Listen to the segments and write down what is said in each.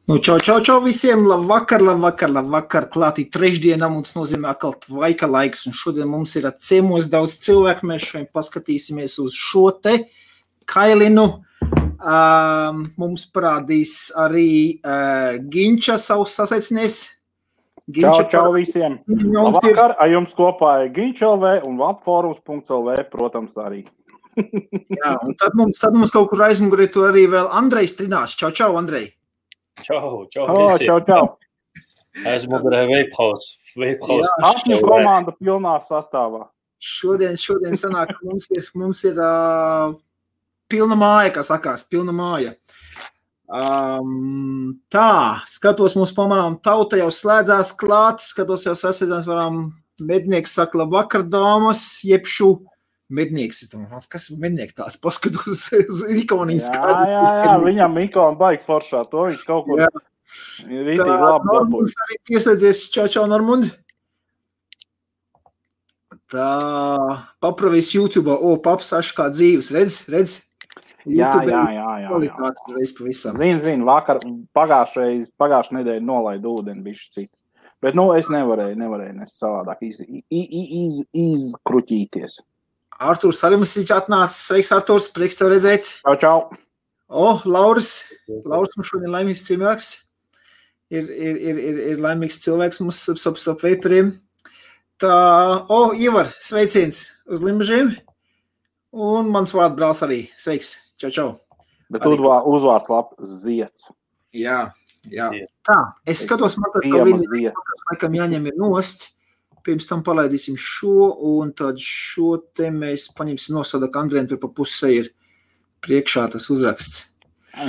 Čau visiem, labvakar, klātī trešdienā mums nozīmē atkal tvaika laiks, un šodien mums ir ciemos daudz cilvēku, mēs šodien paskatīsimies uz šo te kailinu, mums parādīs arī Ginča savus sasaicinies. Čau visiem, labvakar, ar jums kopā ir Ginča LV un Labforums.lv, protams, arī. Jā, un tad mums kaut kur aizmugurē tu arī vēl Andrejs trinās. Čau, Andrej. Čau. Esmu Vapehouse. Apņu komanda pilnā sastāvā. Šodien sanāk, mums ir pilna māja, kā sakās, pilna māja. Tā, skatos mums pamanām, tauta jau slēdzās klāt, skatos jau sasēdams varam, mednieks saka labvakar, dāmas, jebšu mednieks. Kas ir mednieks tās? Paskatos uz ikoniņas. Jā, viņam ikona baigi foršā, to viņš kaut kur ir rītīgi labi. Normunds arī pieslēdzies, čau, Normund. Tā, papravies YouTube, paps aš kā dzīves, redz? Jā. Zini, vakar pagājušajā nedēļa nolaidu ūdeni bišķi citu. Bet, es nevarēju nes savādāk izkruķīties. Artūrs arī mums viņš atnācis. Sveiks, Artūrs, prieks tev redzēt. Čau. Lauris mums šodien laimīgs cilvēks. Ir laimīgs cilvēks mums ap veipariem. Tā, Ivar, sveiciens uz Limbažiem. Un mans vārdu brāls arī. Sveiks, čau. Bet uzvārds Ziets. Jā. Tā, es skatos, man tāds, ka viņi laikam jāņem ir nost. Pirms tam palaidīsim šo, un tad šo te mēs paņemsim nosada, ka Andriem tur pa pusē ir priekšā tas uzraksts.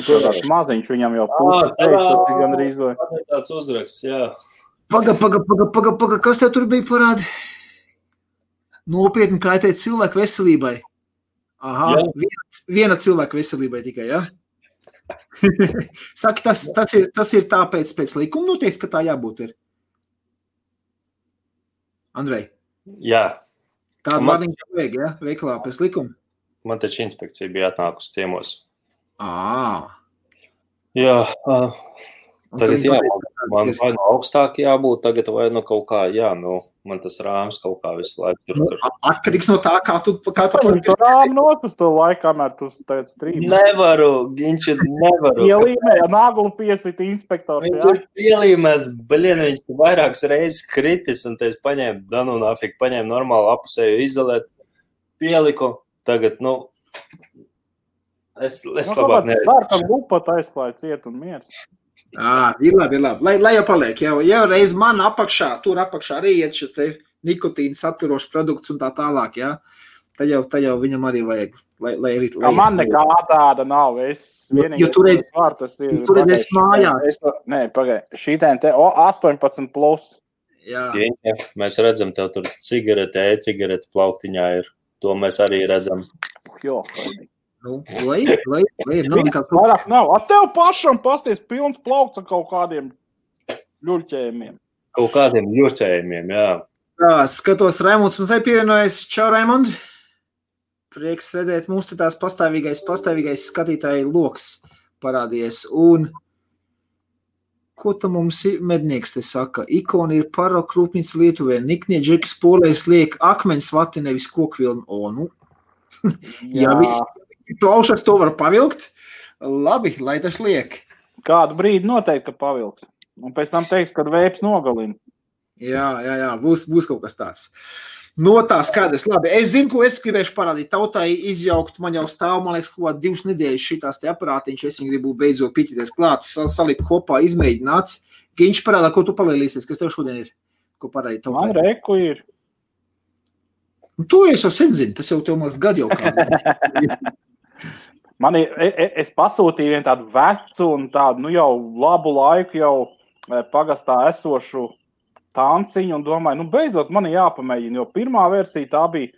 Tāds maziņš viņam jau puses teiks, tas ir gandrīz vai. Tāds uzraksts, jā. Paga, kas tev tur bija parādi? Nopietni kaitēt cilvēku veselībai. Aha, viena cilvēka veselībai tikai, jā? Saki, tas ir tāpēc pēc likuma noteikts, ka tā jābūt ir. Andrej? Jā. Tādu vārdiņu vajag, ja? Veiklā pēc likuma? Man taču inspekcija bija atnākusi ciemos. Jā. Tagad man vai no augstāk jābūt, tagad vai no kaut kā, man tas rāms kaut kā visu laiku tur. Atkarīgs no tā, kā tu rāmu notas to laiku, kamēr tu tagad strīmi. Nevaru, Ginči, nevaru. Ielīmēja naglu piesita inspektors, jā? Ielīmēs, viņš vairākas reizes kritis, un te es paņēmu normālu apusēju izolēt, pieliku, tagad, es labāk neredzu. Sārkam lupat aizklāja ciet un miers. Ir labi. Lai jau paliek, jau reiz man apakšā, tur apakšā arī iet šis te nikotīna saturošs produkts un tā tālāk, jā. Tad jau viņam arī vajag, lai man nekā tāda nav, jo tur es mājās. Nē, pagai, šitēn te 18+. Jā. Mēs redzam, tev tur cigarete plauktiņā ir, to mēs arī redzam. Jo, Vairāk nav. Tev pašam pasties pilns plaukts ar kaut kādiem ļurķējumiem. Jā. Tā, skatos, Raimunds mums arī pievienojas. Čau, Raimund. Prieks redzēt, mums te tās pastāvīgais skatītāji loks parādījies. Un ko tam mums mednieks te saka? Ikona ir Paroka rūpnīca Lietuvē. Niknie džekas polēs liek akmens vati, nevis kokvilnu. Jā. Plaušas to var pavilkt. Labi, lai tas liek. Kādu brīdi noteikti, ka pavilks. Un pēc tam teiks, kad vēps nogalina. Jā, būs kaut kas tāds. No tā skaidrs. Labi, es zinu, ko es gribēšu parādīt. Tautai izjaukt, man jau stāv, man liekas, kaut 2 nedēļas šitās te aparātiņš. Es viņu gribu beidzot piķities klāt, salikt kopā, izmēģināt. Ginč parādā, ko tu palielīsies, kas tev šodien ir? Ko parādīt tautai? Man reku ir. To es jau sen zinu, tas jau tev maz gadu jau kādu. Es pasūtīju vienu tādu vecu un tādu, jau labu laiku jau pagastā esošu tanciņu un domāju, beidzot man jāpamēģina, jo pirmā versija tā bija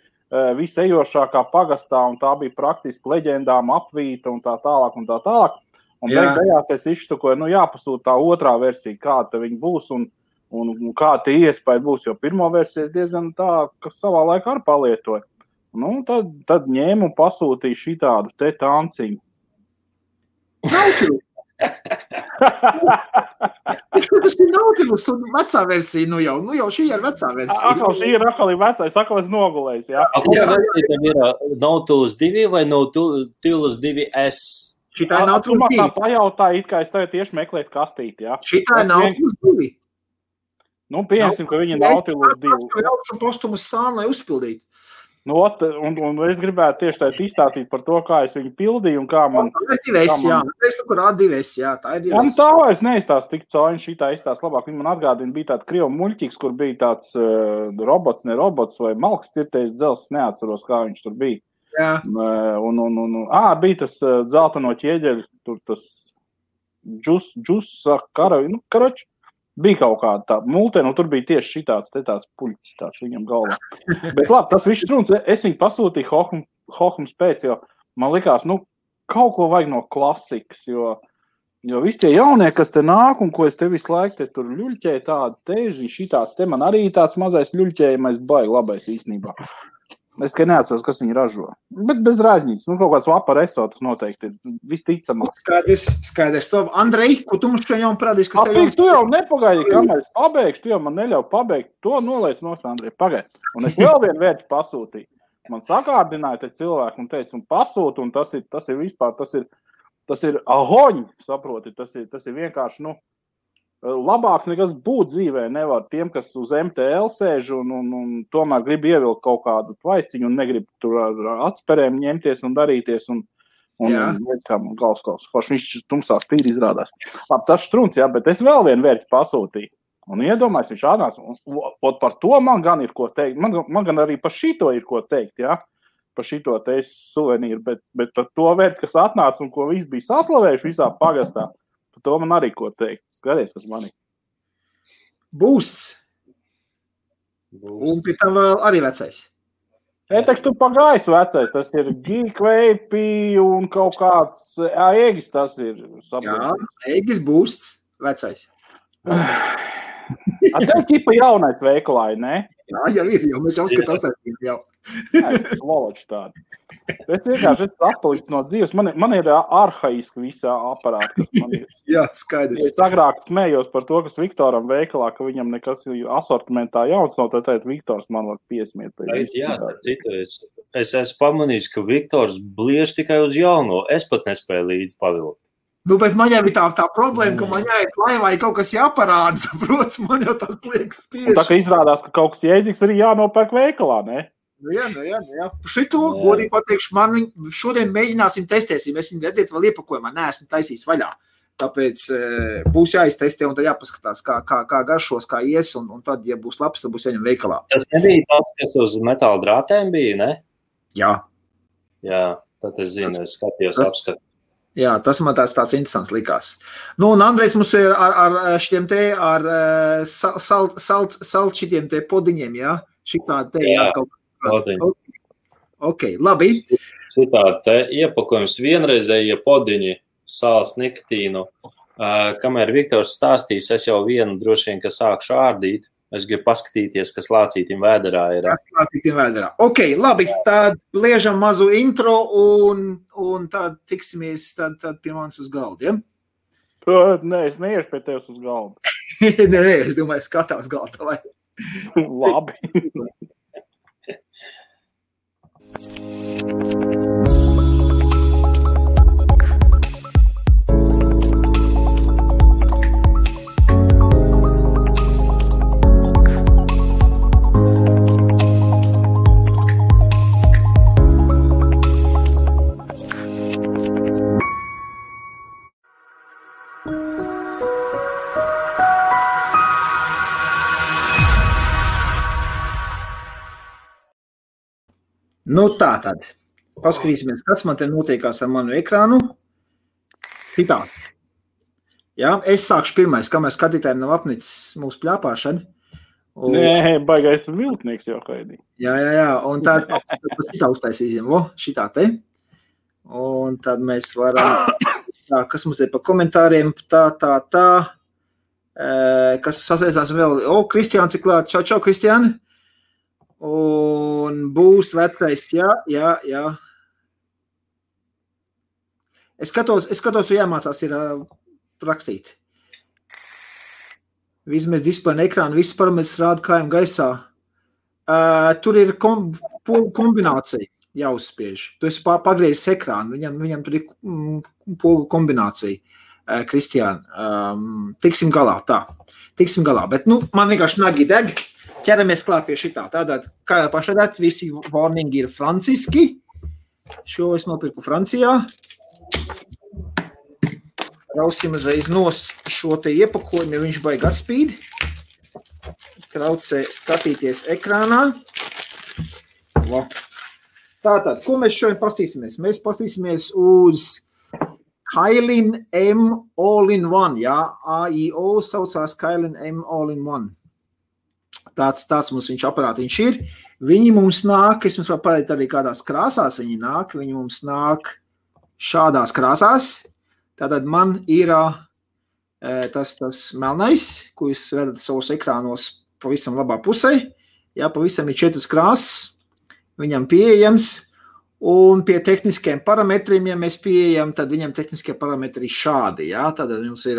visejošākā pagastā un tā bija praktiski leģendām apvīta un tā tālāk. Un beigās es izštukoju, jāpasūt tā otrā versija, kāda viņa būs un kā tie iespēja būs, jo pirmo versiju es diezgan tā, kas savā laikā arī palietoju. Tad ņēmu un pasūtīju šitādu te tanciņu. Tas ir Nautilus un vecā versija, nu jau šī ir vecā versija. Šī ir atkal vecais, atkal es nogulējis, jā. Kura versija tam ir Nautilus 2 vai Nautilus 2S? Šitā ir Nautilus 2. Tā pajautāja, it kā es tev tieši meklētu kastīti, jā. Šitā ir Nautilus 2. Nu, pieņemsim, ka viņi Nautilus 2. Es jaušu postumus sānu, lai uzpildītu. Nu, un es gribētu tieši tā izstāstīt par to, kā es viņu pildīju un kā man... Tā ir 2S, jā. Es tu, kur rāda 2S, jā, tā ir 2S. Jā, nu tā vairs neizstāst tik cauri, šitā izstāst labāk. Viņi man atgādina, bija tāds krievu muļķīgs, kur bija tāds robots, ne robots, vai malks cirtējs dzels, neatceros, kā viņš tur bija. Jā. Bija tas dzelteno ķieģeļu, tur tas džus, karavi, nu, karoči. Bija kaut kāda tā multē, nu tur bija tieši šitāds, te tāds puļķis tāds viņam galvā. Bet labi, tas viss runs, es viņu pasūtīju Hohums pēc, jo man likās, nu, kaut ko vajag no klasikas, jo visi tie jaunie, kas te nāk un ko es te visu laiku te tur ļuļķēju tādu teži, šitāds, te man arī tāds mazais ļuļķējumais baigi labais īstenībā. Es tikai neatceros, kas viņi ražo. Bet bez rāžņītas. Nu, kaut kāds vapar esotas noteikti ir visticamāk. Skaidrs. Andrej, ko tu mums šajā parādīs? Tu jau nepagaidi, kamēr es pabeigšu, tu jau man neļauj pabeigt. To noliec nost, Andrej, pagaidi. Un es vēl vienu vērti pasūtīju. Man sakārdināja te cilvēku un teica, un pasūtu, un tas ir vispār, tas ir ahoņi, saproti. Tas ir vienkārši, nu, labāks nekas būt dzīvē nevar tiem, kas uz MTL sēž un tomēr grib ievilkt kaut kādu tvaiciņu un negrib tur ar atsperēm ņemties un darīties un galvskaus. Viņš tumsās tīri izrādās. Labi, tas štruns, jā, bet es vēl vienu vērķi pasūtīju. Un iedomājos, viņš atnāca. Un par to man gan ir ko teikt. Man gan arī par šito ir ko teikt, jā. Par šito te suvenīru, bet par to vērķi, kas atnāca un ko viss bija saslavējuši visā pagastā. Par to man arī ko teikt. Skaties, kas man ir. Boosts. Un pie tam vēl arī vecais. Teiks, tu pagājis vecais. Tas ir Geek Vape un kaut kāds Egis tas ir. Saprot. Jā, Egis Boosts vecais. Tev ķipa jaunais veikalā, ne? Jā, jau ir, jo mēs jau skatās jau. Jā, es loloči tādu. Es vienkārši esmu atpalicis no dzīves. Man ir arhaiski visā aparāti, kas man ir. Jā, skaidrs. Es agrāk smējos par to, kas Viktoram veikalā, ka viņam nekas asortimentā jauns nav, tad Viktors man var piesmiet. Jā, es esmu pamanījis, ka Viktors bliež tikai uz jauno. Es pat nespēju līdzi pavilkt. Nu, bet man jau ir tā problēma, ka man jāiet laivā kaut kas jāparāda, saprots, man jau tas liekas spiež. Un tā, ka izrādās, ka kaut kas jēdzīgs arī jānopērk veikalā, ne? Nu jā. Šito, godīgi pateikšu, man šodien mēģināsim testēsim. Es viņu redzēt vēl iepakojumā, neesmu taisījis vaļā. Tāpēc būs jāiztestē un tad jāpaskatās, kā garšos, kā ies, un tad, ja būs labs, tad būs jāņem veikalā. Tas nebija tas, kas uz metāla drātēm bija, ne? Jā. Jā, tad es zinu, es skatījos apskatu. Jā, tas man tāds interesants likās. Nu, un Andrejs mums ir ar šitiem te, ar salt šitiem te podiņiem, jā? Šitā te, jā, kaut kā. Ok, labi. Šitā te iepakojums vienreizēja podiņi, sāls nikotīnu. Kamēr Viktors stāstīs, es jau vienu droši vien, ka sākšu ārdīt. Es gribu paskatīties, kas lācītim vēderā ir. Ok, labi, tad liežam mazu intro un tad tiksimies tad pie manis uz galdu, ja? Nē, es neiešu pie tevis uz galdu. Nē, es domāju, skatā uz galdu, lai. Labi. Nu tā tad. Paskatīsimies, kas man te notiekās ar manu ekrānu. Hitā. Jā, es sākšu pirmais, kamēr skatītājiem nav apnicis mūsu pļāpāšana. Nē, baigais viltnieks jau kaidī. Jā, un tad šitā uztaisīsim, šitā te. Un tad mēs varam, kas mums te pa komentāriem, tā. Kas sasaistās vēl, Kristiāns ir klāt, čau, Kristiāni. Un būs vecais, jā. Es skatos, jāmācās ir rakstīt. Vismaz displeja ekrāna, viss parametrs rāda kājām gaisā. Tur ir kombinācija jāuzspiež. Tu esi pagriezis ekrānu, viņam tur ir pogu kombinācija. Kristiāna, tiksim galā, bet, man vienkārši nagi deg, ķeramies klāt pie šitā. Tātad, kā jau pašādāt, visi warningi ir franciski, šo es nopirku Francijā. Rausim uzreiz nost šo te iepakojumu, viņš baigi atspīd. Traucē skatīties ekrānā. Tātad, ko mēs šodien pastīsimies? Mēs pastīsimies uz Kailin M All-in-One, jā, AIO saucās Kailin M All-in-One. Tāds mums viņš aparātiņš ir. Viņi mums nāk, es jums varu parādīt arī kādās krāsās viņi mums nāk šādās krāsās. Tātad man ir tas melnais, ko jūs redzat savos ekrānos pavisam labā pusē. Jā, pavisam ir 4 krāsas, viņam pieejams. Un pie tehniskiem parametriem, ja mēs pieejam, tad viņam tehniskie parametri šādi. Jā? Tad mums ir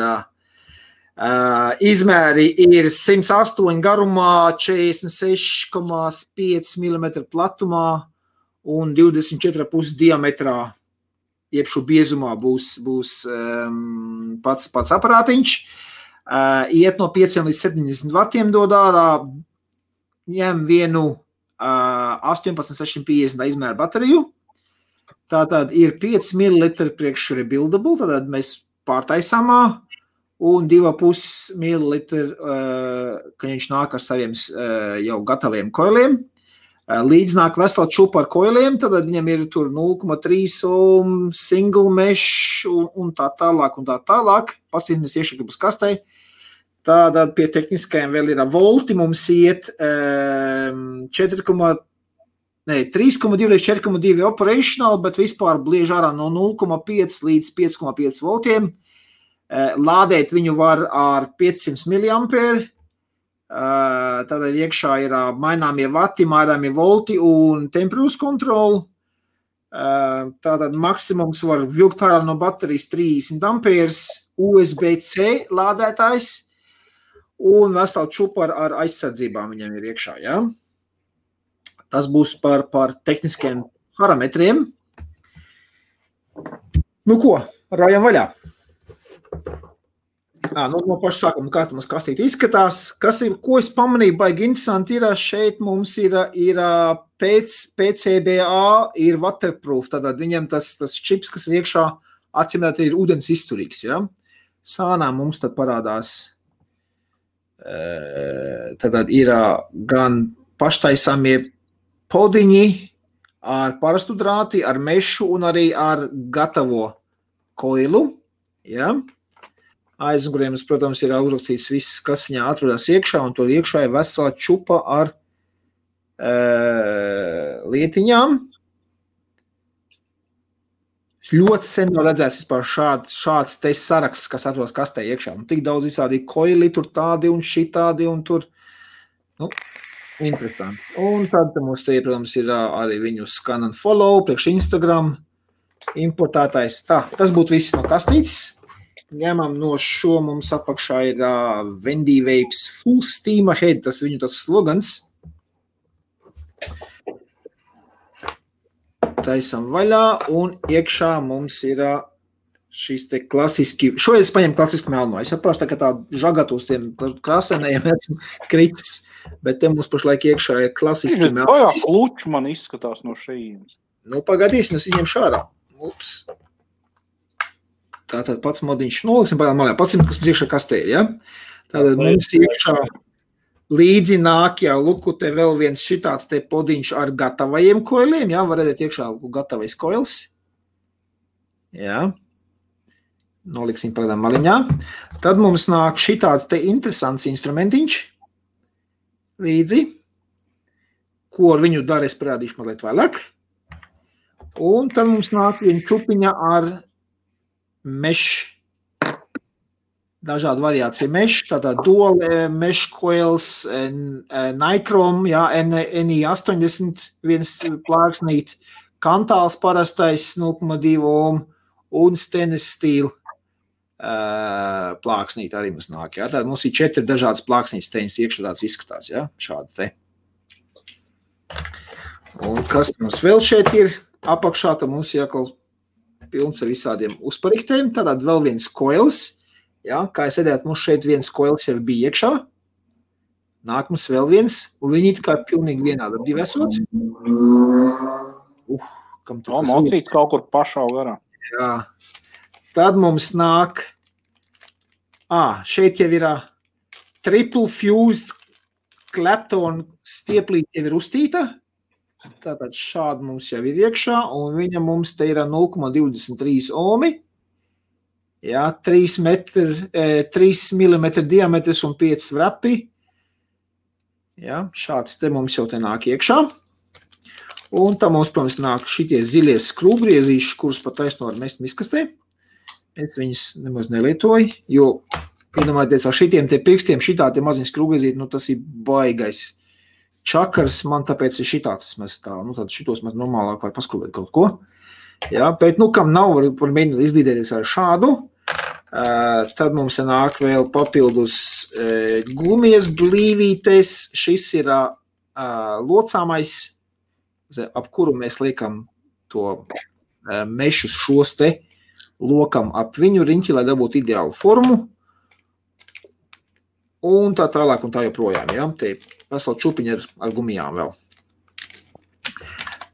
izmēri ir 108 garumā, 46,5 mm platumā un 24,5 diametrā, jeb šo biezumā būs pats aparātiņš. Iet no 5 līdz 70 vatiem dod ārā, ņem vienu 18650 izmēra bateriju. Tātad ir 5 ml priekš rebuildable, tātad mēs pārtaisāmā, un 2,5 ml, kad viņš nāk ar saviem jau gataviem koiliem. Līdz nāk vesela čupa ar koiliem, tad viņam ir tur 0,3 ohm, single mesh un tā tālāk. Pastīsimies iekšā būs kastei. Tātad pie tehniskajiem vēl ir volti, mums iet 3,2 līdz 4,2 operational, bet vispār bliež ārā no 0,5 līdz 5,5 voltiem. Lādēt viņu var ar 500 mAh. Tātad iekšā ir maināmie vati, maināmie volti un temperatūras kontroli. Tātad maksimums var vilkt ārā no baterijas 30 amperes, USB-C lādētājs un vesela čupa ar aizsardzībām viņam ir iekšā, jā. Tas būs par tehniskiem parametriem. Nu ko, rājam vaļā. No paša sākuma, kā mums kastīt izskatās. Ko es pamanīju, baigi interesanti ir, šeit mums ir PCBA, ir waterproof, tātad viņam tas čips, kas ir iekšā, atsimēt, ir ūdens izturīgs, ja? Sānā mums tad parādās, tātad ir gan paštaisāmie podiņi ar parastu drāti, ar mešu un arī ar gatavo koilu, ja? Aizmuguriem, protams, ir uzrakstīts viss, kas viņā atrodas iekšā, un tur iekšā ir vesela čupa ar lietiņām. Ļoti sen nav redzēts vispār šāds te saraksts, kas atrodas kastē iekšā. Un tik daudz visādi koili, tur tādi un šitādi, un tur, interesanti. Un tad mums te, protams, ir arī viņu scan and follow, priekš Instagram, importētais. Tas būtu viss no kastītes. Ņemam no šo, mums apakšā ir Wendy Vapes Full Steam Ahead, tas viņu tas slogans. Taisam vaļā, un iekšā mums ir šīs te klasiski, šoreiz es paņemu klasiski melno. Es saprotu, tā, ka tā žagat uz tiem krāsainajiem esmu kritis, bet te mums pašlaik iekšā ir klasiski melno. Bajā kluči man izskatās no šeit. Pagadīsim, es viņiem šārā. Ups. Tātad pats modiņš noliksim pagādām malē. Pats, kas mums iekšā kastē, ja? Tātad mums iekšā līdzi nāk jau, luku, te vēl viens šitāds te podiņš ar gatavajiem koiliem, ja? Var redzēt iekšā gatavais koils. Ja? Noliksim pagādām maliņā. Tad mums nāk šitāds te interesants instrumentiņš līdzi, ko ar viņu dara, es parādīšu mazliet vēlāk. Un tad mums nāk viena čupiņa ar mesh, dažādi variācija mesh, tātad dual mesh coils, Nicrom, jā, NI80, viens plāksnīt, kantāls parastais 0,2 ohm un stainless steel plāksnīti arī mums nāk. Ja? Tad mums ir 4 dažādas plāksnītes teņas iekšā tāds izskatās, ja? Šādi te. Un kas mums vēl šeit ir apakšā, tad mums jākal pilns ar visādiem uzpariktēm. Tātad vēl viens koils, ja? Kā es redzētu, mums šeit viens koils jau bija iekšā. Nāk mums vēl viens, un viņi kā pilnīgi vienādi divi esot. Kam tur mocīts kaut kur pašā garā. Jā. Tad mums nāk, šeit jau ir triple fused Clapton stieplīt jau ir uztīta. Tātad šādi mums jau ir iekšā, un viņa mums te ir 0,23 ohmi. Jā, 3 mm diametrs un 5 vrapi. Jā, šāds te mums jau te nāk iekšā. Un tā mums, protams, nāk šitie zilie skrūvgriezīši, kurus pat taisno var mest miskastē. Es viņus nemaz nelietoju, jo, iedomājieties, ar šitiem te pirkstiem, šitā te maziņi skrūvgriezīti, tas ir baigais čakars, man tāpēc ir šitāds mēs tā, tad šitos mēs normālāk var paskrūvēt kaut ko. Jā, bet, kam nav, var mēģināt izlīdēties ar šādu. Tad mums nāk vēl papildus gumijas blīvītes. Šis ir locāmais, ap kuru mēs liekam to mešus šos te lokam ap viņu riņķi, lai dabūtu ideālu formu. Un tā tālāk un tā joprojām, ja? Te vesela čupiņa ar gumijām vēl.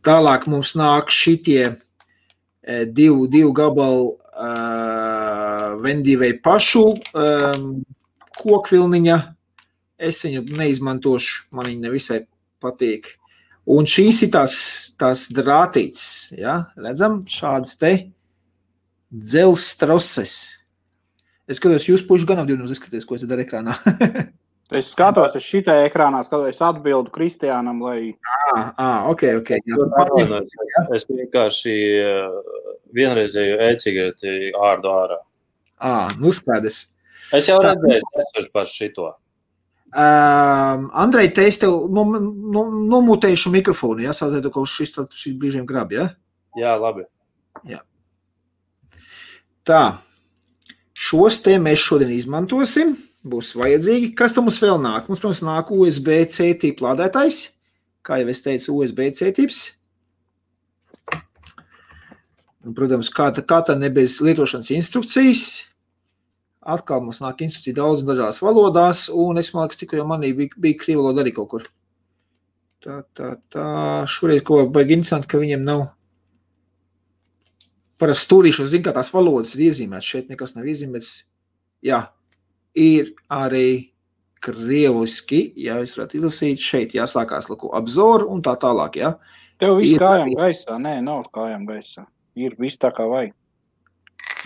Tālāk mums nāk šitie divu gabalu vendīvei pašu kokvilniņa. Es viņu neizmantošu, man viņa nevisai patīk. Un šīs ir tās drātītes, ja? Redzam, šādas te dzels troses. Es skatos, jūs puši gan apdīvinums izskaties, ko es daru ekrānā. Es skatos, es šitai ekrānā skatos, es atbildu Kristiānam, lai... Ok. Es vienkārši vienreizēju e-cigareti ārdu ārā. Skaidrs. Es jau redzēju par šito. Andrej, te es tev nomutēšu mikrofonu, ja? Sātētu, ka šis brīžiem grab, ja? Jā, labi. Jā. Tā. Šos te mēs šodien izmantosim, būs vajadzīgi. Kas tam mums vēl nāk? Mums, protams, nāk USB-C tipu lādētājs, kā jau es teicu, USB-C tips. Un, protams, kā tā ne bez lietošanas instrukcijas. Atkal mums nāk instrukcija daudz dažās valodās, un es māku, tikai jau manī bija krīva valoda arī kaut kur. Šoreiz, ko baigi interesanti, ka viņiem nav parasti stūrīšos, zinu, kā tās valodas ir iezīmētas. Šeit nekas nav iezīmēts. Jā, ir arī krieviski, ja es varētu izlasīt. Šeit jāsākās apzor un tā tālāk, jā. Tev viss kājām gaisā? Nē, nav kājām gaisā. Ir viss tā kā vajag.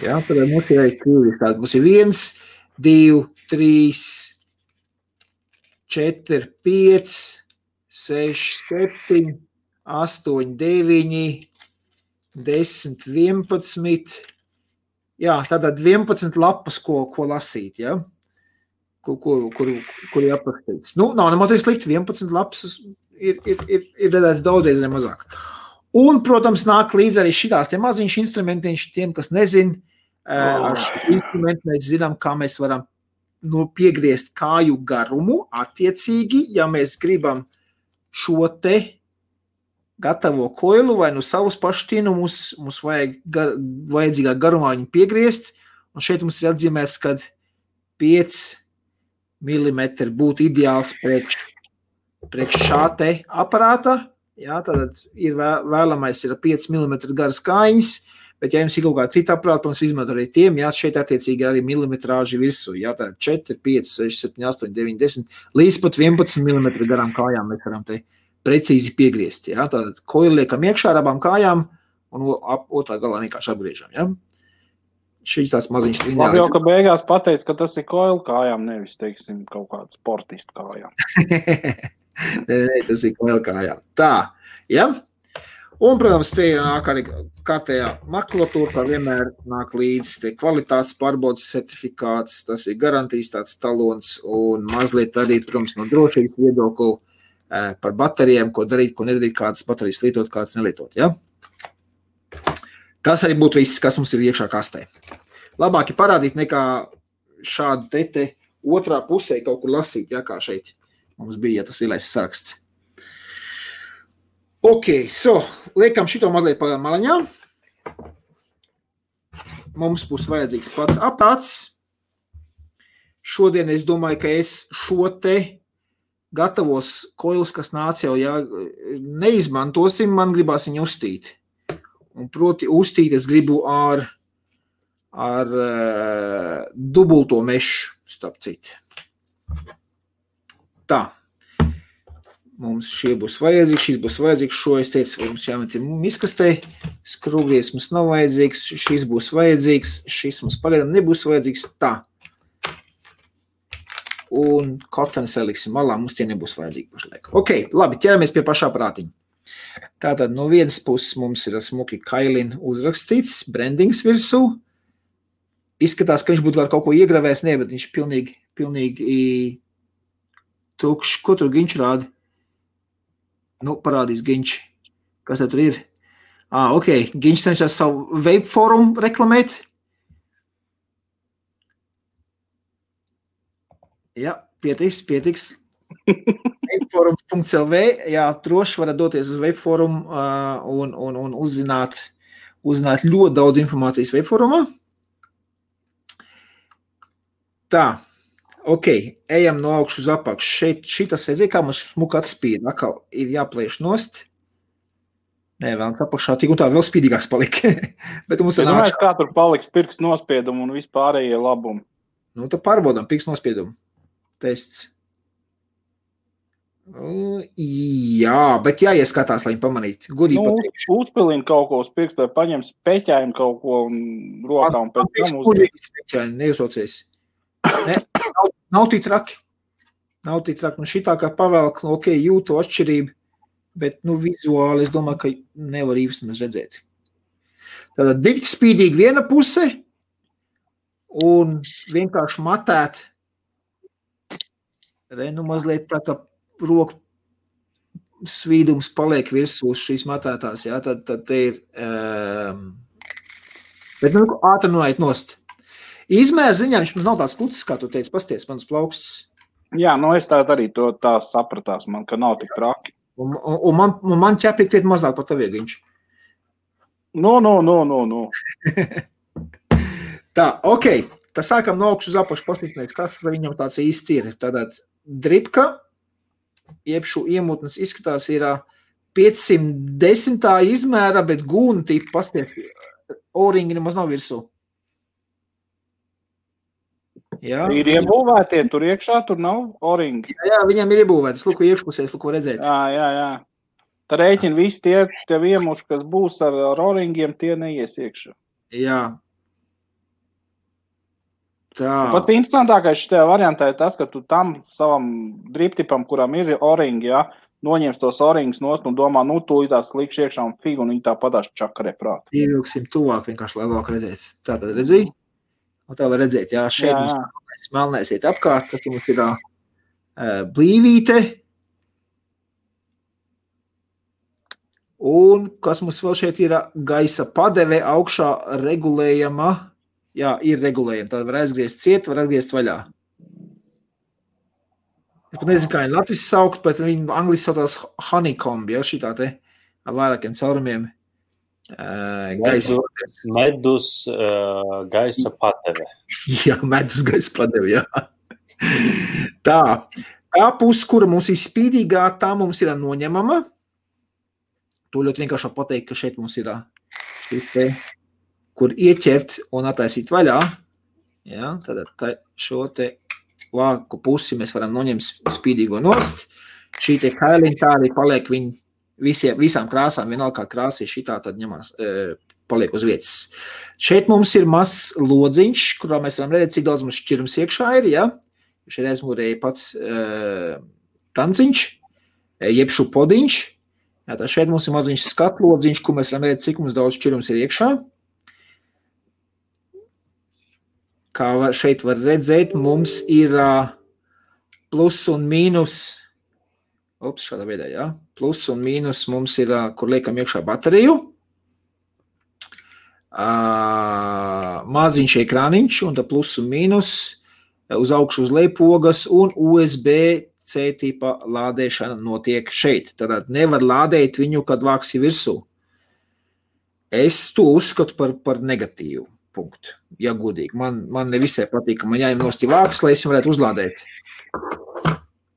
Jā, tad mums ir arī krieviski. Mums ir 1, 2, 3, 4, 5, 6, 7, 8, 9, 10, 11, jā, tātad 11 lapas, ko lasīt, ja? Kur jāpaskatīts. Nav nemaz slikti, 11 lapas ir redzēts daudzreiz mazāk. Un, protams, nāk līdz arī šitās tie maziņš instrumentiņš, tiem, kas nezin, ar šo instrumentu mēs zinām, kā mēs varam piegriezt kāju garumu, attiecīgi, ja mēs gribam šo te gatavo koilu vai savus paštinu, mums vajadzīgā garumā viņu piegriezt, un šeit mums ir atzīmēts, kad 5 mm būtu ideāls priekš šā te aparāta, jā, tad ir vēlamais ir 5 mm garas kājiņas, bet ja jums ir kaut kā cita aparāta, protams, izmantot arī tiem, jā, šeit attiecīgi arī milimetrāži virsū, jā, tā 4, 5, 6, 7, 8, 9, 10, līdz pat 11 mm garām kājām mēs varam te precīzi piegriezt, jā, tātad koili liekam iekšā ar abām kājām un otrā galā vienkārši apgriežam, jā. Šīs tās maziņš lineāls. Labi jau, ka beigās pateic, ka tas ir koili kājām, nevis, teiksim, kaut kāds sportistu kājām. Nē, tas ir koili kājām. Tā, jā. Un, protams, te nāk arī kārtējā makulatūra, kā vienmēr nāk līdz te kvalitātes pārbaudas certifikāts, tas ir garantijas tāds talons un mazliet arī, protams, no drošības viedokļu par baterijām, ko darīt, ko nedarīt, kādas baterijas lietot, kādas nelietot, ja? Tas arī būtu viss, kas mums ir iekšā kastē. labāk ir parādīt nekā šādi te otrā pusē kaut kur lasīt, ja, kā šeit mums bija, ja tas lielais saraksts. Ok, liekam šito mazliet pa malaņā. Mums būs vajadzīgs pats aparāts. Šodien es domāju, ka es šo te gatavos koilus, kas nāca jau, ja neizmantosim, man gribās viņu uztīt. Un proti uztīt es gribu ar dubulto mešu, starp citu. Tā. Mums šie būs vajadzīgs, šis būs vajadzīgs, šo es teicu, mums jāmet ir miskastē, skrūvlies mums nav vajadzīgs, šis būs vajadzīgs, šis mums pagaidām nebūs vajadzīgs, tā. Un kotanis liksim malā, mums tie nebūs vajadzīgi pašlaik. Ok, labi, ķeramies pie pašā prātiņa. Tātad no vienas puses mums ir smuki Kailin uzrakstīts, brandings virsū. Izskatās, ka viņš būtu var kaut ko iegravējis, ne, bet viņš pilnīgi tukšs. Ko tur Ginč rāda? Nu, parādīs Ginč. Kas tur ir? Ok, Ginč cenšas savu web forumu reklamēt. Jā, pietiks. webforums.lv, jā, droši varat doties uz webforumu un uzzināt ļoti daudz informācijas webforumā. Tā, ok, ejam no augšu uz apakšu. Šeit šitas redzēja, kā mums smuka atspīd. Atkal ir jāplēš nost. Nē, vēl apakšā tik un tā vēl spīdīgāks palika. Bet mums domāju, kā tur paliks pirksts nospiedumu un vispārējie labumi. Nu, tad pārbaudām pirksts nospiedumu. Tests. Jā, bet jāieskatās, lai viņi pamanītu. Gudīgi pateikšu. Uzpilina kaut ko uz pirkstu, vai paņem speķaini kaut ko un rokā un pēc tam uzpilina. Speķaini, neuztraucies. Ne, nav tī traki. Nu, šitā kā pavēlk, ok, jūtu atšķirību, bet, nu, vizuāli es domāju, ka nevar īsti mēs redzēt. Tātad dikti spīdīgi viena puse un vienkārši matēt. Nu, mazliet tā, ka roku svīdums paliek virsū uz šīs matētās, jā, tad te ir, bet, nu, ātri noiet nost. Izmērs ziņā viņš mums nav tāds klucis, kā tu teici, pasties, manas plaukstas. Jā, nu, es arī to tā sapratās, man, ka nav tik traki. Un man ķepīgi kriet mazāk par tavi, Ginč. No. Tā, ok. Tā sākam no augšu uz apakšu pastiprināts, kas viņam tāds īsts ir. Tātad dripka, jeb šo iemutnes izskatās ir 510. izmēra, bet gūna tipa pastiep, O-ringi nemaz nav virsū. Jā. Ir iebūvētie tur iekšā, tur nav O-ringi. Jā, viņam ir iebūvētas, lūko iekšpusēs, lūko redzēt. Jā. Tā rēķina visi tie tev iemuši, kas būs ar O-ringiem, tie neies iekšā. Jā. Tā. Pat interesantākais šajā variantā ir tas, ka tu tam savam driptipam, kuram ir O-ringi, ja, noņems tos O-ringus nost un domā, nu, tu tās slikš iekšā un figu, un viņi tā padās čakarē prāt. Ievilksim tuvāk vienkārši, lai labāk redzēt. Tātad redzī? Un tā var redzēt, jā, šeit mums melnais iet apkārt, tad mums ir blīvīte. Un kas mums vēl šeit ir gaisa padeve augšā regulējama. Jā, ir regulējama. Tad var aizgriezt ciet, var aizgriezt vaļā. Es pat nezinu, kā viņi Latvijas saukt, bet viņi angliski sautās honeycomb, ja, šitā te ar vairākiem caurumiem. Medus gaisa padeve. Jā, medus gaisa padeve, jā. Tā puse, kura mums ir spīdīgā, tā mums ir noņemama. To ļoti vienkārši pateikt, ka šeit mums ir te, kur ieķert un attaisīt vaļā. Jā, tad šo te vāku pusi mēs varam noņemt spīdīgo nost. Šī te kailiņa tā arī paliek viņa visām krāsām, vienalga kā krāsī šitā, tad ņemās, paliek uz vietas. Šeit mums ir mazs lodziņš, kurā mēs varam redzēt, cik daudz mums šķirums iekšā ir, ja? Šeit aizmūrēja pats tanciņš, jeb šo podiņš. Jā, tā šeit mums ir maziņš skatlodziņš, kur mēs varam redzēt, cik mums daudz šķirums ir iekšā. Kā šeit var redzēt, mums ir plus un mīnus. Šādā veidā, jā. Plus un mīnus mums ir, kur liekam iekšā bateriju. maziņš ekrāniņš un tā plus un mīnus, uz augšu uz leju pogas un USB-C tipa lādēšana notiek šeit. Tātad nevar lādēt viņu, kad vāksi virsū. Es to uzskatu par negatīvu punktu, ja godīgi. Man nevisai patīk, ka man jāņem nosti vāks, lai es varētu uzlādēt.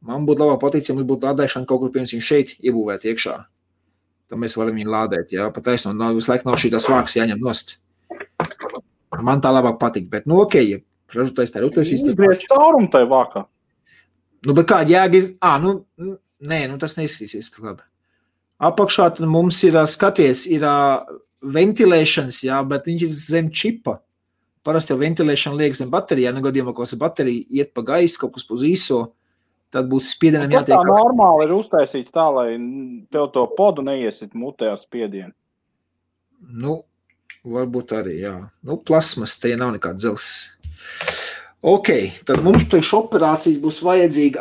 Man būtu labāk patīk, ja mums būtu lādēšana kaut kur pirms viņš šeit iebūvēt iekšā. Tad mēs varam viņu lādēt, jā, pat taisno, visu laiku nav šī tās vāks jāņem nost. Man tā labāk patīk, bet ja ražotais tā ir uztaisīs. Izgriezt caurumu tai vākā. Bet kāda jēga tas neizskatīsies labi. Apakšā tad mums ir skaties, ir ventilēšanas, jā, bet viņš ir zem čipa. Parasti jau ventilēšana liek zem baterijā, gadījumā, ko baterija iet pa gaisu, kaut kas uz īso, tad būs spiedienam jātiek. Tā normāli ir uztaisīts tā, lai tev to podu neiesit mutē ar spiedienu. Varbūt arī, jā. Plasmas, te nav nekāds dzels. Ok, tad mums priekš operācijas būs vajadzīga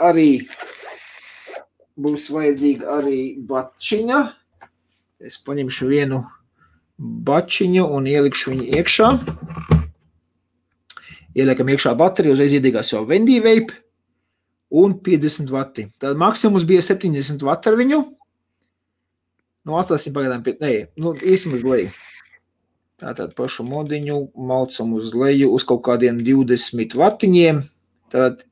arī bačiņa. Es paņemšu vienu bačiņu un ielikšu viņu iekšā. Ieliekam iekšā bateriju, uzreiz iedīgās jau Vendivape un 50 vati. Tad maksimums bija 70 vati ar viņu. Atstāsim pagaidām īsim uz leju. Tātad pašu modiņu maucam uz leju uz kaut kādiem 20 vatiņiem. Tad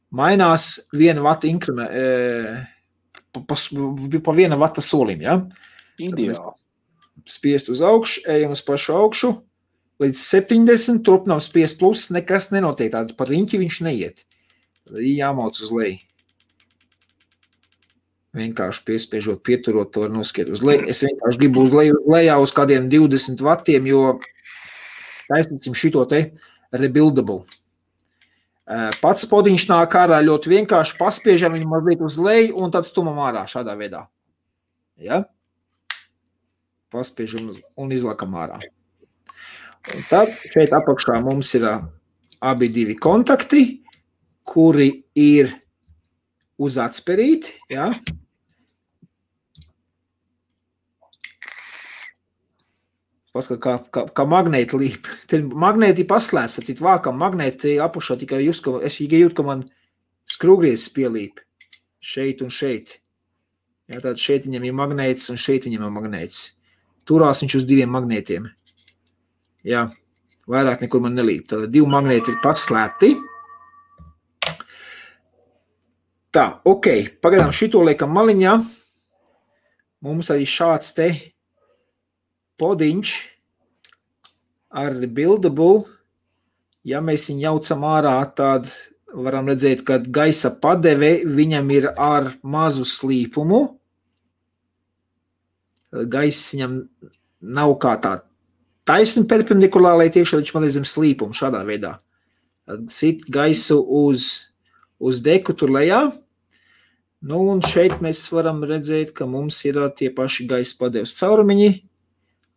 mainās 1 vata pa 1 vata solim, ja? Ideāli. Spiest uz augšu, ejam uz pašu augšu, līdz 70, turpinām spiest plus, nekas nenotiek, tādu par riņķi viņš neiet. Tad jāmauc uz leju. Vienkārši piespiežot, pieturot, to var noskiet uz leju. Es vienkārši gribu uz lejā uz kādiem 20 vatiem, jo taisnicim šito te rebuildable. Pats podiņš nāk ārā ļoti vienkārši, paspiežam viņu mazliet uz leju un tad stumam ārā šādā veidā. Ja? Paspiežam un izlakam ārā. Un tad šeit apakšā mums ir abi divi kontakti, kuri ir uz atsperīti, ja? Paskat, kā magnēti līp. Te magnēti paslēps, tad vākam magnēti apakšā tikai es jūtu, ka man skrūgriezes pielīp šeit un šeit. Ja, tad šeit viņam ir magnētis un šeit viņam ir magnētis. Turās viņš uz 2 magnētiem. Jā, vairāk nekur man nelīp. Tad 2 magnēti ir paslēpti. Tā, ok. Pagaidām šito liekam maliņā. Mums arī šāds te podiņš ar rebuildable. Ja mēs viņu jaucam ārā, tad varam redzēt, ka gaisa padeve viņam ir ar mazu slīpumu. Gaiss viņam nav kā tā taisni perpendikulāri, tiekšā viņš mazliet zem slīpumu šādā veidā. Sit gaisu uz deku tur lejā. Un šeit mēs varam redzēt, ka mums ir tie paši gaisa padeves caurumiņi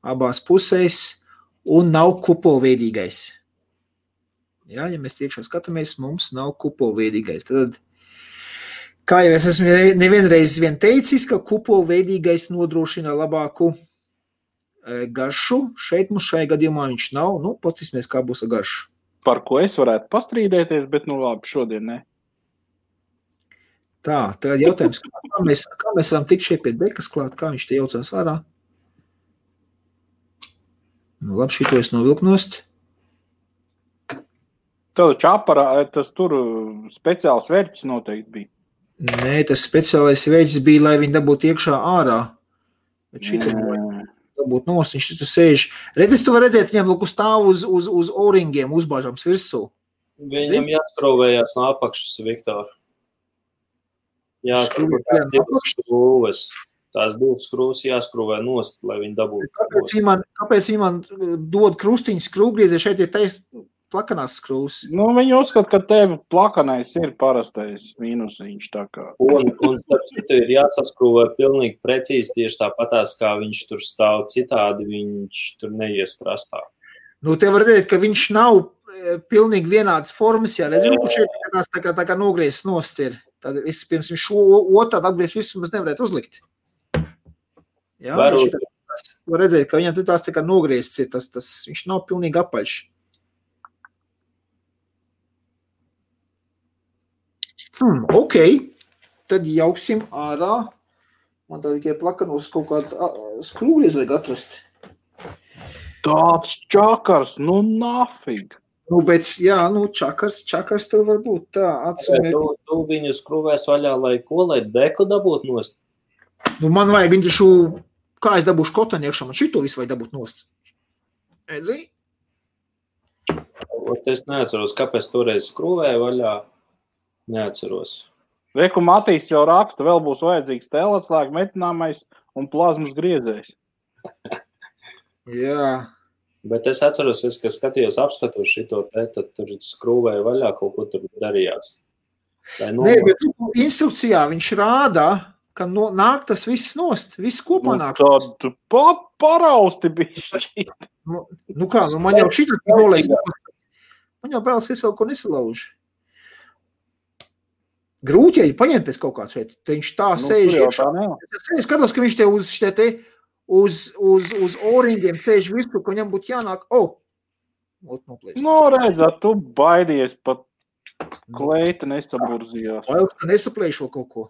abās pusēs un nav kupolveidīgais. Ja mēs tiekšā skatāmies, mums nav kupolveidīgais. Tad kā jau es esmu nevienreiz teicis, ka kupolveidīgais nodrošina labāku garšu. Šeit mums šajā gadījumā viņš nav. Paskatīsimies, kā būs ar garšu. Par ko es varētu pastrīdēties, bet labi, šodien ne. Tā, tagad jautājums, kā mēs varam tikt šeit pie dekas klāt, kā viņš te jaucās ārā? Labi, šito es novilku nost. Tev čaparā, tas tur speciāls vērķis noteikti bija. Nē, tas speciālais veids bija, lai viņi dabūtu iekšā ārā. Bet šitā dabūt nost, viņš tur sēž. Redz, tu var redzēt, viņam lūk stāv uz oringiem uzbāžams virsū. Viņam jāskrūvējās no apakšas, Viktor. Jā, skrūves. Tās 2 skrūves jāskrūvē nost, lai viņi dabūtu. Kāpēc viņi man dod krustiņu skrūvgriezi, šeit ir plakanās skrūvs? Viņi uzskata, ka tev plakanais ir parastais mīnusiņš tā kā. Un ir jāsaskrūvē pilnīgi precīzi tieši tāpatās, kā viņš tur stāv citādi, viņš tur neies prastā. Te var redzēt, ka viņš nav pilnīgi vienāds formas, ja redz, ka šeit tā kā nogriezis nost ir. Tad es pirms viņš otrādi atgriezt visu, mēs nevarētu uzlikt. Jā, var redzēt, ka viņam tās tā kā nogriezts ir, viņš nav pilnīgi apaļš. Ok, tad jauksim ārā. Man tā tikai plakanos kaut kādu skrūgriez vajag atrast. Tāds čakars, nu nafig. Nu, bet, jā, nu, čakars tur var būt tā. Tu viņu skrūvēs vaļā, lai deku dabūt nost? Nu, man vajag viņu taču, kā es dabūšu kotani iekšā, man šito visu vajag dabūt nost. Edzi? Es neatceros, kāpēc toreiz skrūvēju vaļā. Neatceros. Reku Matīs jau raksta, vēl būs vajadzīgs tēlētslēga metināmais un plazmas griezējs. Jā. Bet es atceros, ka skatījos apskatos šito te, tad tur skrūvēju vaļā, kaut ko tur darījās. Nē, bet instrukcijā viņš rāda, ka nāk tas viss nost, viss kopā nāk. Tad parausti bišķi. Nu kā, man jau šitā nolēs. Man jau bēlas, es vēl ko nesalaužu. Grūti, ja paņemt pēc kaut kāds šeit, te viņš tā sēž iekšā. Es skatos, ka viņš te uz oringiem sēž visu, ka viņam būtu jānāk. Nu, redzat, tu baidies pat kleita nesaburzījās. Bailes, ka nesaplēšu vēl kaut ko.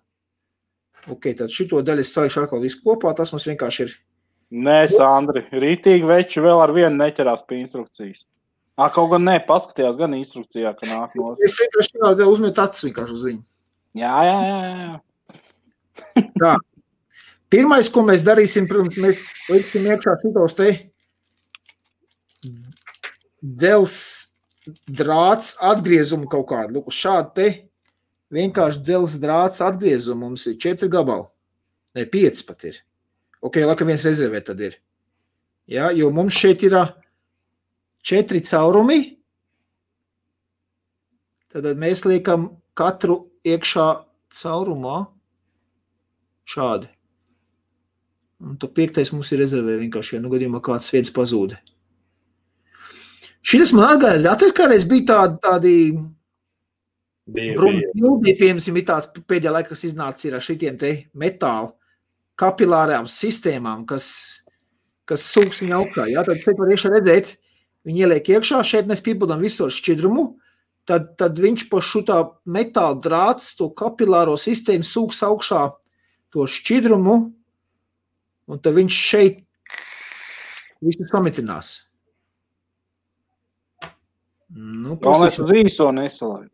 Ok, tad šito daļu es salīšu atkal visu kopā, tas mums vienkārši ir. Nē, Sandri, rītīgi veči vēl ar vienu neķerās pie instrukcijas. Kaut gan paskatījās gan instrukcijā, ka nāk no. Es vienkārši uzmetu acis vienkārši uz viņu. Jā. Tā. Pirmais, ko mēs darīsim, protams, mēs liksim iekšā šitos te dzels drāts atgriezumu kaut kādu. Lūk, šādi te vienkārši dzels drāts atgriezumu mums ir 4 gabali. Ne, 5 pat ir. Ok, laka viens rezervē tad ir. Jā, jo mums šeit ir 4 caurumi. Tad mēs liekam katru iekšā caurumā šādi. Un to 5. mums ir rezervē vienkārši, ja nu gadījumā kāds viens pazūda. Šitas man atgādās, kādreiz bija tādi brūni, piemēram, tāds pēdējā laikā, kas iznāca ir ar šitiem te metālu kapilārām sistēmām, kas sūks viņa augšā. Jā, tad šeit var iekšā redzēt, viņi ieliek iekšā, šeit mēs piepildām visu ar šķidrumu, tad viņš pa šutā metāla drāts, to kapilāro sistēmu sūks augšā to šķidrumu, un tad viņš šeit visu samitinās. Nu, es uz īso nesalaidu.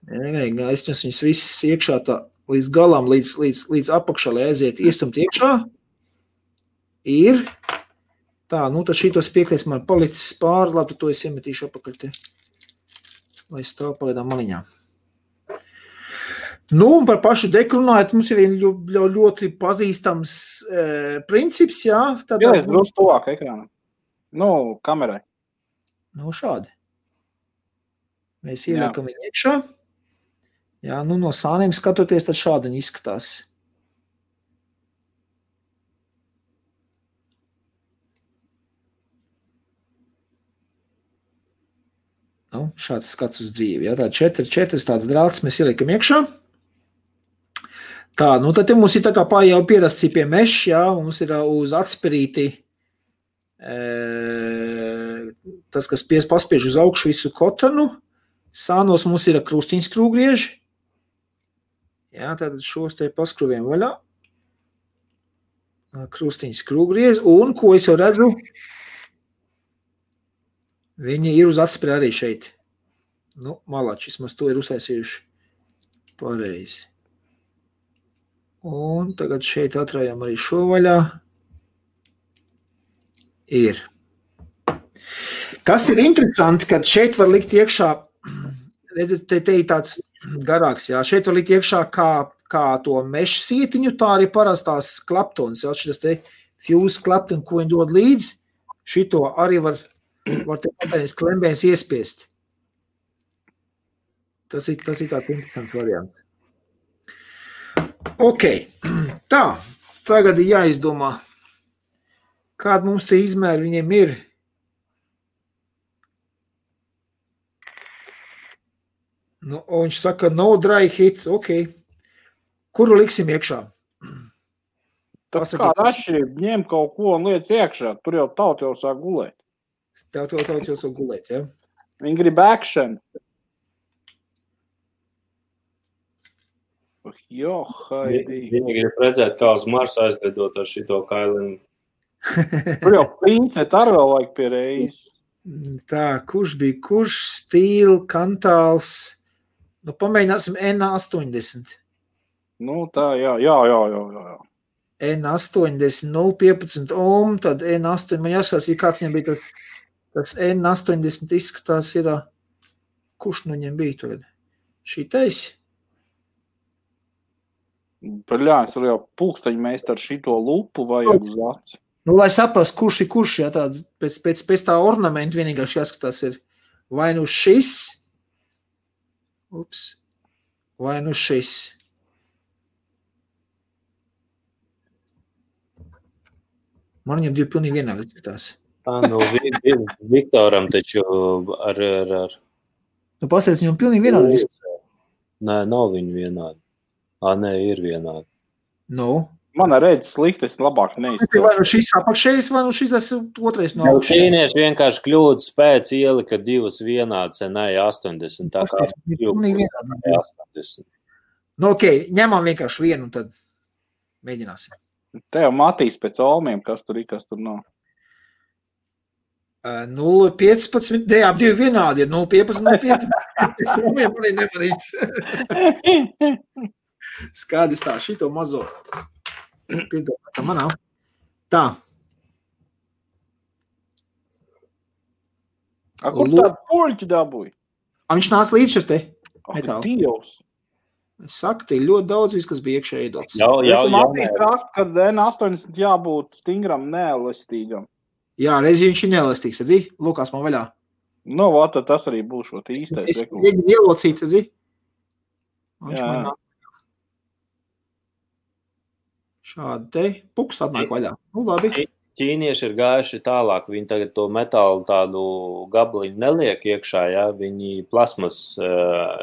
Nē, es viņus visus iekšā tā līdz galam, līdz apakšā, lai aiziet iestumt iekšā. Ir. Tā, nu tad šitos 5. man palicis pāri, labi, to es iemetīšu apakaļ te, lai stāv pagaidām maliņā. Nu, un par pašu deku runājot, mums ir ļoti pazīstams princips, jā. Jā, es drusku tuvāk ekrānam. Nu, kamerai. Nu, šādi. Mēs ieliekam viņu iekšā. Jā, nu, no sāniem skatoties, tad šādi viņi izskatās. Nu, šāds skats uz dzīvi. Jā, tādi 4 tāds drāts mēs ieliekam iekšā. Tā, nu tad mums ir tā kā jau pierasts pie meša, jā, mums ir uz atspirīti tas, kas paspiež uz augšu visu kotanu. Sānos mums ir krustiņas skrūvgrieži. Jā, tātad šos te paskruviem vaļā. Krustiņas skrūvgrieži, un ko es jau redzu, viņi ir uz atspiri arī šeit. Nu, malači, vismaz to ir uztaisījuši pareizi. Un tagad šeit atrājām arī šo vaļā. Ir. Kas ir interesanti, kad šeit var likt iekšā, redzat, te ir tāds garāks, jā, šeit var likt iekšā kā to mešu sietiņu, tā arī parastās klaptonas, jā, šitas te fuse klaptoni, ko viņi dod līdzi, šito arī var te patēnis klembēns iespiest. Tas ir tāds interesants variants. Ok, tā, tagad ir jāizdomā, kāda mums te izmēri viņiem ir. Nu, viņš saka, no dry hit, ok. Kuru liksim iekšā? Tā kāda atšķirība, ņem kaut ko un liec iekšā, tur jau tauta jau sāk gulēt. Tauta jau sāk gulēt, ja? Viņi grib action. Jo, haidī. Viņi grib redzēt, kā uz Marsa aizlidot ar šito kailinu. Tur jau princet ar vēl vajag pie reizes. Tā, kurš Stīl, Kantāls? Nu, pamēģināsim N80. Nu, tā, jā. N80, 0,15 ohm, tad N8, man jāskatās, ja kāds viņam bija tas N80 izskatās ir, kurš nu viņam bija tagad? Šitais? Paļāns, var jau pulksteņi mēs ar šito lupu vajag uz aci. Nu, lai saprast, kurš, ja tāda, pēc tā ornamenta vienīgās jāskatās ir vai nu šis, vai nu šis. Man viņam divi pilnīgi vienādi izskatās. Tā, nu, Viktoram taču ar... Nu, pastāst, viņam pilnīgi vienādi izskatās. Nē, nav viņi vienādi. Nē, ir vienādi. Nu? Man redz slikti, es labāk neizcēlu. Vai nu šis apakšējais, vai nu šis tas otrais no augšas. Ķīnieši vienkārši kļūdas pēc ielika divas vienādas, nē, 80. Tā kā pilnīgi vienādi. 80. Nu, ok, ņemam vienkārši vienu, tad mēģināsim. Te jau matīs pēc olmiem, kas tur nav. 0,15, jā, divi vienādi ir 0,15, 0,15. Es olmiem arī nemanīts. Skaidrs tā, šito mazo. Piedod, tā manā. Tā. Kur tādu poļķi dabūja? Viņš nāca līdz šis te metāli. Dievs. Es saku, te ļoti daudz viss, kas bija iekšē iedots. Matīs rakst, ka N80 jābūt stingram, neelastīgam. Jā, reiz viņš ir neelastīgs, redzi? Lūkās man vaļā. Nu, tad tas arī būs šo īstais. Es mēģinu ielocīt, redzi? Viņš man nāk. Šādi te puks atnāk vaļā. Nu, labi. Ķīnieši ir gājuši tālāk. Viņi tagad to metālu tādu gabaliņu neliek iekšā, ja? Viņi plasmas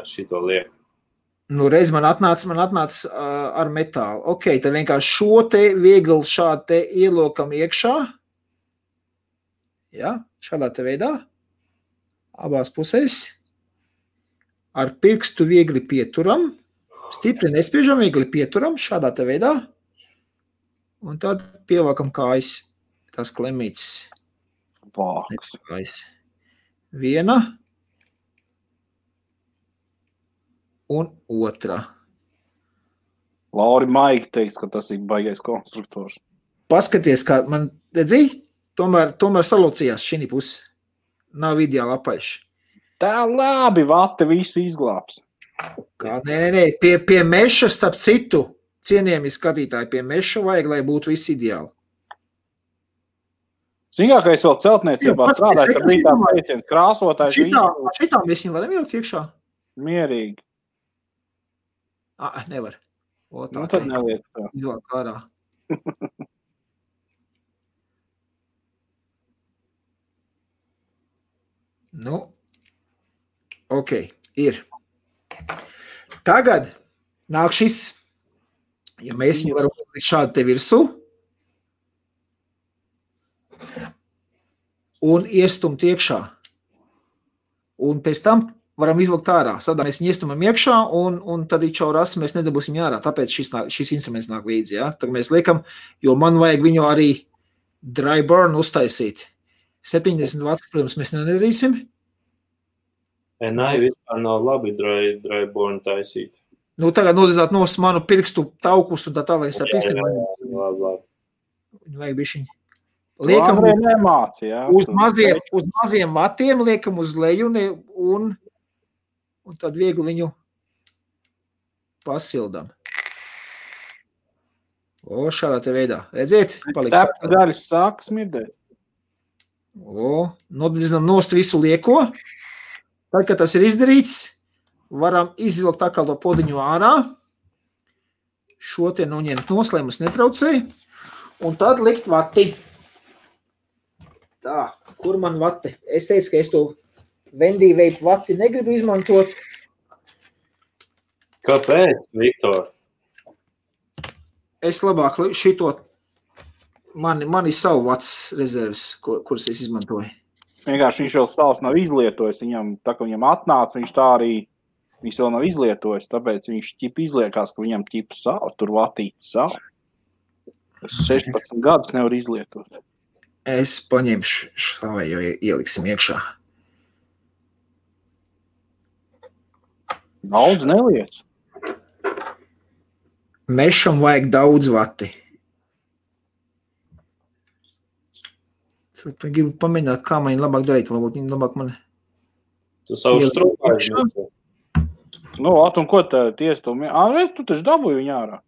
šito liek. Nu, reiz man atnāca ar metālu. Ok, tad vienkārši šo te viegli šādi te ielokam iekšā. Ja, šādā te veidā. Abās pusēs. Ar pirkstu viegli pieturam. Stipri nespiežam, viegli pieturam šādā te veidā. Un tad pievelkam kājas tās klemītes. Vāks. Viena un otra. Lauri Maigi teiks, ka tas ir baigais konstruktors. Paskaties, kā man, redzi, tomēr salocījās šī pusi. Nav ideāli apaļš. Tā labi, vate visu izglābs. Kā, nē, pie meša starp citu. Cienījami skatītāji, pie meša vajag, lai būtu viss ideāli. Zināt, vēl celtniecībā strādāja, ka bija tā teiciens krāsotājs. Šitām mēs viņam varam ielikt iekšā? Mierīgi. Nevar. Nu, tad neliek tā. Izlāk ārā. Nu, ok, ir. Tagad nāk šis. Ja mēs viņu varam likt šādi te virsū un iestumt iekšā. Un pēc tam varam izlikt ārā. Sadā mēs viņu iestumam iekšā un tad ir čauras, mēs nedabūsim ārā. Tāpēc šis instruments nāk līdzi. Ja? Tagad mēs liekam, jo man vajag viņu arī dry burn uztaisīt. 70 vats, protams, mēs nedarīsim. Nē, vispār nav labi dry burn taisīt. Nu, tagad nodezāt nost manu pirkstu taukus un tā tālāk. Viņu vajag bišķiņ. Liekam uz maziem vatiem, liekam uz leju un tad viegli viņu pasildam. Šādā te veidā. Redziet? Tāpēc daļas sāk smirdēt. Nodezinām nost visu lieko. Tad, kad tas ir izdarīts, varam izvilkt atkal to podiņu ārā. Šo te noņemt nost, lai mums netraucē. Un tad likt vati. Tā, kur man vati? Es teicu, ka es to Vendī veipu vati negribu izmantot. Kāpēc, Viktor? Es labāk šito Man ir savu vats rezerves, kuras es izmantoju. Vienkārši viņš jau savs nav izlietojis. Tā kā viņam atnāca, viņš tā arī viņš vēl nav izlietojis. Tāpēc viņš izliekās, ka viņam savu, tur vatīts savu. 16 gadus nevar izlietot. Es paņemšu savējo, ieliksim iekšā. Daudz neliec. Mešam vajag daudz vati. Es gribu pamēģināt, kā man labāk darīt. Varbūt viņi labāk man... Tu savu strūpāji. Nu, un ko tiesa tu? Tu taču dabūji viņu ārā.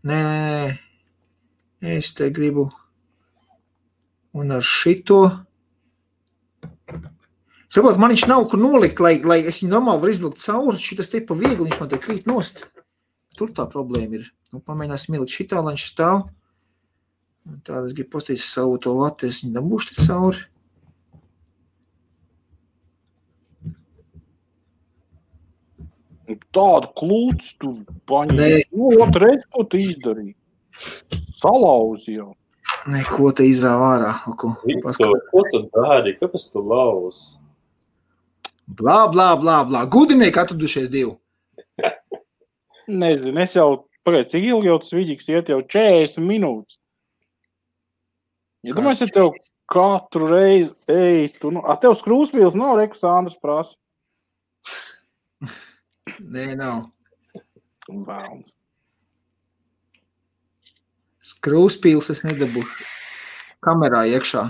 Nē. Es te gribu... Un ar šito... Saprot, man viņš nav kur nolikt, lai es viņu normāli var izvilkt cauri. Šitas te pa viegli, viņš man te krīt nost. Tur tā problēma ir. Nu, pamēģināsim ielikt šitā, lai viņš stāv. Un tāda es gribu postīt savu to vatu, es viņu dabūšu te cauri. Tādu klūts tu paņēmi. Nu, reiz, ko tu izdarīji? Salauzi jau. Neko te izrāva ārā. Ko tu dari? Kāpēc tu lauz? Blā. Gudrinieki atradušies divi. Nezinu, es jau pagaid, cik ilgi jau tas vidīgs iet jau 40 minūtes. Ja domāju, ja tev katru reizi, tev skrūspils nav, Rekas Andrs prasa. Nē, nav. Vēlns. Skrūspils es nedabūšu. Kamerā iekšā.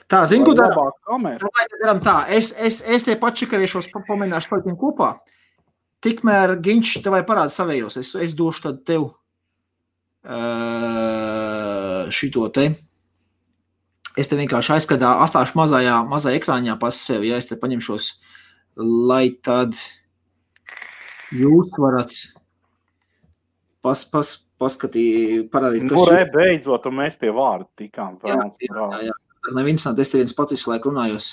Tā, zinu, ko daram tā. Es te pačikarēšos, pamēģināšu paliktiem kopā. Tikmēr Ginč tevai parāda savējos. Es došu tad tev šito te. Es te vienkārši aizskadā, atstāšu mazajā ekrāņā pas sevi. Ja es te paņemšos, lai tad jūs varat parādīt, kas beidzot, un mēs pie vārda tikām. Jā. Nav interesanti, es te viens pats visu laiku runājos.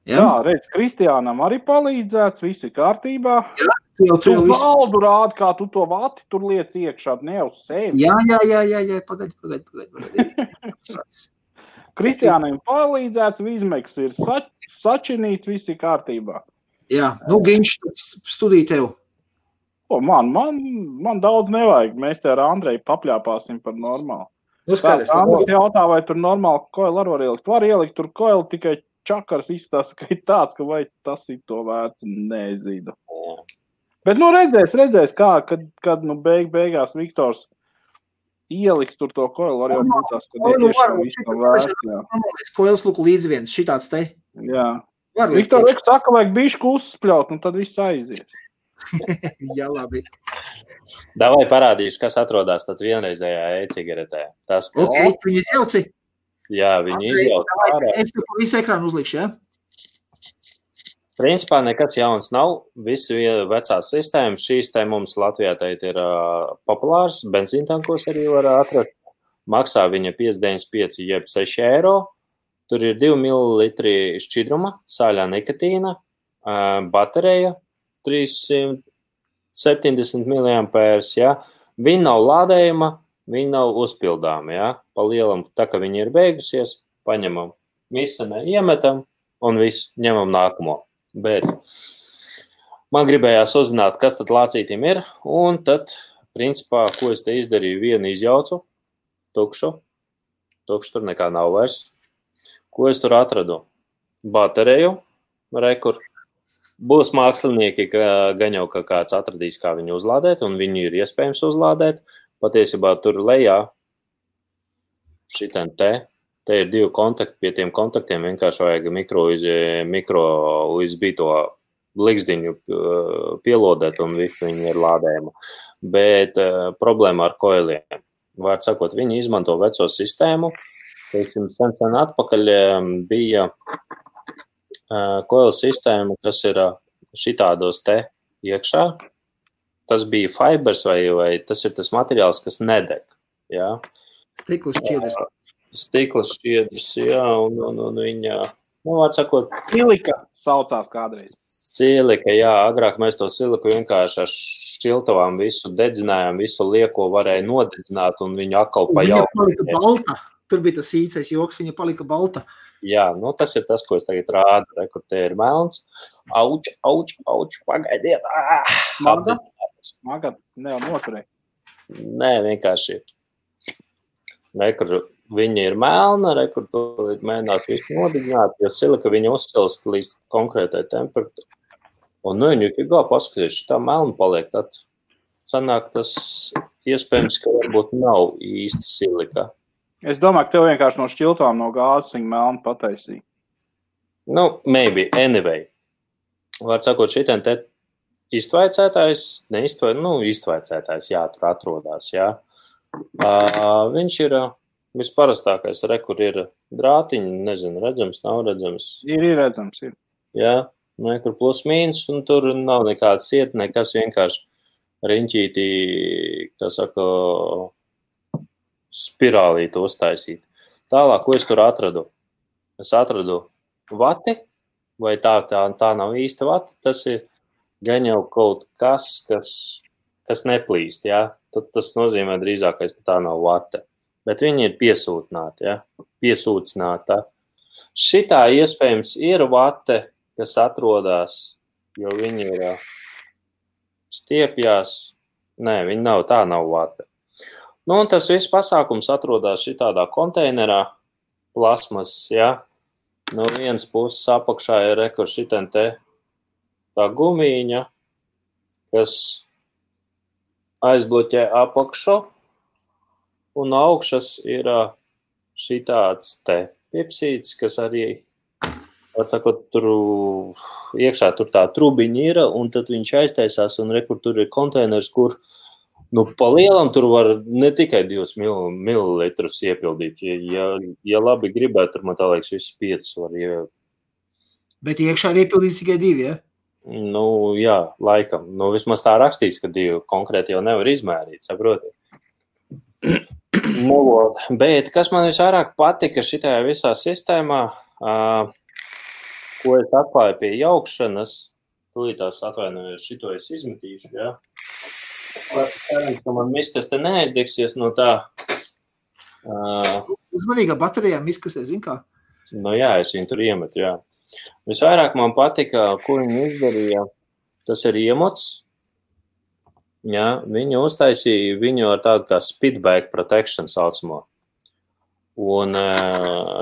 Jā, redz, Kristiānam arī palīdzēts, viss ir kārtībā. Jā, tu valdu rādi, kā tu to vati tur liec iekšā, ne uz sevi. Jā, pagaid. Kristiānam palīdzēts, Vizmeks ir sačinīts, viss ir kārtībā. Jā, Ginč, studiju tev. Man daudz nevajag, mēs te ar Andreju papļāpāsim par normālu. Skaidrs, Andrejs jautā, vai tur normāli koili var ielikt. Var ielikt tur koili, tikai čakars izstāsta, ka ir tāds, ka vai tas ir to vērts, nezinu. Bet, redzēs kā, kad beigās Viktors ieliks tur to koili, var jau būt tās, ka viss nav vērts. Jā. Koils lūk līdz viens, šitāds te. Jā. Viktor saka, vajag bišku uzspļaut, un tad viss aizies. Jā, labi. Davai parādīšu, kas atrodās tad vienreizējā e-cigaretē. Tas, kas... Viņi izjauci? Jā, viņi izjauci. Es tev pa visu ekrānu uzlikšu, ja? Principā nekas jauns nav. Visi vecās sistēmas, šīs te mums Latvijā teit ir populārs. Benzīntankos arī var atrast. Maksā viņa 5,95 jeb 6 eiro. Tur ir 2 ml šķidruma, sāļā nikotīna, baterija, 370 mAh, ja. Viņa nav lādējama, viņa nav uzpildāma, ja. Pa lielam, tā kā viņa ir beigusies, paņemam visu, iemetam un visu ņemam nākamo. Bet man gribējās uzzināt, kas tad lācītim ir, un tad, principā, ko es te izdarīju, vienu izjaucu, tukšu tur nekā nav vairs. Ko es tur atradu? Bateriju, rekur. Būs mākslinieki, gan jau, ka kāds atradīs, kā viņu uzlādēt, un viņu ir iespējams uzlādēt. Patiesībā tur lejā šitien te ir 2 kontakti, pie tiem kontaktiem vienkārši vajag mikro USB to likzdiņu pielodēt, un viņi ir lādējama. Bet problēma ar koiliem. Vārds sakot, viņi izmanto veco sistēmu. Teiksim, sen atpakaļ bija koila sistēma, kas ir šitādos te iekšā. Tas bija fibers vai tas ir tas materiāls, kas nedeg. Jā. Stikla šķiedrs. Stikla šķiedrs, jā, un viņa, vārds sakot, Silika saucās kādreiz. Silika, jā, agrāk mēs to siliku vienkārši ar šķiltavām visu dedzinājām, visu lieko varēja nodedzināt un viņu atkal Viņa palika balta. Tur bija tas īcais joks, viņa palika balta. Jā, nu tas ir tas, ko es tagad rādu, kur te ir melns. Auč, pagaidiet. Magad, noturēja. Nē, vienkārši. Kur viņa ir melna, kur tu mēģinās visu nodedzināt, jo silika viņa uzsilst līdz konkrētai temperatūrai. Un nu viņa ir paskatījuši, tā melna paliek, tad sanāk tas iespējams, ka varbūt nav īsti silika. Es domāju, ka tev vienkārši no šķiltām no gāzes viņa melna pataisīja. Nu, maybe, anyway. Var sakot, šitien te iztvaicētājs, iztvaicētājs, jā, tur atrodās, jā. Viņš ir visparastākais, kur ir drātiņi, nezinu, redzams, nav redzams. Ir redzams, ir. Jā, kur plus mīnus, un tur nav nekāds iet, nekas vienkārši riņķītī, kā saka, spirālīti uztaisīt. Tālāk, ko es tur atradu? Es atradu vati, vai tā nav īsta vati, tas ir gan jau kaut kas neplīst, jā. Tad tas nozīmē drīzākais, ka tā nav vate. Bet viņi ir piesūtināti, jā. Piesūcināta. Šitā iespējams ir vate, kas atrodas, jo viņi ir stiepjās. Nē, viņi nav, tā nav vate. Nu, un tas viss pasākums atrodas šitādā konteinerā, plasmas, jā. No vienas puses apakšā ir šitien te tā gumīņa, kas aizbloķē apakšu, un augšas ir šitāds te pipsīts, kas arī, atsakot, tur iekšā tur tā trubiņa ir, un tad viņš aiztaisās, un kur tur ir konteiners, kur pa lielam tur var ne tikai 2 mililitrus iepildīt. Ja labi gribētu, tur man tā liekas visus 5 var iepildīt. Bet iekšā ir iepildīts tikai 2, ja? Nu, jā, laikam. Nu, vismaz tā rakstīts, ka 2 konkrēti jau nevar izmērīt, saprotiet. Nu, bet kas man visvairāk patika šitajā visā sistēmā, ko es atklāju pie jaukšanas, tūlītās atvainojos, šito es izmetīšu, jā. Cerams, ka man miskas te neaizdegsies no tā. Uzmanīgā baterijā miskas, zin kā? Nu jā, es viņu tur iemetu, jā. Visvairāk man patika, ko viņi izdarīja, tas ir iemots. Jā, viņi uztaisīja viņu ar tādu kā speedbag protection saucamo. Un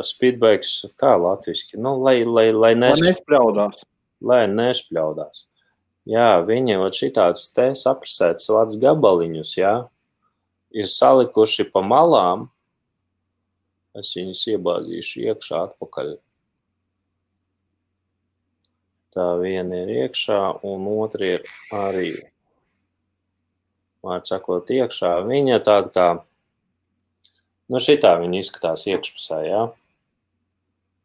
speedbags, kā latviski? Nu, lai nešpļaudās. Lai nešpļaudās. Jā, viņi šitāds te saprasēts lats gabaliņus, jā, ir salikuši pa malām. Es viņus iebāzīšu iekšā atpakaļ. Tā viena ir iekšā, un otra ir arī, var sakot, iekšā. Viņa tāda kā, šitā viņa izskatās iekšpusē, jā.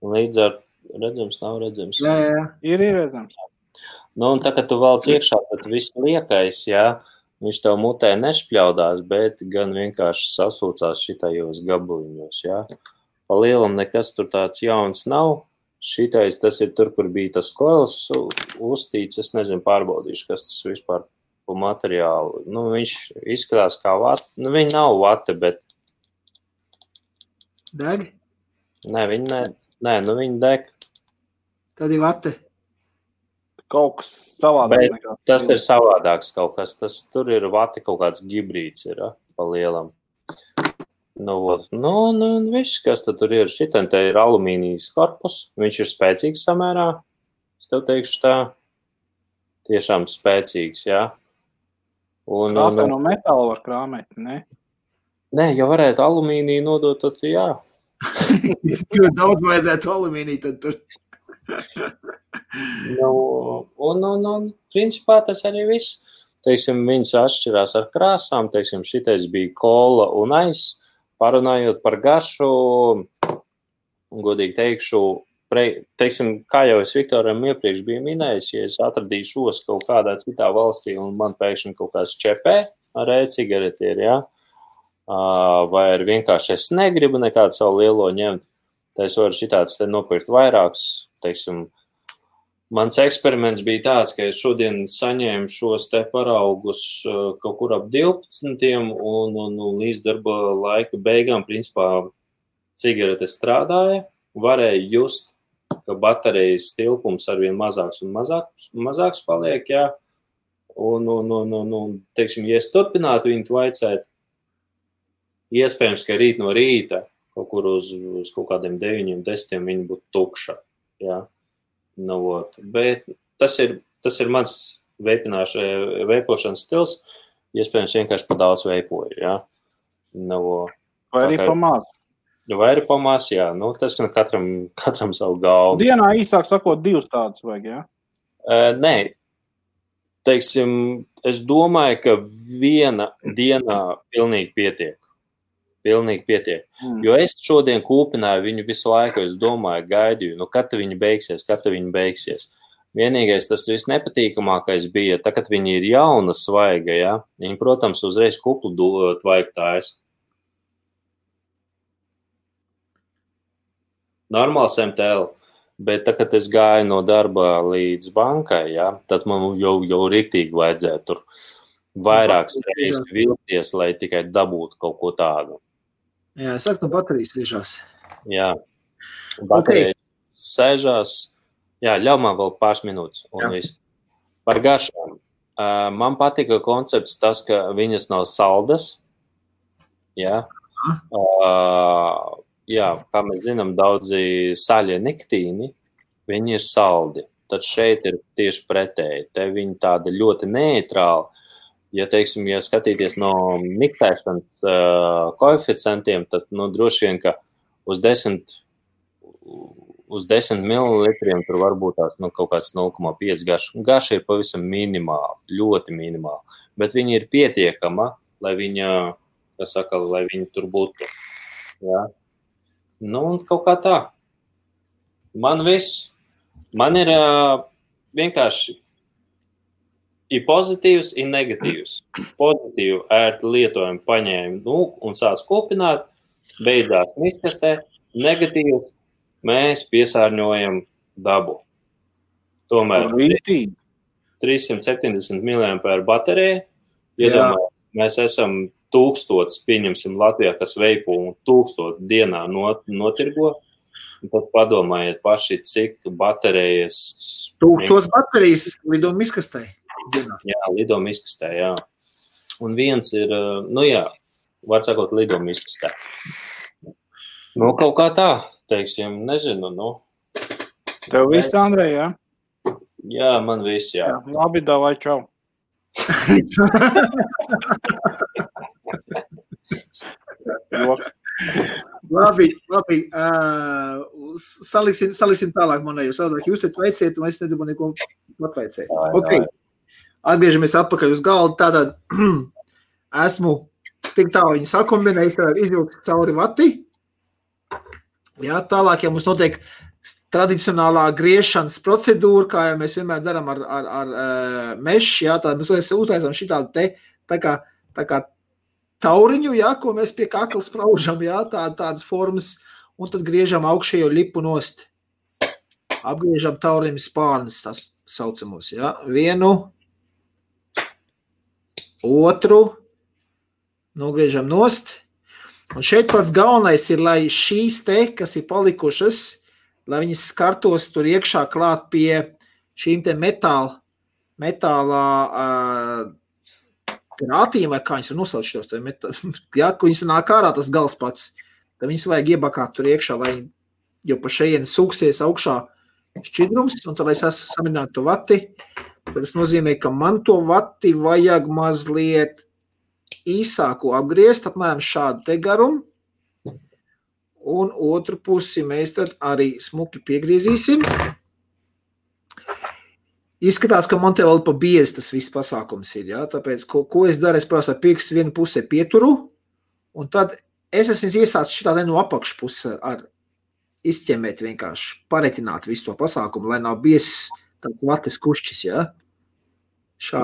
Līdz ar, redzams, nav redzams. Jā. Ir redzams. Nu, un tā, kad tu valc iekšā, tad viss liekais, jā, viņš tev mutē nešpļaudās, bet gan vienkārši sasūcās šitajos gabaliņos, jā. Pa lielam nekas tur tāds jauns nav. Šitais, tas ir tur, kur bija tas koils uztīts, es nezinu, pārbaudīšu, kas tas vispār pa materiālu. Nu, viņš izskatās kā vate, nu, viņi nav vate, bet... Deg? Nē, viņi deg. Tad ir vate. Kaut kas savādāk. Tas ir savādāks kaut kas. Tur ir vati kaut kāds gibrīds ir, pa lielam. Nu, viss, kas tur ir. Šitien te ir alumīnijas korpus. Viņš ir spēcīgs samērā. Es tev teikšu tā. Tiešām spēcīgs, jā. Krāsē no metāla var krāmēt, ne? Nē, ja varētu alumīniju nodot, tad jā. Jo daudz vajadzētu alumīniju, tad tur... Un principā tas arī viss. Teiksim, viņas atšķirās ar krāsām, teiksim, šitais bija kola un aiz. Parunājot par garšu, godīgi teikšu, teiksim, kā jau es Viktoram iepriekš biju minējis, ja es atradīšu kaut kādā citā valstī un man pēkšņi kaut kāds čepē ar e-cigareti ir, jā, vai ar vienkārši es negribu nekādu savu lielo ņemt, tad es varu šitāds te nopirkt vairākus, teiksim, Mans eksperiments bija tāds, ka es šodien saņēmu šos te paraugus kaut kur ap 12 un līdz darba laika beigām, principā, cigaretes strādāja, varēja just, ka baterijas tilpums arvien mazāks un mazāks paliek, jā. Un teiksim, ja es turpinātu viņu vaicēt, iespējams, ka rīt no rīta kaut kur uz kaut kādiem 9, 10 viņi būtu tukša, jā. Bet tas ir mans veipošanas stils, iespējams vienkārši pa daudz veipoju, jā. Vai arī pamās? Vai arī pamās, jā. Tas ir katram savu galvu. Dienā īsāk sakot 2 tādas vajag, jā? Nē. Teiksim, es domāju, ka viena dienā pilnīgi pietiek. Jo es šodien kūpināju viņu visu laiku, es domāju, gaidīju, kad viņi beigsies. Vienīgais tas viss nepatīkamākais bija, tā, kad viņi ir jauna svaiga, ja, viņi, protams, uzreiz kuplu tvaigu tājas. Normāls MTL, bet tā, kad es gāju no darba līdz bankai, ja, tad man jau riktīgi vajadzēja tur vairākas reizes vilties, lai tikai dabūtu kaut ko tādu. Jā, es saku, no baterijas sēžās. Jā, baterijas sēžās. Jā, ļauj man vēl pāris minūtes un viss. Par garšām. Man patika koncepts tas, ka viņas nav saldas. Jā. Jā, kā mēs zinām, daudzi saļie niktīni, viņi ir saldi. Tad šeit ir tieši pretēji. Te viņi tāda ļoti neitrāli. Ja, teiksim, ja skatīties no miktēšanas koeficientiem, tad, droši vien, ka uz 10 mililitriem tur varbūt tās, kaut kāds 0,5 garša. Garša ir pavisam minimāli, ļoti minimāli, bet viņa ir pietiekama, lai viņa tur būtu. Jā. Un kaut kā tā. Man ir vienkārši ir pozitīvs, ir negatīvs. Pozitīvu ērti lietojumu paņēmu un sāc kūpināt, beidzās miskastē. Negatīvs mēs piesārņojam dabu. Tomēr 370 mAh baterija. Iedomājot, mēs esam 1000, pieņemsim Latvijā, kas veipo un 1000 dienā notirgo. Un tad padomājiet paši, cik baterijas... 1000 baterijas lido miskastē. Jā, lido miskastē, jā. Un viens ir, var sakot, lido miskastē. Kaut kā tā, teiksim, nezinu, Tev viss, Andrej, jā? Jā, man viss, jā. Labi, davai, čau. Labi. Saliksim tālāk manēju. Jūs te veiciet, un es nedabu neko atveicēt. Ok. Atgriežamies atpakaļ uz galdu. Tātad esmu tik tālu viņu sakombinējis, tātad izvilkt cauri vati. Jā, tālāk, ja mums notiek tradicionālā griešanas procedūra, kā jau mēs vienmēr darām ar mešu, jā, tad mēs uztaisām šitādu te tā kā tauriņu, jā, ko mēs pie kakla spraužam, jā, tādas formas, un tad griežam augšējo lipu nost. Apgriežam tauriņu spārnes, tās saucamos, jā. Vienu, otru, nogriežam nost. Un šeit pats galvenais ir, lai šīs te, kas ir palikušas, lai viņas skartos tur iekšā klāt pie šīm te metālā grātīm, vai kā viņas var nosaukt šitos, jā, ko viņas nāk ārā, tas gals pats. Tad viņas vajag iebakāt tur iekšā, lai jau pa šejieni sūksies augšā šķidrums, un tad, lai es esmu samierinātu to vati, tad tas nozīmē, ka man to vati vajag mazliet īsāku apgriezt, apmēram šādu te garumu, un otru pusi mēs tad arī smuki piegriezīsim. Izskatās, ka man te vēl pa biezi tas viss pasākums ir, jā, tāpēc, ko es daru, es parasti ar pirkstu vienu pusē pieturu, un tad es esmu iesācis šitā no apakšpuses ar izķemēt vienkārši, paretināt visu to pasākumu, lai nav biezs tāds vates kušķis, jā.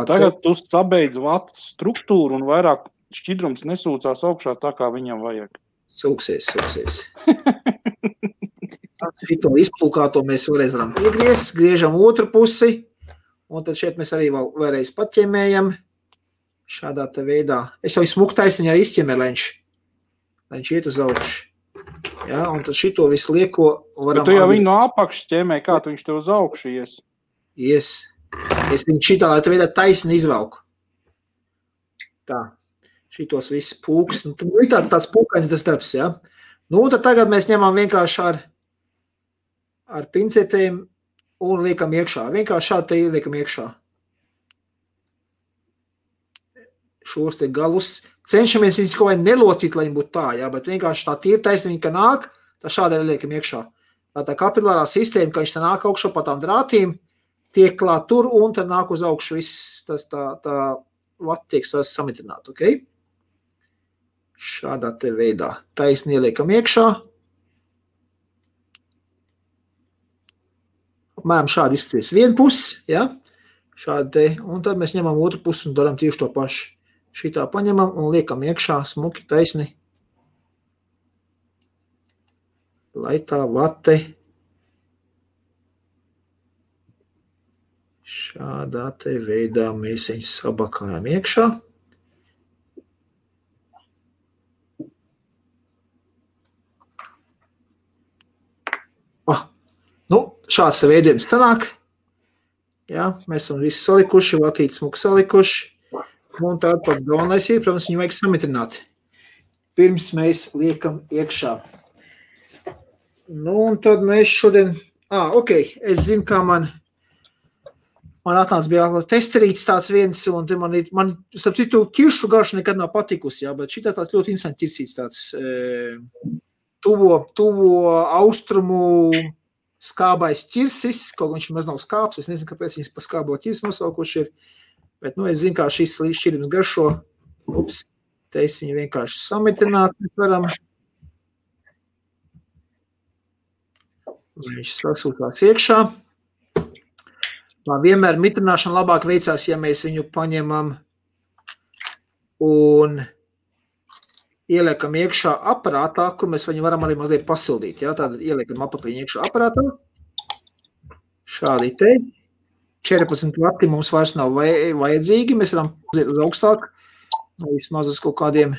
Tagad tu sabeidz vatas struktūru un vairāk šķidrums nesūcās augšā tā, kā viņam vajag. Sūksies. Šito izplūkāto mēs vēlreiz varam piegriezt, griežam otru pusi, un tad šeit mēs arī vēlreiz paķemējam šādā te veidā. Es jau smuku taisniņā arī izķemēju, lai viņš iet uz augšu. Ja, un tad šito visu lieko varam... Bet tu jau viņu no apakšas ķemēji, kā tu viņš tev uz augšu ies? Ies. Es viņu šitā, lai te veidā taisni izvelku. Tā. Šitos viss pūks. Nu, tad tāds pūkains tas darbs, ja? Nu, tad tagad mēs ņemam vienkārši ar pincetēm un liekam iekšā. Vienkārši šādi te liekam iekšā. Šos te galus. Cenšamies viņus kaut vai nelocīt, lai viņi būtu tā, ja? Bet vienkārši tā tīrtais viņa, ka nāk, tā šādi arī liekam iekšā. Tā kapilārā sistēma, ka viņš tā nāk augšā pa tām drātīm, tiek klāt tur un tad nāk uz augšu viss tas tā vati tiek samitināt, ok? Šādā te veidā. Taisni ieliekam iekšā. Apmēram šādi izskaties vienu pusi, ja? Šādi te, un tad mēs ņemam otru pusi un daram tieši to pašu. Šitā paņemam un liekam iekšā smuki taisni. Lai tā vate šādā te veidā mēs viņus sabakājam iekšā. Nu, šāds veidojums sanāk. Jā, mēs esam visi salikuši, vatīti smuki salikuši. Un tād pats galvenais ir, protams, viņu vajag samitrināt. Pirms mēs liekam iekšā. Nu, un tad mēs šodien... ok, es zinu, kā man atnāca bija testerīts tāds viens, un man starp citu, kiršu garša nekad nav patikusi, jā, bet šitā tāds ļoti interesanti ķirsīts tāds tuvo austrumu skābais ķirsis, kaut viņš maz nav skābs, es nezinu, kāpēc viņas pa skābo ķirsi nosaukuši ir, bet, nu, es zinu, kā šīs šķirības garšo. Ups, te es viņu vienkārši samitināt, mēs varam. Viņš sasūtās iekšā. Vienmēr mitrināšana labāk veicās, ja mēs viņu paņemam un ieliekam iekšā aparātā, kur mēs viņu varam arī mazliet pasildīt. Ja? Tātad ieliekam apakļiņu iekšā aparātā. Šādi te. 14 vati mums vairs nav vajadzīgi. Mēs varam uziet uz augstāk. Vismaz uz kaut kādiem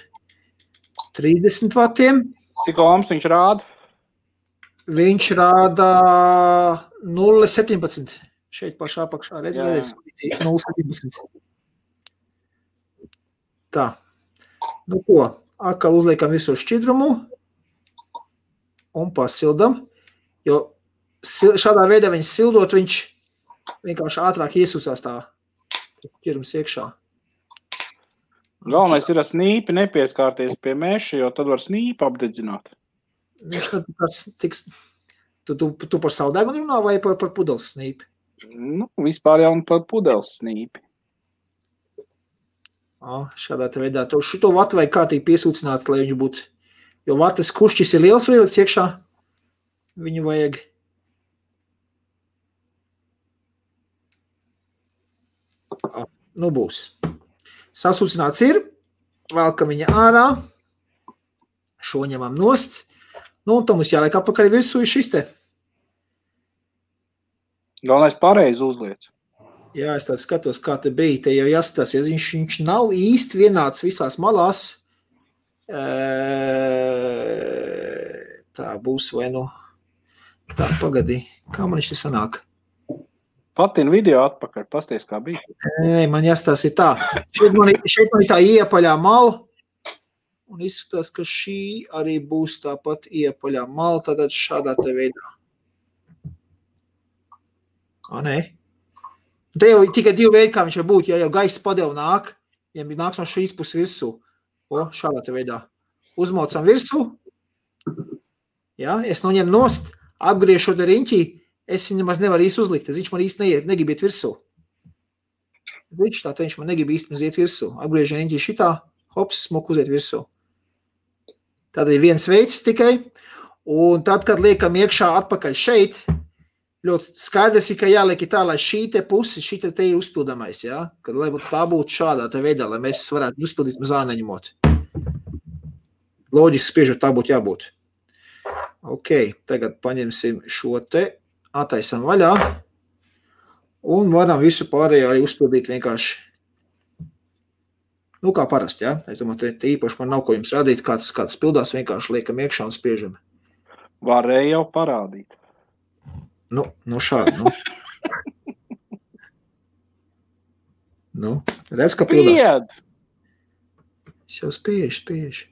30 vatiem. Cik ohms viņš rāda? Viņš rāda 0,17. Šeit pašā apakšā. Redzēt, 0,17. Tā. Nu ko, atkal uzliekam visu šķidrumu un pasildam, jo šādā veidā viņš sildot, viņš vienkārši ātrāk iesūsās tā ķirums iekšā. Galvenais ir ar snīpi nepieskārties pie meša, jo tad var snīpi apdedzināt. Viņš tad tiks... Tu par savu degunu runā vai par pudeles snīpi? Nu, vispār jau par pudeles snīpi. Šādā te veidā. Šito vatu vajag kārtīgi piesūcināt, lai viņu būtu... Jo vatas kušķis ir liels vielas iekšā. Viņu vajag... Nu būs. Sasūcināts ir. Velkam viņa ārā. Šo ņemam nost. Nu, un tam mums jāliek apakaļ virsū šis te. Galvenais pareizi uzliec. Jā, es tā skatos, kā te bija. Te jau jāskatās, ja viņš nav īsti vienāds visās malās. Tā būs vai nu... Tā, pagadī. Kā man viņš te sanāk? Patina video atpakaļ, pasties, kā bija. Nē, man jāskatās ir tā. Šeit man ir tā iepaļā mala. Un izskatās, ka šī arī būs tāpat iepaļā mala, tātad šādā te veidā. Nē. Te jau tikai divi veidi, kā viņš var būt, ja jau gaisa padev nāk, ja nāks no šīs puses virsū. Šādā te veidā. Uzmaucam virsū. Ja, es noņem nost, apgriežot ar riņķī, es viņu nemaz nevaru īsti uzlikt. Viņš man īsti negrib iet virsū. Viņš man negrib īsti iet virsū. Apgriežot riņķī šitā, hops, smuk uziet virsū. Tad ir viens veids tikai. Un tad, kad liekam iekšā atpakaļ šeit, ļoti skaidrs ir, ka jāliek tā, lai šī te pusi, šī te ir uzpildamais, ja? Kad lai tā būtu šādā te veidā, lai mēs varētu uzpildīt mazā neņemot. Loģiski spiežot, tā būtu jābūt. Ok, tagad paņemsim šo te, attaisam vaļā un varam visu pārējo arī uzpildīt vienkārši. Nu, kā parasti, ja? Es domāju, te īpaši man nav ko jums rādīt, kā tas pildās, vienkārši liekam iekšā un spiežam. Varēja jau parādīt. Nu šādi, nu. Nu, redz, ka pildās. Pied! Es jau spiežu.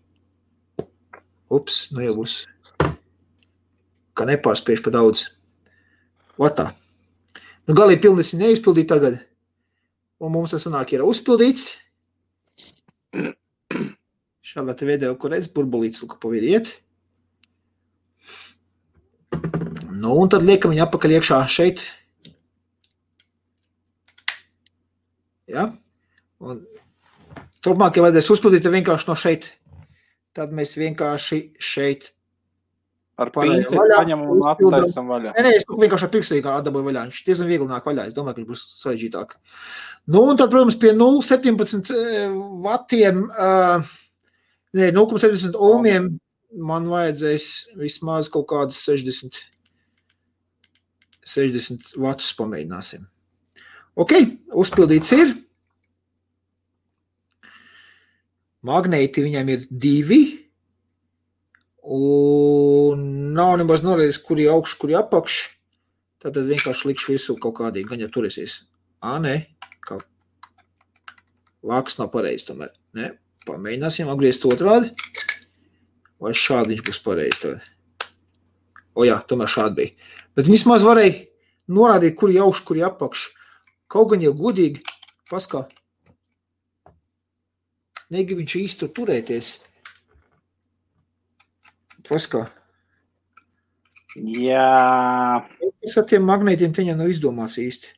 Ups, nu jau būs. Kā nepārspiež pa daudz. Vatā. Nu, galīgi pilnīgi neizpildīt tagad. Un mums tas sanāk ir uzpildīts. Šādā te video, kur redz, burbulīts, lūk, pa vidu iet. Nu, un tad liekam viņu atpakaļ iekšā šeit. Ja? Un turpmāk, ja vajadzēs uzpildīt vienkārši no šeit, tad mēs vienkārši šeit ar pinceti paņemam un attaisam vaļā. Nē, es vienkārši ar pirkstīgi atdaboju vaļā. Viņš diezgan viegli nāk vaļā. Es domāju, ka viņš būs sarežģītāk. Nu, un tad, protams, pie 0,17 vatiem, 0,70 ohmiem man vajadzēs vismaz kaut kādus 60 vatus pamēģināsim. Ok, uzpildīts ir. Magnēti viņam ir 2. Un nav nemaz norēdis, kuri augš, kuri apakš. Tad vienkārši likšu visu kaut kādīgi, gan jau turēsies. Nē, kā vāks nav pareizi tomēr. Nē, pamēģināsim apgriezt otrādi. Vai šādi viņš būs pareizi tagad. Jā, tomēr šādi bija. Bet vismaz varēja norādīt, kuri augš, kuri apakš. Kaut gan jau godīgi, paskā. Negrib viņš īsti turēties. Paskā. Jā. Es ar tiem magnētiem teņā nav izdomās īsti.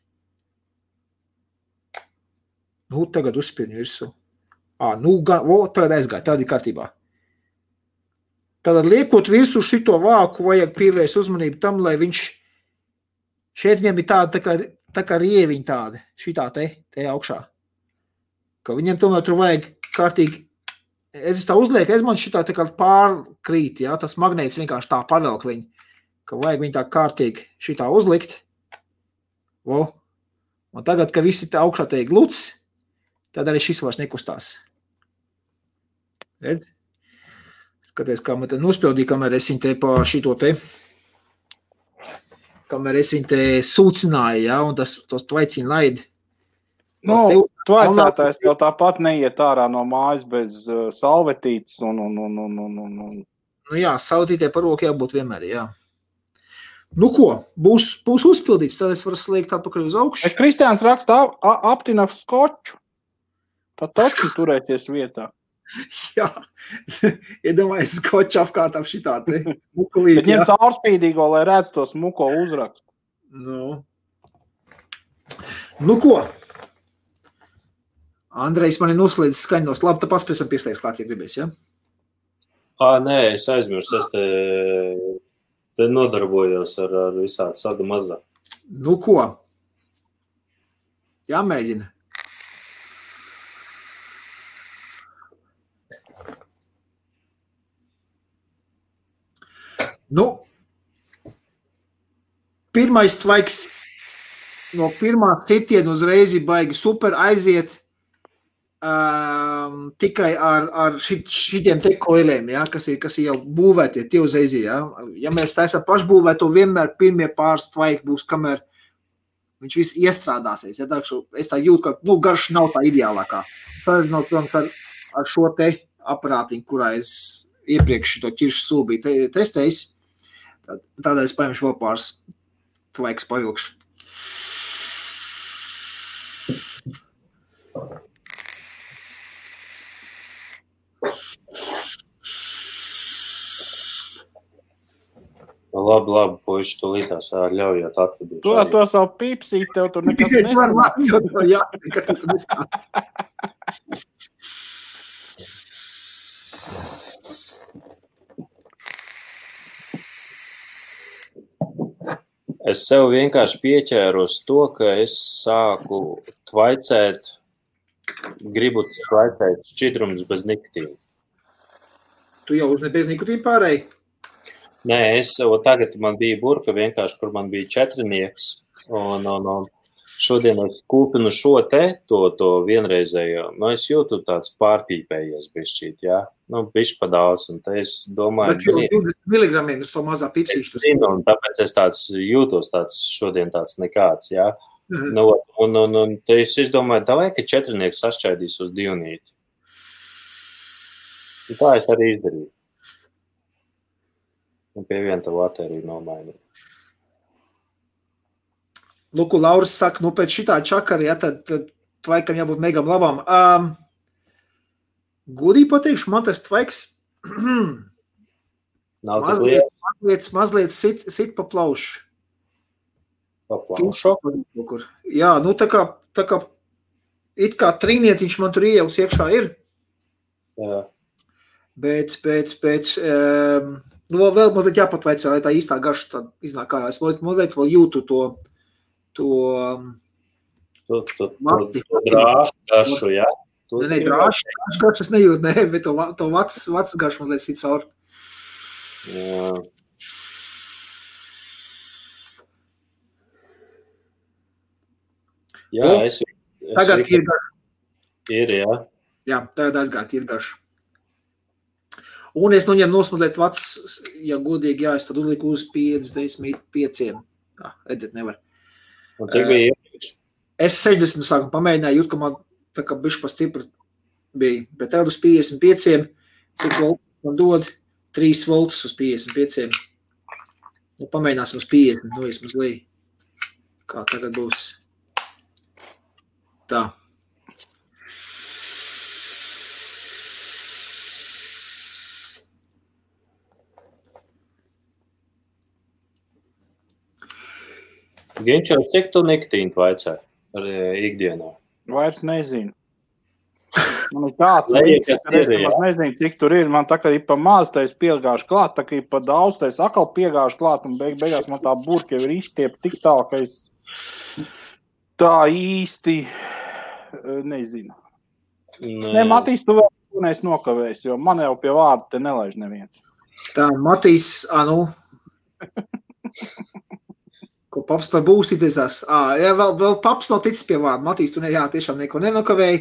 Nu, tagad uzspirņu virsū. Tagad aizgāja, tādi kārtībā. Tātad liekot virsū šito vāku, vajag pievērst uzmanību tam, lai viņš šeit viņam ir tāda, tā kā rieviņa tāda, šitā te augšā. Ka viņam tomēr tur vajag kārtīgi. Es tā uzlieku, man šitā tā kā pārkrīt, ja? Tas magnēts vienkārši tā pavelk viņu, ka vajag viņu tā kārtīgi šitā uzlikt. Un tagad, ka visi tā augšā te ir gluts, tad arī šis vairs nekustās. Redz? Skaties, kā man te nospildīja, kamēr es viņu te pa šito te, kamēr es viņu te sūcināju, ja? Un tas tvaiciņu laidi. Nu, tvaicētājs jau tāpat neiet ārā no mājas bez salvetītes un. Nu jā, salvetītē par roku jābūt vienmēr, jā. Nu ko, būs uzpildīts, tad es varu sliekt atpakaļ uz augšu. Kristiāns raksta aptina skoču. Tad taču turēties vietā. Jā, iedomājies skoču apkārt ap šitā te mukulīt. Bet ņem caurspīdīgo, lai redz to smuko uzrakstu. Nu ko? Andrejs man ir noslēdzis skaņos. Labi, tad paspēsim pieslēgt klāt, ja gribēs, ja? Nē, es aizmirstu. Es te nodarbojos ar visādi sadu mazā. Nu ko? Jāmēģina. Nu, pirmais tvaiks no pirmā sitiena uzreiz baigi super aiziet. Tikai ar šitiem te koiliem, ja, kas ir jau būvētie, tie uzreiz, ja. Ja mēs taisam pašbūvēto, vienmēr pirmie pāris tvaiki būs, kamēr viņš viss iestrādāsies. Ja, es tā jūtu, ka garš nav tā ideālākā. Ar šo te aparātiņu, kurā es iepriekš to ķiršu sulu biju testējis, tādēļ es paņemšu vēl pāris tvaiks pavilkšu. Labi, puiši, tu līdās ļaujot atvedīt. Tu ar to savu pipsīt, tev tur nekas neskanās. Jā, nekas tur neskanās. Es sev vienkārši pieķēru uz to, ka es sāku tvaicēt, gribu tvaicēt šķidrums bez nikotīna. Tu jau uz bez nikotīna pārēji? Nē, tagad man bija burka vienkārši, kur man bija 4nieks, un šodien es kūpinu šo to vienreizējo, es jūtu tāds pārpīpējies bišķīt, jā, bišķi pa daudz, un te es domāju... Bet 20 miligramiem uz to mazā pipsīšu. Es zinu, un tāpēc es jūtos šodien tāds nekāds, jā. Un te es izdomāju, davai, ka 4nieks sašķaidīs uz 2. Un tā es arī izdarīju. Un pie viena tavu artēriju nomainīju. Luku, Lauris saka, pēc šitā čakara, ja, tad tvaikam jābūt megam labām. Gudīgi pateikšu, man tas tvaiks mazliet sit pa plaušu. Pa plaušu? Jā, tā kā it kā trīnieciņš man tur iejauks iekšā ir. Jā. Bet vēl mazliet jāpatvaicā, lai tā īstā garša tā iznāk ārā. Es mazliet vēl jūtu to drāšu garšu, jā? Nē, drāšu garšu es nejūtu, bet to vats garšu mazliet sit caur. Jā. Jā, tagad ir garša. Ir, jā. Jā, tagad aizgāt ir garša. Un es noņem nosmazliet vats, ja godīgi, jā, es tad uzliku uz 55. Tā, redzēt, nevar. Un cik bija iepriekš? Es 60 sākumu pamēģināju, jūt, ka man tā kā bišķi pa stipri bija. Bet tagad uz 55, cik volts man dod? 3 volts uz 55. Pamēģināsim uz 50, vismaz lī. Kā tagad būs? Tā. Ginčo, cik tu nikotīnu vaicē ar ikdienā? Vairs nezinu. Man ir tāds līdz, ka es nezinu, cik tur ir. Man tā kā ir pa maz, tā es piegāšu klāt, tā kā ir pa daudz, tā es atkal piegāšu klāt, un beigās man tā burka jau ir izstiep tik tālu, ka es tā īsti nezinu. Nē, Matīs, tu vēl neesi nokavējis, jo man jau pie vārda te nelaiž neviens. Tā, Matīs, ko paps par būsīties. Jā, vēl paps nav ticis pie vārda. Matīs, tu tiešām neko nenokavēji.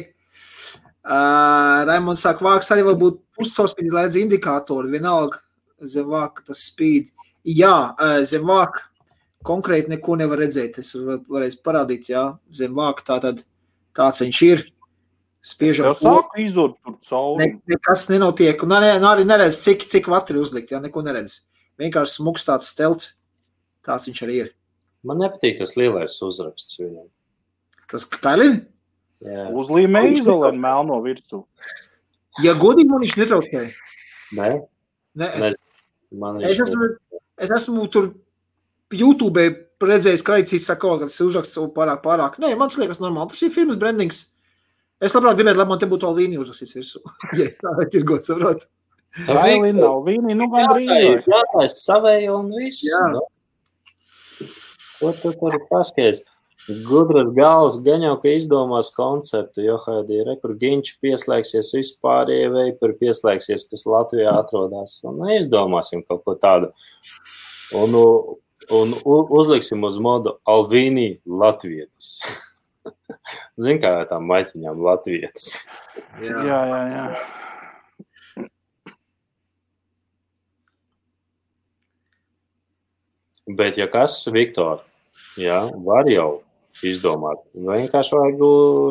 Raimonds saka, vāks arī var būt puscaurspīdī, lai redz indikātori. Vienalga zem vāka tas spīd. Jā, zem vāka konkrēti neko nevar redzēt. Es varēs parādīt, jā, zem vāka tātad tāds viņš ir. Spiežam. Tev sāk izurt tur cauri. Nekas nenotiek. Un arī neredz, cik vatri uzlikt, jā, neko neredz. Vienkārši smuks tāds stelts. Tāds viņš arī ir. Man nepatīk tas lielais uzraksts viņam. Tas Kailin? Jā. Uzlīmē izolēn melno virsū. Ja godīgi man viņš netraucēja. Nē. Es esmu tur YouTube redzējis, ka cits saka, ka tas uzraksts pārāk. Nē, man liekas normāli. Tas ir firmas brandings. Es labprāt gribētu, lai man te būtu Alvīni uzrakstīts virsū. Ja tā ir tirgot, saprot. Alvīni, gandrīz. Jā, es savēju un viss. Jā. Ko tu tur paskaties? Gudras galvas gan jau, ka izdomās konceptu, jo Haidī kur Ginči pieslēgsies vispārējie veipuri pieslēgsies, kas Latvijā atrodas. Un izdomāsim kaut ko tādu. Un uzliksim uz modu Alvīni Latvietis. Zin, kā tām maiciņām Latvietis. Jā. Bet, ja kas, Viktor, jā, var jau izdomāt. Vienkārši vajag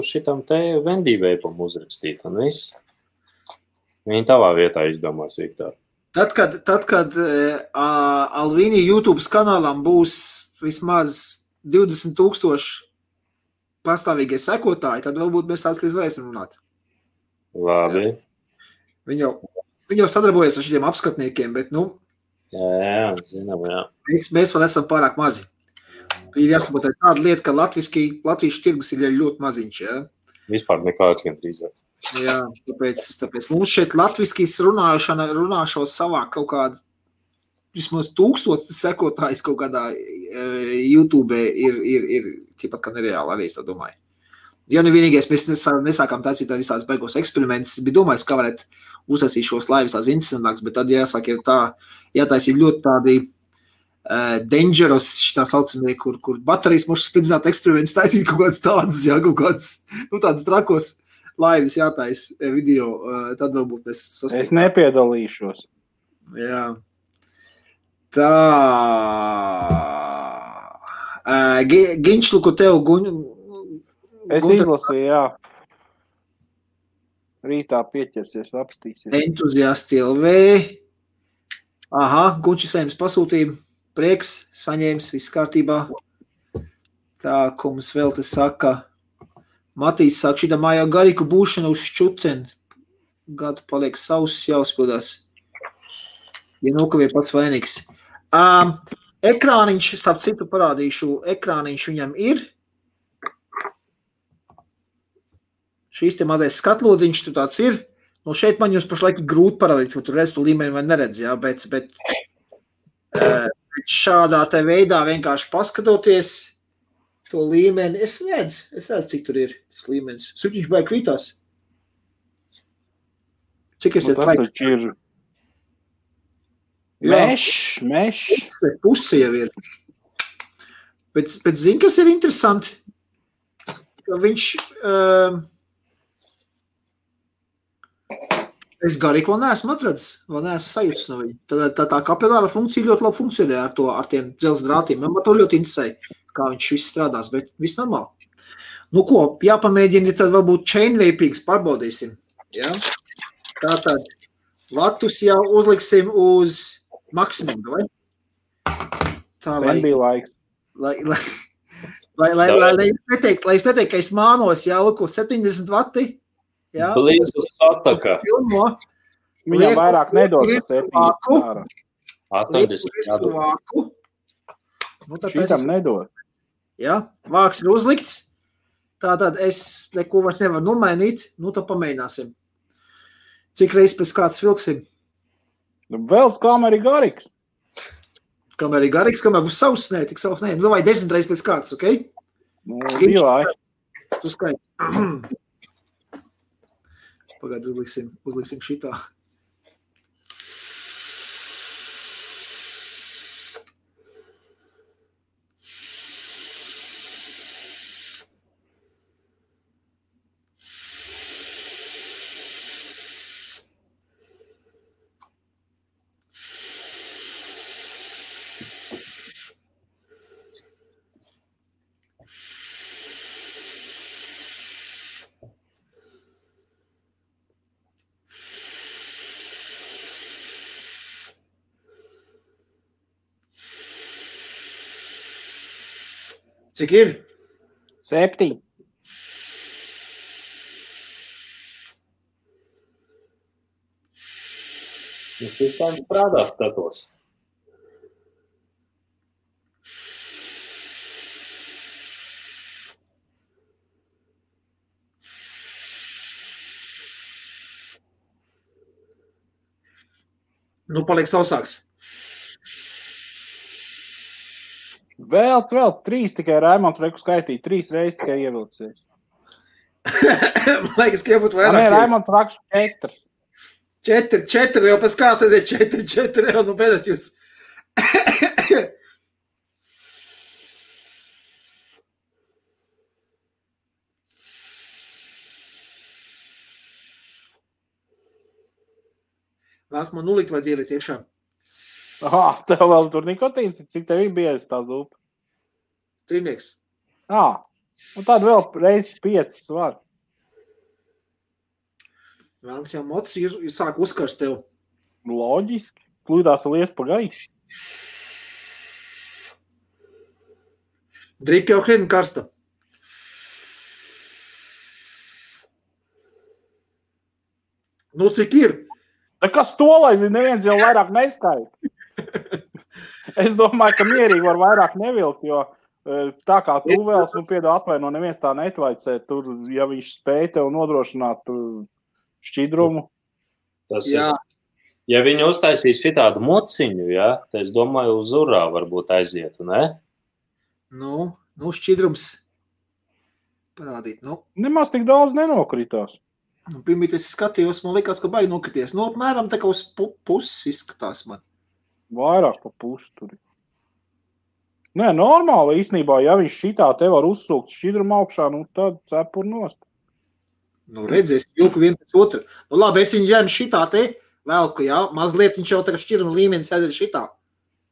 šitam te vendīveipam uzrakstīt, un viss. Viņi tavā vietā izdomās, Viktor. Tad, kad Alvīni YouTube kanālam būs vismaz 20,000 pastāvīgie sekotāji, tad varbūt mēs tās līdz varēsim runāt. Labi. Viņi jau sadarbojas ar šiem apskatniekiem, bet, Jā, zinām, jā. Mēs vēl esam pārāk mazi. Ir jāsaprot tāda lieta, ka latviešu tirgus ir ļoti maziņš, jā? Vispār nekāds gan drīzāk. Jā, tāpēc mums šeit latviskīs runāšot savā kaut kādu vismaz 1000 sekotājs kaut kādā YouTube ir ķipat kā nereāli arī, es tā domāju. Ja, nu vienīgais, mēs nesākām taisīt ar visādas beigos eksperimentus. Es biju domājis, kā varētu uzsāsīt šos laivas tās interesantāks, bet tad jāsaka, ir tā, jātaisīt ļoti tādi dangerous, tā saucamie, kur baterijas mūs spridzināt eksperiments, taisīt kaut kādas tādas, jā, kaut kādas, nu, tādas trakos laivas jātais video, tad varbūt mēs sasniegsim. Es nepiedalīšos. Jā. Tā. Ginčlu, ko tev Es izlasīju, jā. Rītā pieķersies, apstīsies. Entuziasti LV. Aha, Gunčis saņems pasūtījumu. Prieks, saņēmis, viss kārtībā. Tā, ko mums vēl te saka. Matīs saka, šitā mājā garīku būšana uz šķuten. Gadu paliek savs, jāuzpildās. Ja nokavie pats vainīgs. Ekrāniņš, starp citu parādīšu, ekrāniņš viņam ir. Šīs te mazais skatlodziņš tur tāds ir. Nu, šeit man jums pašlaik grūti parādīt, jo tur redz to līmeni vai neredz, jā, bet šādā te veidā vienkārši paskatoties to līmeni, es redzu, cik tur ir tas līmenis. Suķiņš baigi krītās. Cik es te tas taču ir mešs. Puse jau ir. Bet zini, kas ir interesanti? Ka viņš... Es garīgi vēl neesmu atradzis, vēl neesmu sajūtas no viņa. Tā kapilāra funkcija ļoti labi funkcionē ar tiem dzelzs drātiem. Man to ļoti interesē, kā viņš viss strādās, bet viss normāli. Nu ko, jāpamēģina, tad varbūt chain vapings pārbaudīsim. Ja? Tātad latus jau uzliksim uz maksimumu, vai? Tā, Sen bija laiks. Lai es neteiktu, ka es mānos, jā, lūko 70 vati. Jā, Blīzus sataka. Viņam vairāk nedod. 80. Nu, Šitam nedod. Jā, vāks ir uzlikts. Tātad es neko vairs nevaru nomainīt. Nu, tad pamēģināsim. Cik reizes pēc kāds vilksim? Vēl kamēr ir garīgs. Kamēr ir garīgs, kamēr būs savs, nē, tik savs, nē. Nu, vai 10 reizes pēc kāds, ok? Nu, divai. Tu skaiti. Pagādu uzliksim šitā. Cik ir? 7. Jūs visām strādāt skatos. Nu, paliek sausāks. Vēl 3 tikai Raimons reku skaitīja. 3 reizes tikai ievilcies. Man liekas, ka jābūt vairāk. Nē, Raimons rakš 4. 4, jau pēc kāds ir 4, jau nu beidat jūs. Vēlas man nulikt vai dzielīt iekšā? Aha, tev vēl tur nikotīns, cik tev bija tā zupa? 3. Un tad vēl reizes 5 var. Vēlams jau mocis sāk uzkarst tev. Loģiski. Klūdās vēl ies pa gaišu. Drīp jau krietni karsta. Nu, cik ir? Tā kas to, lai zina, neviens jau vairāk neskaita. Es domāju, ka mierīgi var vairāk nevilkt, jo tā kā tu vēlas, nu piedā atvaino, neviens tā netvaicē. Tur, ja viņš spēj tev nodrošināt šķidrumu. Tas jā. Ja viņi uztaisīs šitādu mociņu, ja, tad es domāju, uz urā varbūt aizietu, ne? Nu, šķidrums. parādīt. Nu, Nemaz tik daudz nenokritās. pirmīt es skatījos, man likās, ka baigi nokrities. Nu, apmēram tā kā uz puses izskatās man. Vairāk pa pusi tur. Nē, normāli īstenībā, ja viņš šitā te var uzsūkt šķidrumu augšā, nu tad cepur nost. Nu, redzies, jūku vien pēc otru. Nu, labi, es viņu ģēmu šitā te velku, jā, mazliet viņš jau tā kā šķiruma līmenis aiziet šitā.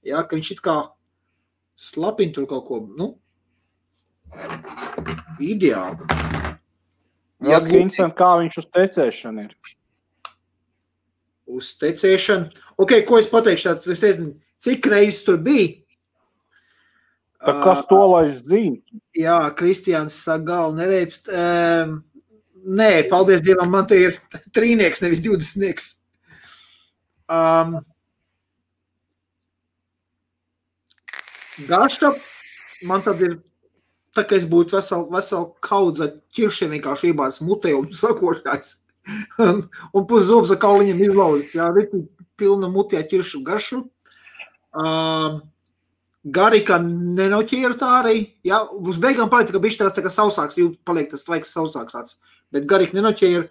Jā, ka viņš it kā slapina tur kaut ko, nu, ideāli. Jā, Vincent, kā viņš uz tecēšanu ir? Uz tecēšanu. Ok, ko es pateikšu, tātad es nezinu, cik reizes tur bija? Tā kas to, lai es zinu? Jā, Kristiāns saka, galvu nereipst. Nē, paldies Dievam, man te ir 3-nieks, nevis 20-nieks. Garša, man tad ir, tā kā es būtu vesel kaudza ķiršiem vienkārši iebāz mutē un sakošās. Un pus zobs ar kauliņiem izlaudis. Jā, riti pilna mutē ķiršu garšu. Garika nenoķēra tā arī. Jā, uz beigām paliek tā, ka bišķi tā kā sausāks, paliek tas tvaiks sausāks tāds. Bet Garika nenoķēra.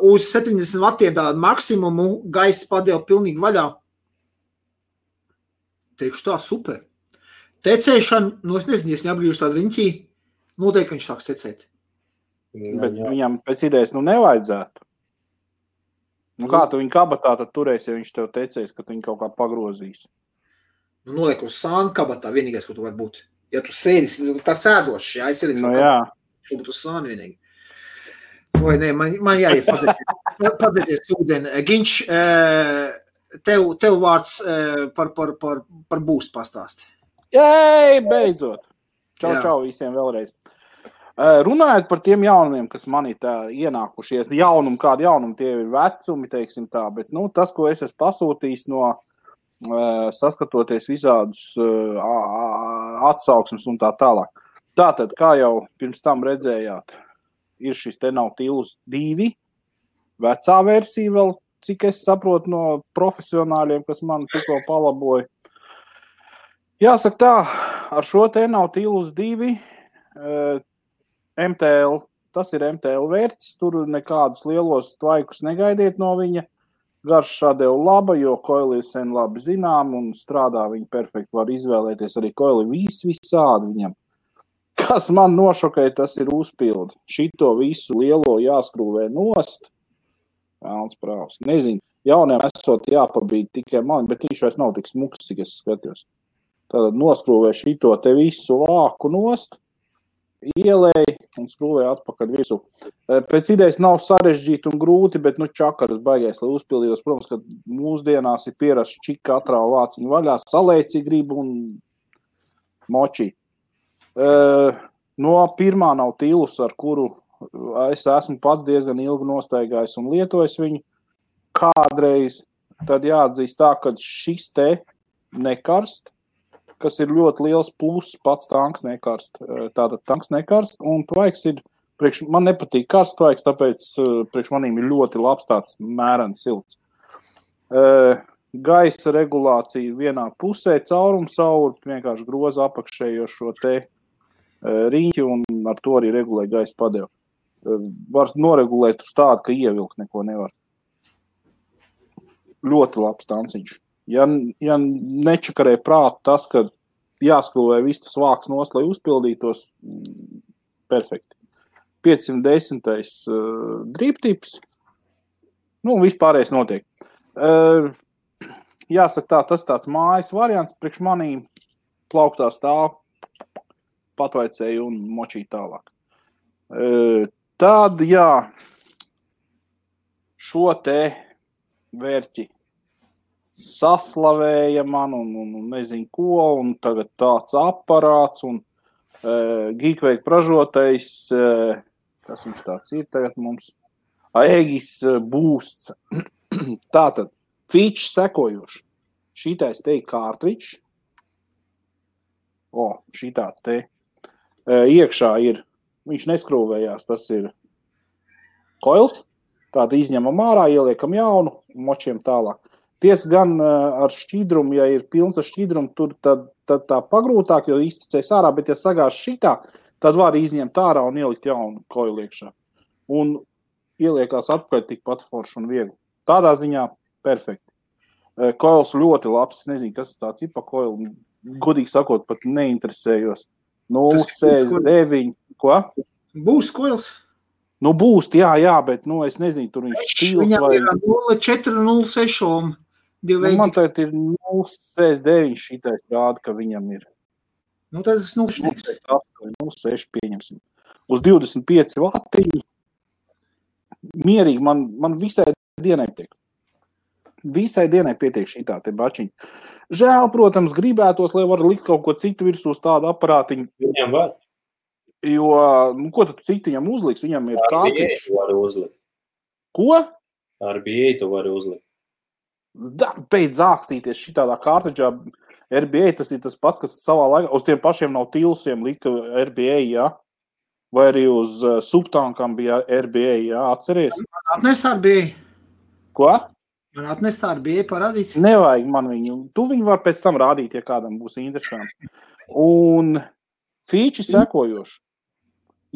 Uz 70 vatiem tādu maksimumu gaiss padeva pilnīgi vaļā. Teikšu tā, super. Tecēšana, nu es nezinu, ja es neapgrīžu tādu riņķī, noteikti viņš sāks tecēt. Bet viņam pēc idejas nevajadzētu. Nu kā tu viņu kabatā tad turēsi, ja viņš tev tecēs, ka tu viņu kaut kā pagrozīs? Nu, noliek uz sānu kabatā, vienīgais, ko tu var būt. Ja tu sēdis, tā sēdošs, jā, es sēdis. Nu jā. Tu būtu uz sānu vienīgi. Vai nē, man jāiet padzēties ūdeni. Ginč, tev vārds par būstu pastāsti. Jei, beidzot. Jā. Čau visiem vēlreiz. Runājot par tiem jaunumiem, kas man ir tā ienākušies, kādi jaunumi tie ir vecumi, teiksim tā, bet nu, tas, ko es esmu pasūtījis no saskatoties visādus atsauksmes un tā tālāk. Tātad, kā jau pirms tam redzējāt, ir šis te Nautilus 2, vecā versija vēl, cik es saprotu no profesionāļiem, kas man tikko palaboja. Jāsaka tā, ar šo te Nautilus 2 MTL, tas ir MTL vērts, tur nekādus lielos tvaikus negaidiet no viņa. Garša deva laba, jo koili ir sen labi zinām un strādā viņi perfekti, var izvēlēties arī koili visādi viņam. Kas man nošokēja, tas ir uzpildi. Šito visu lielo jāskrūvē nost. Vēlns prāvs. Nezinu, jauniem esot jāpabīd tikai man, bet viņš vairs nav tik smuks, cik es skatījos. Tātad noskrūvē šito te visu vāku nost, ielēja un skrūvēja atpakaļ visu. Pēc idejas nav sarežģīti un grūti, bet čakaras baigais, lai uzpildījos. Protams, ka mūsdienās ir pierasts čik katrā vāciņu vaļā, salēci grib un moči. No pirmā Nautilus, ar kuru es esmu pats diezgan ilgi nostaigājis un lietojis viņu kādreiz, tad jāatzīst tā, ka šis te nekarst, kas ir ļoti liels pluss, pats tanks nekarst. Tātad tanks nekarst, un tvaiks ir, man nepatīk karsts tvaiks, tāpēc priekš manīm ir ļoti labs tāds mērens silts. Gaisa regulācija vienā pusē, caurumsauri, vienkārši groza apakšējo šo te riņķi, un ar to arī regulē gaisa padevu. Var noregulēt uz tādu, ka ievilkt neko nevar. Ļoti labs tanciņš. Ja nečakarē prātu tas, ka jāskrūvē viss tas vāks nost, lai uzpildītos, perfekti. 510. Drīptips, vispārējais notiek. Jāsaka tā, tas tāds mājas variants, priekš manīm plauktā stāv, patvaicēju un močīju tālāk. Tad, jā, šo te vērķi saslavēja man un nezinu ko, un tagad tāds aparāts, un Geekveik pražotais, kas viņš tāds ir tagad mums, Aegis Boosts. Tātad, feature sekojoši. Šitais te ir cartridge. Šitāds te. Iekšā ir, viņš neskrūvējās, tas ir koils. Tāda izņemam ārā, ieliekam jaunu, močiem tālāk. Tiesa gan ar šķidrumu, ja ir pilns ar šķidrumu, tur tad tā pagrūtāk, jo izticēs ārā, bet ja sagās šitā, tad var izņemt ārā un ielikt jaunu koilu iekšā. Un ieliekās atpakaļ tikpat forši un viegli. Tādā ziņā perfekti. Koils ļoti labs, es nezinu, kas tāds ir pa koilu. Godīgi sakot, pat neinteresējos. 0,69. Ko? Būs koils. Nu, būs, jā, bet, es nezinu, tur viņš stils Viņam vai... ir 0,4, 0,6. Man tagad ir 0,69 šitais rāda, ka viņam ir. Nu, tad es 0,6 pieņemsim. Uz 25 vatiņu. Mierīgi, man visai dienai tiek. Visai dienai pietiek šitā te bačiņa. Žēl, protams, gribētos, lai var likt kaut ko citu virsū uz tādu aparātiņu. Viņam var. Jo, ko tad citu viņam uzliks? Viņam ir kārtīgs. RBA tu vari uzlikt. Ko? RBA tu vari uzlikt. Beidz ākstīties šitādā kārtiģā. RBA tas ir tas pats, kas savā laikā uz tiem pašiem nav tilsiem lika RBA, jā? Vai arī uz subtankam bija RBA, jā? Atceries? Man atnest RBA. Ko? Man atnest RBA parādīt. Nevajag man viņu. Tu viņu var pēc tam rādīt, ja kādam būs interesanti. Un fīči sekojoši.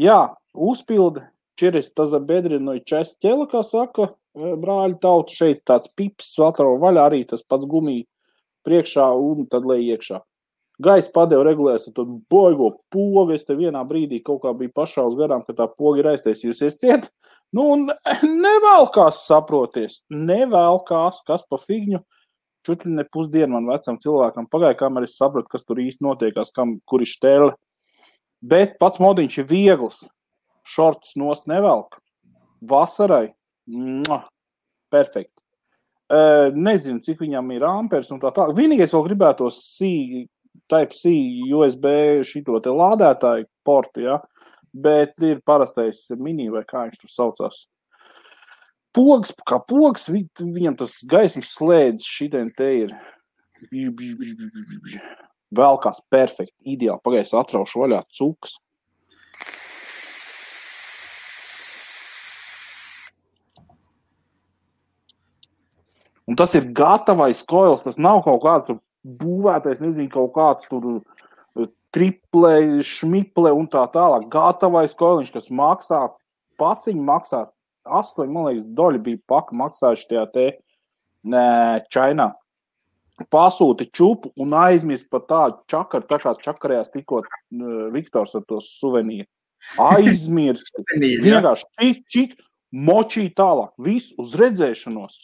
Jā, uzpilda через тазобедренную часть тела, kā saka brāļu tautu. Šeit tāds pips atrava vaļā, arī tas pats gumija priekšā un tad lej iekšā. Gaisa padeva regulēs ar to boigo pogu. Es te vienā brīdī kaut kā bija pašā uz garām, ka tā poga ir aiztaisījusies ciet. Nu, un nevēlkās saproties. Nevēlkās, kas pa figņu. Čutļi ne pusdienu man vecam cilvēkam pagāja, kamēr es sapratu, kas tur īsti notiekās, kur ir štēle. Bet pats modiņš ir viegls. Šortus nost nevelk. Vasarai. Perfekti. Nezinu, cik viņam ir ampers un tā. Vienīgais vēl gribētos Type-C USB šito te lādētāju portu, ja? Bet ir parastais mini vai kā viņš tur saucās. Pogs, kā pogs, viņam tas gaismas slēdz šitien te ir. Vēlkās perfekti, ideāli. Pagaies atraušu vaļā cukas. Un tas ir gatavais koils, tas nav kaut kāds būvētais, nezinu, kaut kāds tur triple, šmiple un tā tālāk. Gatavais koiliņš, kas maksā, paciņi maksā 8, man liekas, doļi bija paka maksājuši tajā te Čainā. Pasūti čupu un aizmirst par tādu čakaru, tā kā čakarējās tikko Viktors ar to suvenīru. Aizmirst. Vienkārši čik, močī tālāk. Viss uz redzēšanos.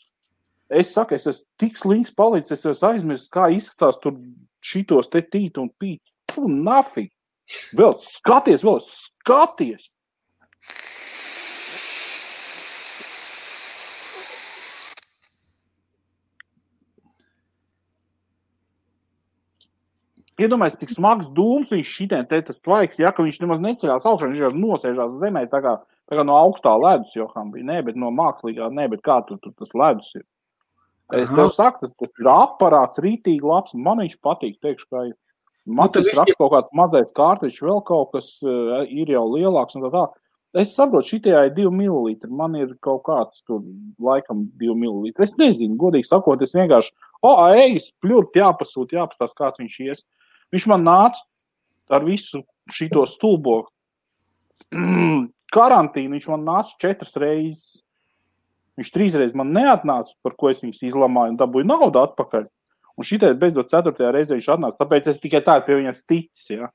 Es saku, es esmu tik slinks palicis, es esmu aizmirst, kā izskatās tur šitos te tīt un pīt. Nafīgi. Vēl skaties. Iedomājies, cik smags dūms viņš šitien te tas tvaiks, ja, ka viņš nemaz neceļās augšā, viņš jau nosēžās zemē, tā kā no augstā ledus Joham bija, ne, bet no mākslīgā, ne, bet kā tur tas ledus ir. Es tev saku, tas ir aparāts rītīgi labs, man viņš patīk, teikšu, kā man tas raksta kaut kāds mazais kārtiņš, vēl kaut kas ir jau lielāks un tā. Es saprotu, šitajā ir 2 millilitri, man ir kaut kāds tur laikam 2 millilitri. Es nezinu, godīgi sakot, es vienkārši, ejas, pļurt, jāpastās, kāds viņš ies. Viņš man nāca ar visu šito stulbo karantīnu, viņš man nāca 4 reizes. Viņš 3 reizes man neatnāca, par ko es viņus izlamāju un dabūju naudu atpakaļ. Un šitais beidzot 4. reizē viņš atnāca, tāpēc es tikai tādu pie viņas ticis, ja.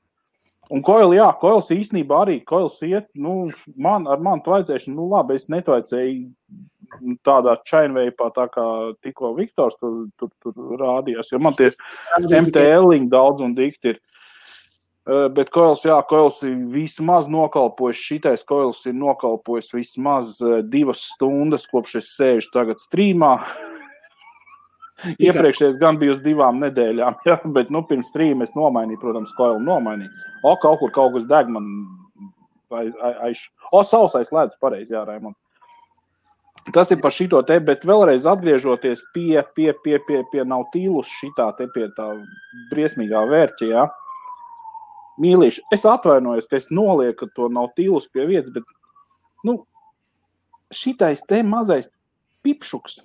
Un koils īstenībā arī, koils iet, ar mani tvaidzēšanu, labi, es netvaidzēju tādā chainveipā, tā kā tikko Viktors tur rādījās, jo man tie MTL-iņi daudz un dikti ir. Bet koils ir vismaz nokalpojis, šitais koils ir nokalpojis vismaz 2 stundas, kopš es sēžu tagad strīmā. Iepriekšējais gan bija uz 2 nedēļām, ja? Bet pirms strīma es nomainīju, protams, koilu nomainīju. Kaut kas deg man sausais ledus pareizi, jā, Raimond. Tas ir par šito te, bet vēlreiz atgriežoties pie Nautilus šitā te pie tā briesmīgā vērķa, jā. Mīlīši, es atvainojos, ka es nolieku to Nautilus pie vietas, bet, šitais te mazais pipšuks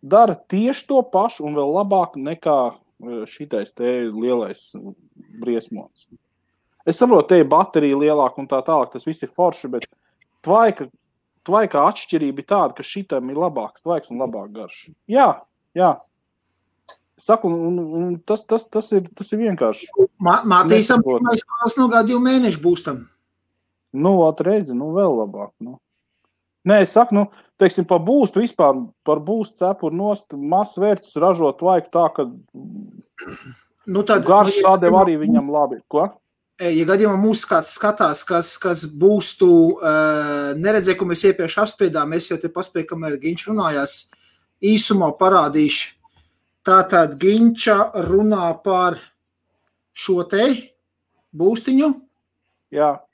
dara tieši to pašu un vēl labāk nekā šitais te lielais briesmonis. Es saprotu, te ir baterija lielāka un tā tālāk, tas viss ir forši, bet tvaika atšķirība ir tāda, ka šitam ir labāks tvaiks un labāk garš. Jā. Saku, un tas ir vienkārši. Mātīsam, pirmais kāds no 2 mēnešu būstam. Redzi, vēl labāk. Nē, es saku, teiksim, pa būstu vispār, par būstu cepuru nost, mazs vērts ražot tvaiku tā, ka garš sādeva arī viņam labi. Ko? Ja gadījumā mūs kāds skatās, kas būstu neredzēja, ko mēs iepriekš apspriedām, es jau te paspēju, kamēr Ginč runājās, īsumā parādīšu. Tātad Ginča runā par šo te būstiņu. Jā.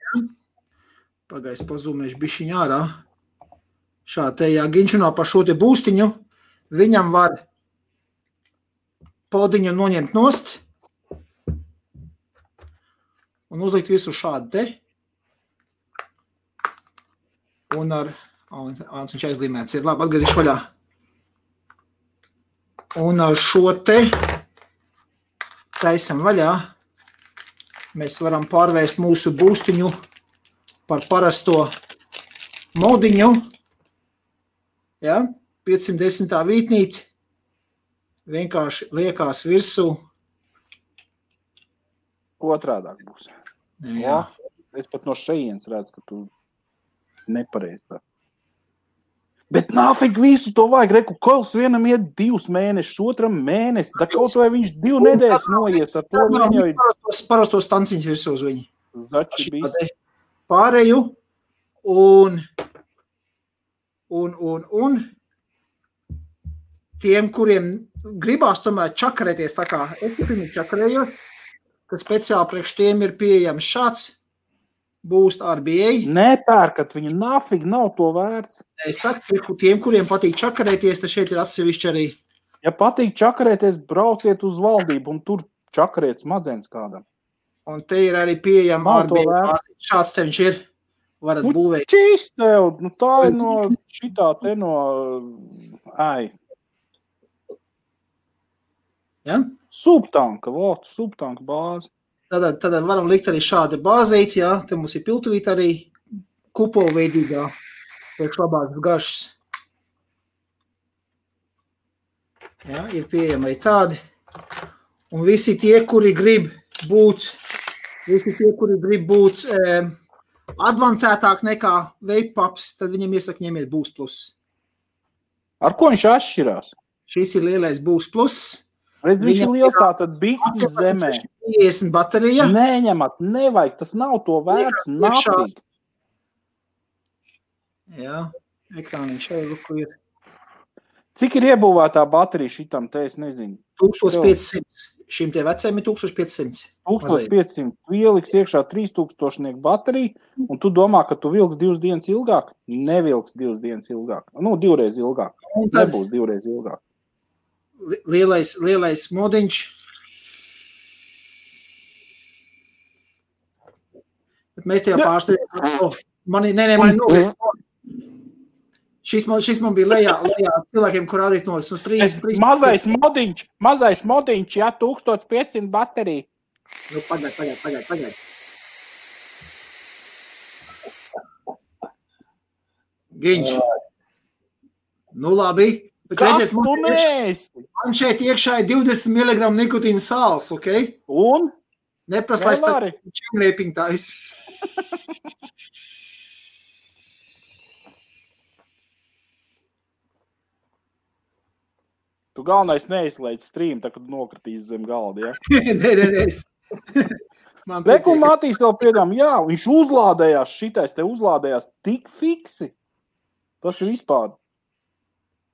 Pagais pazūmēšu bišķiņ ārā. Šā te, ja Ginč runā par šo te būstiņu, viņam var podiņu noņemt nost un uzlikt visu šādu te. Un ar... viņš aizlīmēts ir. Labi, atgriezīšu vaļā. Un ar šo te taisam vaļā. Mēs varam pārvērst mūsu būstiņu par parasto modiņu. Ja? 510. vītnīt. Vienkārši liekās virsū. Otrādāk būs. Jā. Es pat no šejienes redzu, ka tu nepareizi tā. Bet nāfik visu to vajag, reku, kols vienam iet 2 mēnešus, otram mēnesi, da kaut vai viņš 2 nedēļas noies ar to viņam jau ir... Parastos tanciņas virsū uz viņu. Zači bijis. Pārēju un tiem, kuriem gribās tomēr čakarēties tā kā es pirmīt čakarējos, ka speciāli priekš tiem ir pieejams šāds Boost RBA. Nepērkat, viņa nafig nav to vērts. Es saku, tiem, kuriem patīk čakarēties, tad šeit ir atsevišķi arī. Ja patīk čakarēties, brauciet uz valdību un tur čakarēt smadzenes kādam. Un te ir arī pieejama RBA. Šāds te viņš ir. Varat būvēt. Čīs tev, tā ir no šitā te no... Ja? Subtanka bāze. Tad varam likt arī šādu bāzīti, jā. Te mums ir piltuvīt arī kupolveidīgā, priekš labākas garšas. Jā, ir pieejami arī tādi. Un visi tie, kuri grib būt advancētāk nekā vape pups, tad viņam iesaka ņemiet Boost Plus. Ar ko viņš atšķirās? Šis ir lielais Boost Plus. Redz, viņš ir liels tātad bikses zemē. 50 baterija. Neņemat, nevajag, tas nav to vērts, nafīgi. Jā, ekrāniņš jau ruku ir. Cik ir iebūvētā baterija šitam, te es nezinu? 1500. Šim tie veciem ir 1500. 1500. Tu ieliks iekšā 3000 bateriju, un tu domā, ka tu vilks 2 dienas ilgāk? Nevilks 2 dienas ilgāk. 2 reiz ilgāk. Nebūs 2 reiz ilgāk. Lielais modiņš. Bet mēs tajā pārsteidām. Šis man bija lejā cilvēkiem, kur rādīt no 3. Mazais modiņš, jā, 1500 baterija. Pagaid. Ginč. Labi. Kas tu neesi? Man šeit iekšā ir 20 mg nikotīna sāls, ok? Un? Neprast, lai tā čemrēpiņ tais. Tu galvenais neizslēdz stream, tā kad nokritīs zem galda, ja? Nē. Reku Matīs vēl piedām, jā, viņš uzlādējās, šitais te uzlādējās tik fiksi. Tas ir vispār.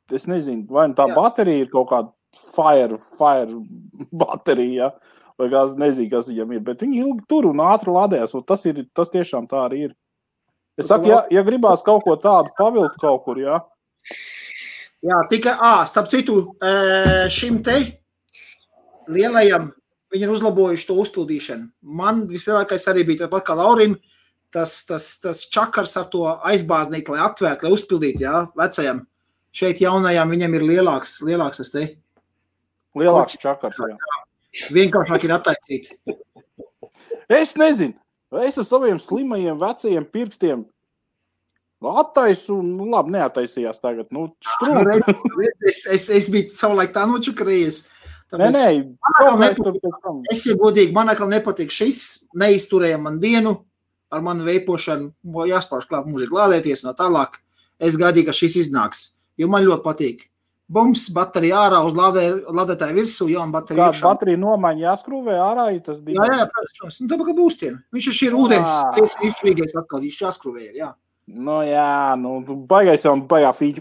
Es nezinu, vai tā baterija ir kaut kāda fire baterija, vai kāds nezinu, kas viņam ir, bet viņi ilgi tur un ātri lādējās, un tas tiešām tā arī ir. Es saku, ja gribās kaut ko tādu pavilkt kaut kur, jā. Jā, tikai, starp citu, šim te lielajam viņi ir uzlabojuši to uzpildīšanu. Man vislielākais arī bija tāpat kā Laurim, tas čakars ar to aizbāznīt, lai atvērt, lai uzpildīt, jā, vecajam. Šeit jaunajām viņam ir lielāks tas te. Lielāks čakars, jā. Vienkāršāk ir attaisīt. Es nezinu. Es ar saviem slimajiem vecajiem pirkstiem attaisu, nu labi, neataisījās tagad, štrūk. Es biju savulaik tā nočakarējies. Nē, es jau godīgi, man atkal nepatīk šis, neizturēja man dienu ar manu veipošanu, jāspārš klāt mūžīgi lādēties no tālāk. Es gaidīju, ka šis iznāks, jo man ļoti patīk. Bums, baterija ārā uz lādētāju virsū, jauna baterija iekšā. Kāda baterija nomaiņa jāskrūvē ārā, ja tas bija? Jā, protams. Tāpēc, ka būstiem. Viņš ir ūdens izskrīgais atkal, viņš jāskrūvē ir, jā. Baigais jau baigā fīķi.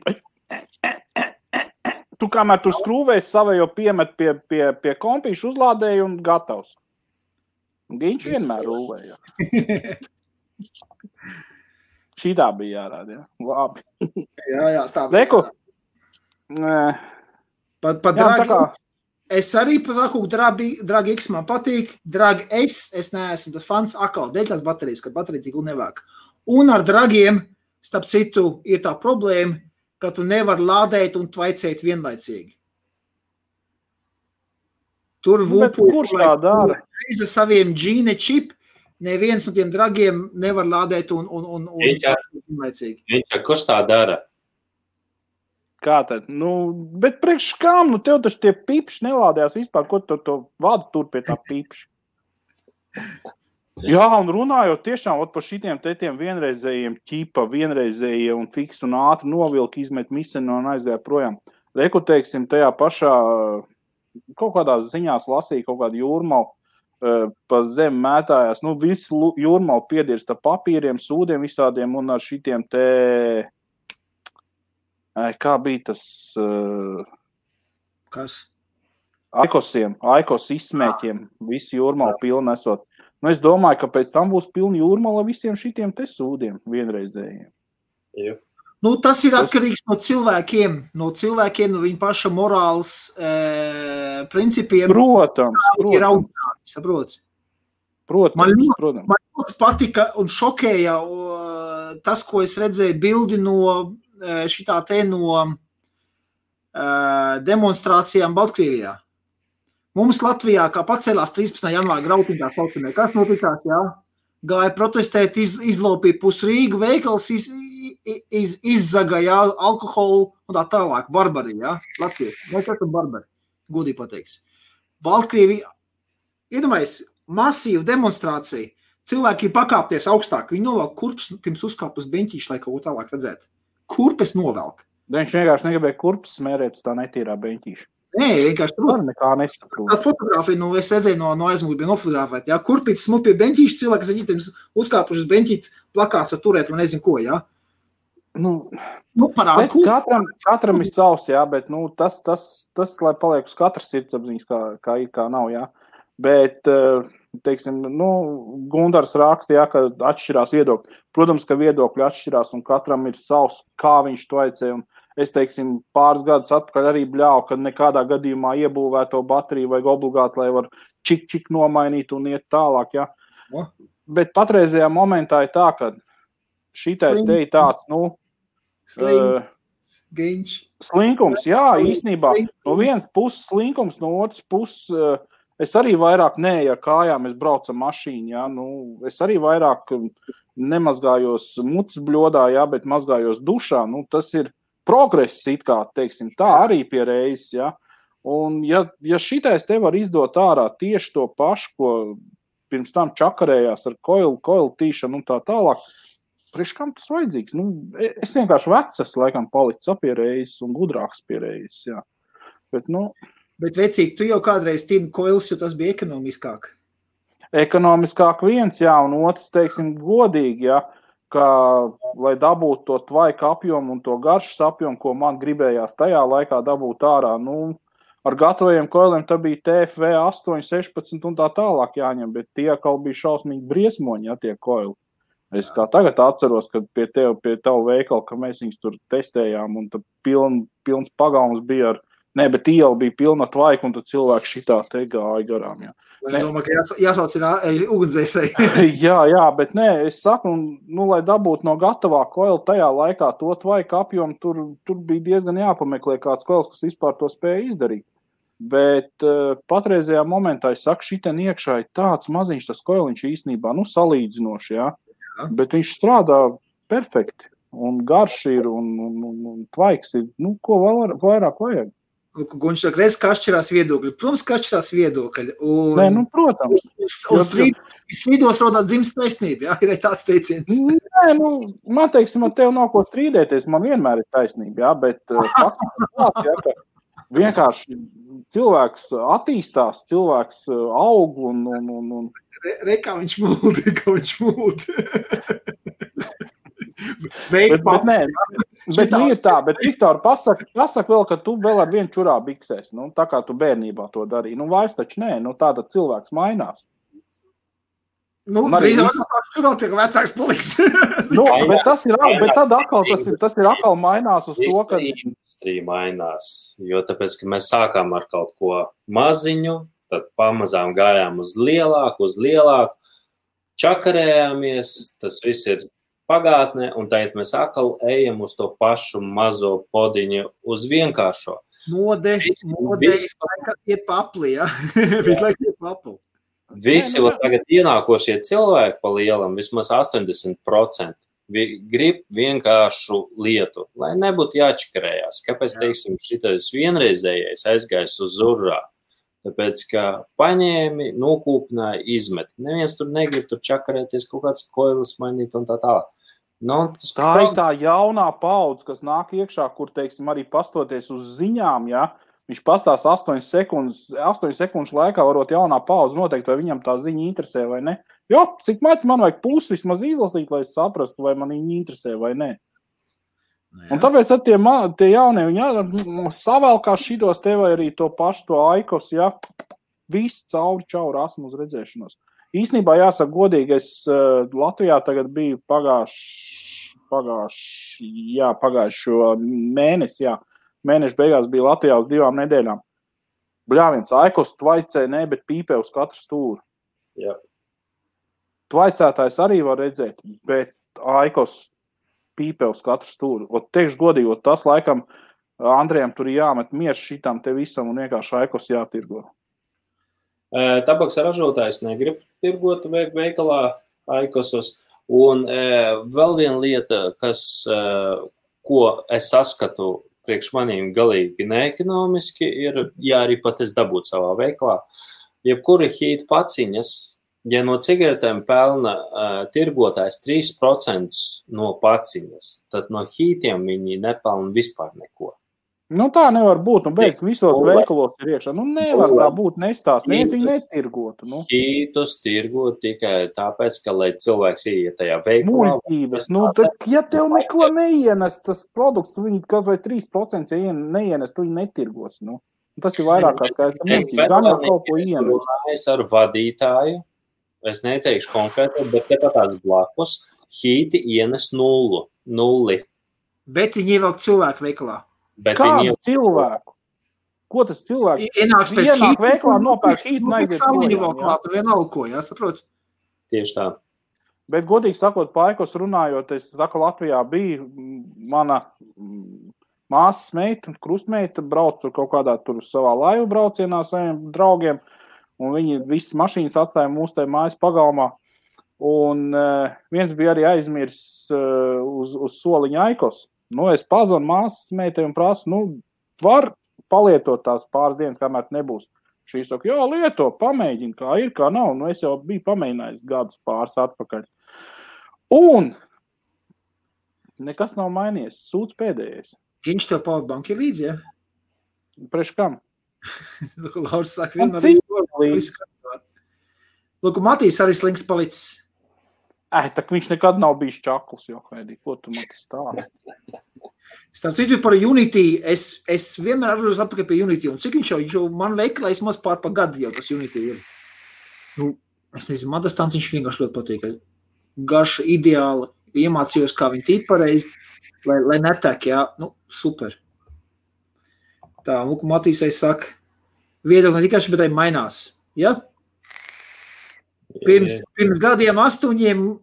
Tu kamēr tu skrūvēs savējo piemet pie kompīšu uzlādēju un gatavs. Viņš vienmēr rūvēja. Šitā bija jārāda, jā. Labi. Jā, tā bija jārāda. Pa Dragi, es arī pasaku, Dragi X man patīk, Dragi es neesmu tas fans akal, dēļ tās baterijas, kad baterija tik nevāk. Un ar Dragiem, starp citu, ir tā problēma, ka tu nevar lādēt un tvaicēt vienlaicīgi. Tur kurš tā dara? Ar saviem Gene chip, neviens no tiem Dragiem nevar lādēt un vienlaicīgi. Kurš tā dara? Kā tad? Bet priekš kām? Tev taču tie pipši nelādējās vispār, ko tu to vadu tur pie tā pipši? Jā, un runājot tiešām par šitiem tiem vienreizējiem ķipa, vienreizējie un fiks un ātri novilki, izmet misenu un aizgāja projām. Reku, teiksim, tajā pašā kaut kādās ziņās lasīja kaut kādu jūrmalu pa zem mētājās. Visu jūrmalu piedirsta papīriem, sūdiem visādiem un ar šitiem kā bija tas... Kas? Aikos izsmēķiem, visi jūrmali pilni esot. Es domāju, ka pēc tam būs pilni jūrmali visiem šitiem te sūdiem vienreizējiem. Jā. Tas ir atkarīgs no cilvēkiem, no viņa paša morāls principiem. Protams. Ir audzināti, saprot? Man ļoti patika un šokēja tas, ko es redzēju bildi no šitā te no demonstrācijām Baltkrievijā. Mums Latvijā, kā pacēlās 13. janvāra grautiņā saucamē, kas notikās, jā? Gāja protestēt, izlopīja pus Rīgu, veikals izzagāja alkoholu un tā tālāk. Barbari, jā? Latvieši. Mēs esam barbari, godīgi pateiks. Baltkrievija, iedomājies, masīva demonstrācija. Cilvēki pakāpties augstāk. Viņi novelk kurpes, pirms uzkāp uz beņķīšu, lai kaut ko tālāk redzētu. Kurpes novelk. Viņš vienkārši negribēja kurpes smērēt uz tā netīrā beņķīša. Nē, vienkārši tur. Nekā nesaprot. Tā fotogrāfija, es redzēju no aizmūgi bija nofotogrāfēt, jā. Kurpītis smuk pie beņķīša, cilvēki, kas ar ģitiem uzkāpuši uz beņķīt, plakāts var turēt, vai nezinu ko, jā. Parādu. Katram ir savs, jā, bet, tas, lai paliek uz katras sirdsapziņas, kā ir, kā nav, jā. Bet, teiksim, Gundars raksta, jā, ka atšķirās viedokļi. Protams, ka viedokļi atšķirās un katram ir savs, kā viņš to aicēja. Un es, teiksim, pāris gadus atpakaļ arī bļāvu, ka nekādā gadījumā iebūvēto bateriju vajag obligāti, lai var čik nomainīt un iet tālāk, jā. Bet patreizajā momentā ir tā, ka šitais te ir tāds, slinkums, jā, īstenībā. No vienas puses slinkums, no otras puses... Es arī vairāk neeju ar kājām, es braucu ar mašīnu, jā, es arī vairāk nemazgājos mucas bļodā, jā, bet mazgājos dušā, tas ir progress, it kā, teiksim, tā arī pie reizes, jā, un ja šitais te var izdot ārā tieši to pašu, ko pirms tam čakarējās ar koilu tīšanu un tā tālāk, priekš kam tas vajadzīgs? Es vienkārši vecs, laikam, palicis pie reizes un gudrāks pie reizes, jā, Bet, vecīgi, tu jau kādreiz tīni koils, jo tas bija ekonomiskāk. Ekonomiskāk viens, jā, un otrs, teiksim, godīgi, jā, ka, lai dabūtu to tvaika apjomu un to garšas apjomu, ko man gribējās tajā laikā dabūt ārā, ar gatavajiem koiliem tā bija TFV 8, 16 un tā tālāk jāņem, bet tie kaut bija šausmīgi briesmoņi, jā, tie koili. Es kā tagad atceros, kad pie tavu veikalu, ka mēs viņus tur testējām un tad pilns pagalms bija ar bet iela bija pilna tvaiku, un tad cilvēki šitā te gāja garām, jā. Es domāju, ka jāsauc ir ugunsdzēsēji. jā, bet es saku, lai dabūtu no gatavā koila tajā laikā to tvaiku apjomu, tur bija diezgan jāpameklē kāds koils, kas vispār to spēja izdarīt. Bet patreizajā momentā, es saku, šitien iekšā ir tāds maziņš tas koiliņš īstenībā, salīdzinoši, jā. Bet viņš strādā perfekti, un garš ir, un tvaiks ir, ko vairāk vajag. Viņš saka, reiz, kā atšķirās viedokļi. Protams, kā atšķirās viedokļi. Nē, protams. Un strīdos rodā dzimst taisnība, jā, ir tāds teiciens. Nē, man teiksim, ar tevi nav ko strīdēties, man vienmēr ir taisnība, jā, bet fakts ir tāds, jā, ka vienkārši cilvēks attīstās, cilvēks aug un... Kā viņš mūd. Bet ir tā, bet Viktor, pasaka vēl, ka tu vēl ar vienu čurā biksēs, tā kā tu bērnībā to darīji. Vairs taču nē, tāda cilvēks mainās. Drīzāk čurā tiek vecāks paliks. Bet tas ir atkal mainās uz to, ka... Industrija mainās, jo tāpēc, ka mēs sākām ar kaut ko maziņu, tad pamazām gājām uz lielāku, čakarējāmies, tas viss ir pagātnē, un tagad mēs atkal ejam uz to pašu mazo podiņu, uz vienkāršo. Mode iet pa apli, jā? Visu laiku iet pa apli. Visi tagad ienākošie cilvēki pa lielam, vismaz 80%, grib vienkāršu lietu, lai nebūtu jāčakarējās. Kāpēc, teiksim, šitais vienreizējais aizgājis uz urrā? Tāpēc, ka paņēmi, nokūpināja, izmet. Neviens tur negrib tur čakarēties, kaut kāds koilis mainīt un tā tālāk. Tā ir tā jaunā paudze, kas nāk iekšā, kur, teiksim, arī pastoties uz ziņām, ja, viņš pastās 8 sekundžu laikā varot jaunā paudze noteikt, vai viņam tā ziņa interesē vai ne. Jo, cik maķi man vajag pusi vismaz izlasīt, lai es saprastu, vai man viņa interesē vai ne. Un tāpēc tie jaunie, viņi savēlkās šitos te vai arī to pašu, to aikos, ja, viss cauri čauri asmu uz redzēšanos. Īsnībā jāsaka godīgi, es Latvijā tagad biju pagājušo mēnesi, jā. Mēneša beigās bija Latvijā uz 2 nedēļām. Bļāviens, aikos tvaicē, bet pīpē uz katru stūru. Jā. Tvaicētājs arī var redzēt, bet aikos pīpē uz katru stūru. Teikšu godīgi, tas laikam Andrejam tur jāmet miers šitam te visam un vienkārši aikos jātirgo. Tabaks ražotājs negrib tirgot veikalā aikosos. Un vēl viena lieta, ko es saskatu priekš manīm galīgi neekonomiski, ir, ja arī pat es dabūtu savā veikalā, jebkuri hīta paciņas, ja no cigaretēm pelna tirgotājs 3% no paciņas, tad no hītiem viņi nepelna vispār neko. Tā nevar būt, beidz visos veikalos ir iekšā. Nevar tā būt nestāst, neviens viņi netirgotu. Hītus tirgot tikai tāpēc, ka, lai cilvēks ieiet tajā veikalā. Muļķības, ja tev neko neienes, tas produkts, viņi kaut vai 3% neienes, tu viņi netirgos. Tas ir vairāk kā skaidrs, muļķības, gan jau kaut ko ienes. Es ar vadītāju, es neteikšu konkrēti, bet tās blakus, hīti ienes 0. Bet viņi ievelk cilvēku veikalā. Kādu cilvēku? Ko tas cilvēks? Ienāk veiklā, nopērk hītu un aiziet projām. Vienalga ko, jā, saprot? Tieši tā. Bet, godīgi sakot, paikos runājot, es saku, Latvijā bija mana māsas meita, krustmeita, brauc tur kaut kādā tur savā laivu braucienā saviem draugiem, un viņi visas mašīnas atstāja mūsu te mājas pagalmā. Un viens bija arī aizmirs uz soliņa aikos. Es pazvanu māsas meitai un prasu, var palietot tās pāris dienas, kamēr nebūs. Šī saka, jā, lieto, pamēģini, kā ir, kā nav. Es jau biju pamēģinājis gadus pāris atpakaļ. Un nekas nav mainījies, sūds pēdējais. Viņš tev powerbank ir līdzi, ja? Priekš kam? Lauris saka, vienmēr līdzi. Lūk, Matīs arī slinks palicis. Tak viņš nekad nav bijis čakls, jo, Heidi, ko tu man tas stāsti? Starp citu par Unity, es vienmēr atgriežos atpakaļ pie Unity, un cik viņš jau man veikalā maz pār pa gadu jau tas Unity ir. Es nezinu, man tas tāds viņš vienkārši ļoti patīk. Garša ideāli, iemācījos, kā viņi tīt pareizi, lai netek, jā, super. Tā, lūk, Matīsai saka, viedokļi ne tikai bet arī mainās, ja? Pirms gadiem 8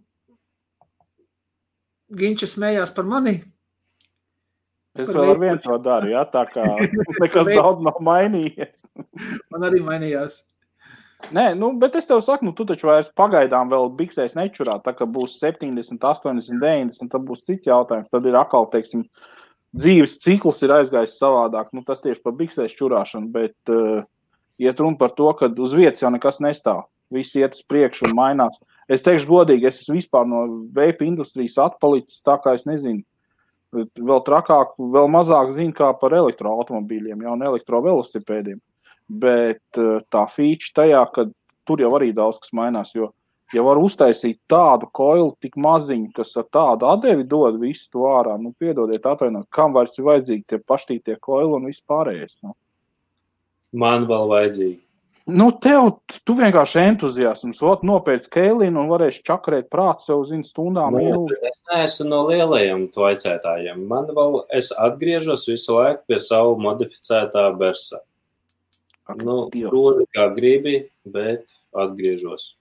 Ginča smējās par mani. Es vēl ar vienu to daru, jā, tā kā nekas daudz nav mainījies. Man arī mainījās. Nē, bet es tev saku, tu taču vairs pagaidām vēl biksēs nečurā, tā ka būs 70, 80, 90, tad būs cits jautājums. Tad ir atkal, teiksim, dzīves cikls ir aizgājis savādāk. Tas tieši par biksēs čurāšanu, bet iet runa par to, ka uz vietas jau nekas nestāv. Viss iet uz priekšu un mainās. Es teikšu godīgi, es esmu vispār no veipa industrijas atpalicis, tā kā es nezinu, vēl trakāk, vēl mazāk zinu kā par elektroautomobīļiem, un elektrovelosipēdiem. Bet tā feature tajā, ka tur jau arī daudz kas mainās, jo ja var uztaisīt tādu koilu tik maziņu, kas ar tādu atdevi dod visu to ārā, piedodiet atvainot, kam vairs ir vajadzīgi tie paštītie koili un viss pārējais. Man vēl vajadzīgi. Tu vienkārši entuziasms, nopēc keilinu un varēsi čakarēt prātu sev, stundām ilgi. Es neesmu no lielajiem tvaicētājiem. Es atgriežos visu laiku pie savu modificētā Bersa. Proti kā gribi, bet atgriežos.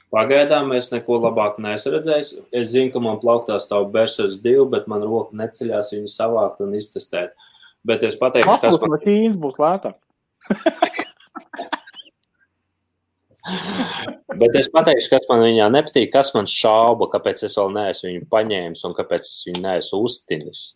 Pagaidām es neko labāk neesmu redzējis. Es zinu, ka man plauktā stāv Bersas 2, bet man roka neceļās viņu savākt un iztestēt. Bet es pateikšu, kas man... Ķīns būs lētāk. Bet es pateikšu, kas man viņā nepatīk, kas man šauba, kāpēc es vēl neesmu viņu paņēmis un kāpēc es viņu neesmu uztinis.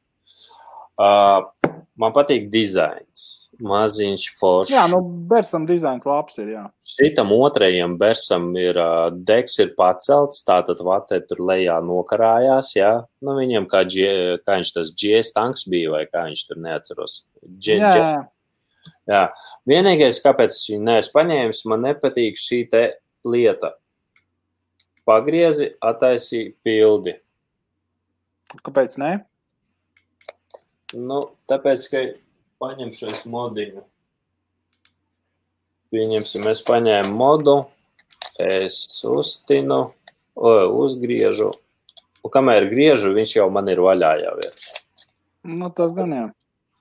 Man patīk dizains. Maziņš foršs. Jā, Bersam dizains labs ir, jā. Šitam otrajam Bersam ir deks ir pacelts, tātad vatē tur lejā nokarājās, jā. Viņam kā viņš tas GS tanks bija, vai kā viņš tur neatceros. Jā. Vienīgais, kāpēc es viņu neesmu paņēmis, man nepatīk šī te lieta. Pagriezi, attaisī, pildi. Kāpēc ne? Tāpēc, ka paņemšu es modiņu. Pieņemsim, es paņēmu modu, es uztinu, uzgriežu. Un kamēr griežu, viņš jau man ir vaļā jau ir. Tas gan jā.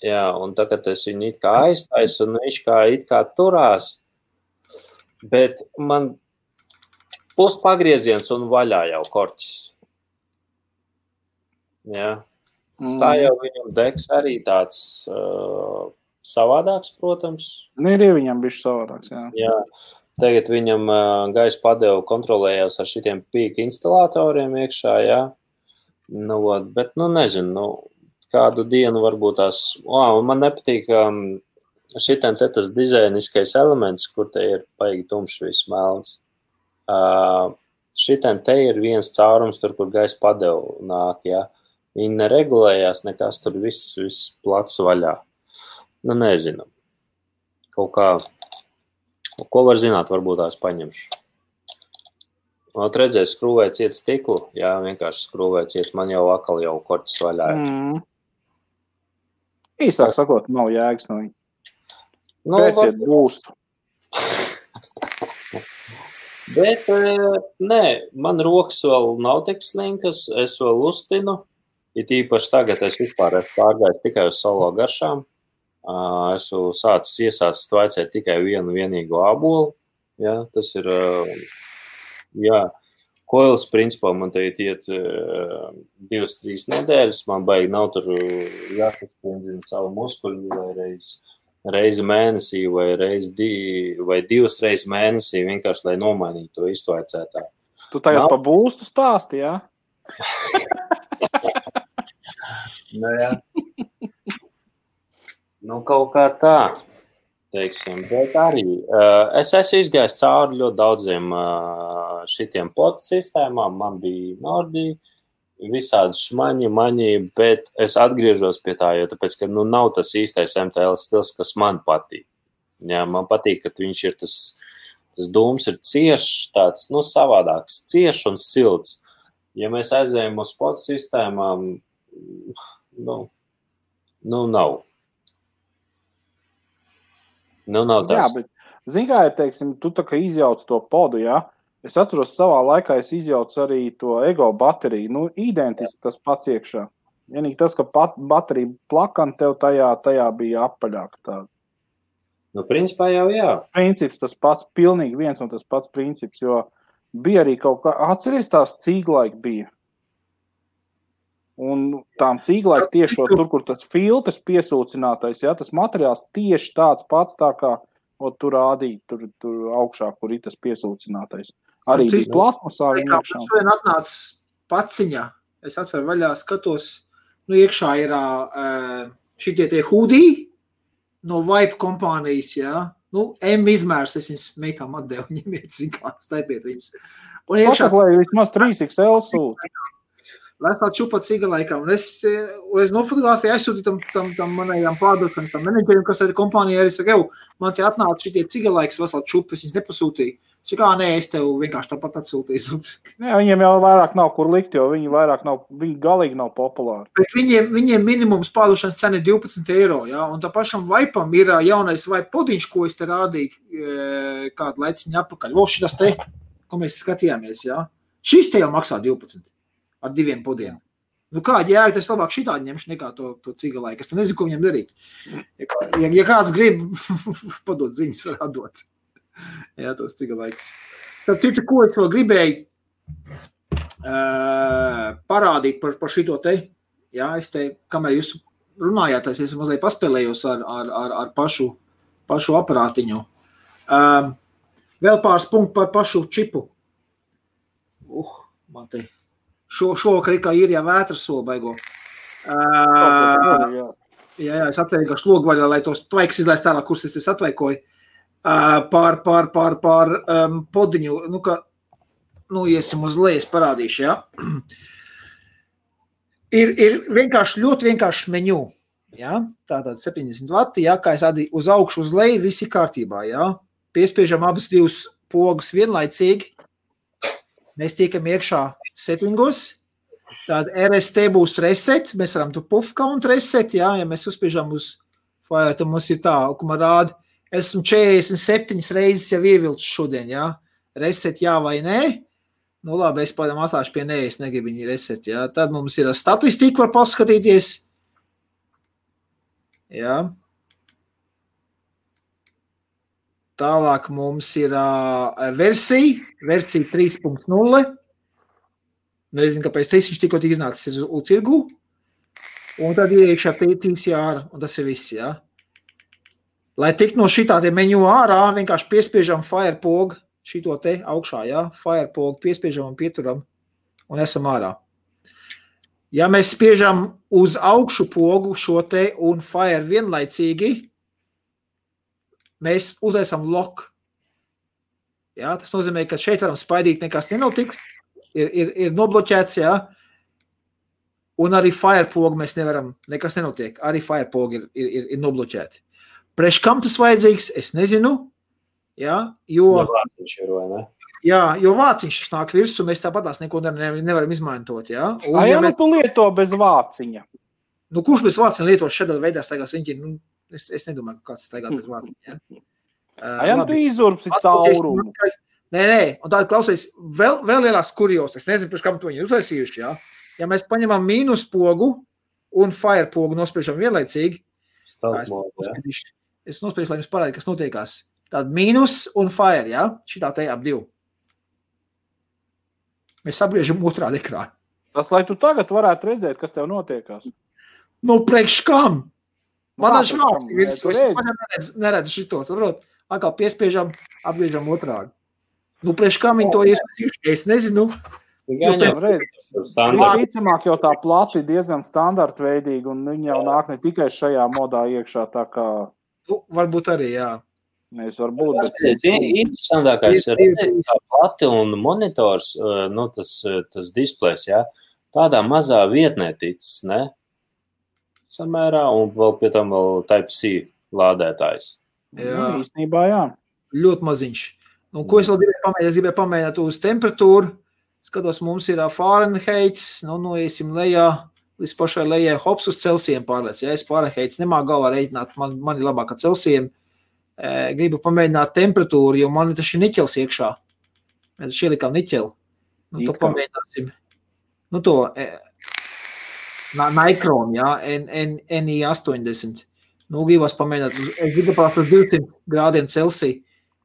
Jā, un tagad es viņu it kā aiztaisu, un viņš it kā turās. Bet man puspagrieziens un vaļā jau korķis. Jā. Tā jau viņam deks arī tāds savādāks, protams. Ir viņam bišķi savādāks, jā. Jā. Tagad viņam gaisa padevu kontrolējās ar šitiem pīka instalātoriem iekšā, jā. Bet, nezinu, kādu dienu varbūt tās... Man nepatīk šitam te tas dizainiskais elements, kur te ir paigi tumšs viss melns. Šitam te ir viens caurums tur, kur gaisa padevu nāk, jā. Viņi neregulējās, nekas tur viss plats vaļā. Nezinu. Kaut kā, ko var zināt, varbūt tās paņemšu. Redzēs, skrūvēja ciet stiklu, jā, vienkārši skrūvēja ciet, man jau akal jau korķis vaļā. Īsāk sakot, nav jēgas no viņa. Pēciet būstu. Bet, nē, man rokas vēl nav tik slinkas, es vēl uztinu. Ir īpaši tagad es vispār esmu pārgājis tikai uz solo garšām. Esmu iesācis tvaicēt tikai vienu vienīgu ābolu. Jā, tas ir, koils principā man te iet 2-3 nedēļas. Man baigi nav tur jāsasprindzina savu muskuļu vai reizi mēnesī vai 2 reizes mēnesī, vienkārši, lai nomainītu to iztvaicētāju. Tu tagad pa būstu stāsti, jā? Jā. Kaut kā tā, teiksim, bet arī es esmu izgājis cauri ļoti daudziem šitiem potu sistēmām, man bija Nordi, visādi šmaņi, bet es atgriežos pie tā, jo tāpēc, ka nav tas īstais MTL stils, kas man patīk. Jā, man patīk, ka viņš ir tas dūms ir ciešs, tāds, savādāks, ciešs un silts. Ja mēs aizējam uz potu sistēmām, nav. Nav tas. Jā, bet, zini, teiksim, tu tā kā izjauc to podu, jā? Es atceros savā laikā, es izjaucu arī to ego bateriju. Identiski tas pats iekšā. Vienīgi tas, ka baterija plakana tev tajā bija apaļāka tāda. Principā jau jā. Princips tas pats, pilnīgi viens un tas pats princips, jo bija arī kaut kā, atceries tās cīglaiki bija. Un tām cīglai tieši tur, kur tas filtrs piesūcinātais, ja, tas materiāls tieši tāds pats tā kā tur rādīt, tur augšā, kur ir tas piesūcinātais. Arī bija plasmasā viņa iekšā. Šodien atnāc paciņā, es atveru vaļā, skatos, iekšā ir šitie tie hudī no Vibe kompānijas, jā. M izmērs, es viņas meitām atdevu, ņemiet, zikā, staipiet viņas. Un iekšā... Pasaka, vismaz 3XL sūt. Lai es tā čupa cigalaikā, un es nofotografēju, aizsūtīju tam manējām pārdošanas, tam menedžerim, kas tāda kompānija arī saka, man te atnāca šitie cigalaikas vesel čupas, viņas nepasūtīja. Saka, nē, es tev vienkārši tāpat atsūtīju. Nē, viņiem jau vairāk nav kur likt, jo viņi galīgi nav populāri. Bet viņiem minimums pārdošanas cena ir 12 eiro, jā, un tā pašam Vaipam ir jaunais Vaip podiņš, ko es te rādīju kādu laiciņu apakaļ. Šitas te, ko mēs skatījāmies, jā. Šis te jau maksā 12 ar 2 podiem. Kādi jēga, tas labāk šitādi ņemšu nekā to cigalaiku. Es nezinu, ko viņam darīt. Ja kāds grib, padot ziņas, var atdot. Jā, tos cigalaikus. Tad citu, ko es vēl gribēju parādīt par šito te. Jā, es te, kamēr jūs runājāt, es mazliet paspēlējos ar pašu aparātiņu. Vēl pāris punktu par pašu čipu. Man te šovakar kā ir jā vētras soli baigo. Jā, es atvēju kā šlogvaļā, lai tos tvaiks izlaist ārā, kurus es atvaikoju. Pār podiņu, iesim uz lejas parādīšu, jā. Ir vienkārši, ļoti vienkārši meņu, jā. Tātad 70 vati, jā, kā es rādīju, uz augšu, uz leju, visi kārtībā, jā. Piespiežam abas divas pogus vienlaicīgi. Mēs tiekam iekšā settingos. Tāda RST būs reset, mēs varam tu puff count reset, jā, ja mēs uzspiežam uz fire, tad mums ir tā, ko man rāda. Esmu 47 reizes jau ievilcis šodien, jā. Reset jā vai nē. Labi, es pādām atlāšu pie nē, es negribu viņi reset, jā. Tad mums ir statistika, var paskatīties. Jā. Tālāk mums ir versija 3.0. Nezinu, kāpēc viņš tikko iznācis uz tirgu. Un tad iekšā TCR, un tas ir viss, jā. Lai tik no šitā te meņu ārā, vienkārši piespiežam fire pogu, šito te augšā, jā, fire pogu, piespiežam un pieturam un esam ārā. Ja mēs spiežam uz augšu pogu šo te un fire vienlaicīgi, mēs uzliesam lock. Jā, tas nozīmē, ka šeit varam spaidīt, nekas nenotiks, ir nobloķēts, jā, un arī fire pogu mēs nevaram, nekas nenotiek, arī fire pogu ir nobloķēti. Priekš kam tas vajadzīgs, es nezinu, jā, jo vāciņš nāk virsū, mēs tāpatās neko nevaram izmantot, jā. Un, tu lieto bez vāciņa? Kurš bez vāciņa lieto šādā veidā staigās viņi, es nedomāju, ka kāds staigās bez vāciņa, jā. Tu izurpsi caurumu. Nē, un tāda klausies, vēl lielās kurjos, es nezinu, priekš kam to viņi uztaisījuši, jā. Ja mēs paņemam mīnus pogu un fire pogu nospriežam vienlaicīgi, es nospiešu, lai jums parādi, kas notiekās. Tāda mīnus un fire, jā? Šitā te ap divu. Mēs sabriežam otrādi ekrānu. Tas, lai tu tagad varētu redzēt, kas tev notiekās. Priekš kam? Man švāks, es neredzu šito, saprot? Atkal piespiežam, apgriežam otrādi. Priekš kam viņi to iespējuši? Es nezinu. Visticamāk jau tā plati diezgan standartveidīga, un viņi jau nāk ne tikai šajā modā iekšā, tā kā... Varbūt arī, jā. Mēs varbūt, bet... Interesantākais ir tā plati un monitors, tas displejs, jā, tādā mazā vietnē ticis, ne? Samērā, un vēl pie tam vēl Type-C lādētājs. Jā, īstenībā, jā. Ļoti maziņš. Ko es vēl gribēju pamēģināt? Es gribēju pamēģināt uz temperatūru. Skatos, mums ir Fahrenheits, iesim lejā, līdz pašai lejai, hops uz Celsijiem pārlēc. Ja es Fahrenheits nemā galvā reiķināt, man ir labāk ar Celsijiem. Gribu pamēģināt temperatūru, jo man taču ir niķels iekšā. Mēs taču ielikām niķeli. To pamēģināsim. To Nikron, ja, NI80. Gribas pamēģināt, es gribu pārst uz 200 grādiem Celsija.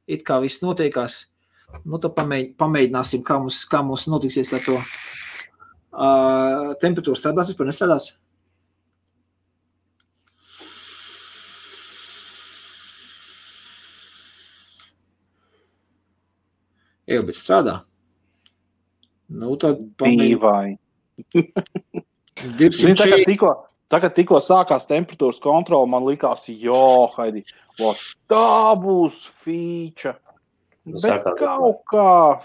It kā viss notiekās. Tad pamēģināsim, kā mums notiksies Temperatūra strādās, vispār nestrādās? Jā, bet strādā. Nu, tad Dīvai. 200. Tagad tikko sākās temperatūras kontrola, man likās, Haidi, tā būs fīča. Bet kaut kā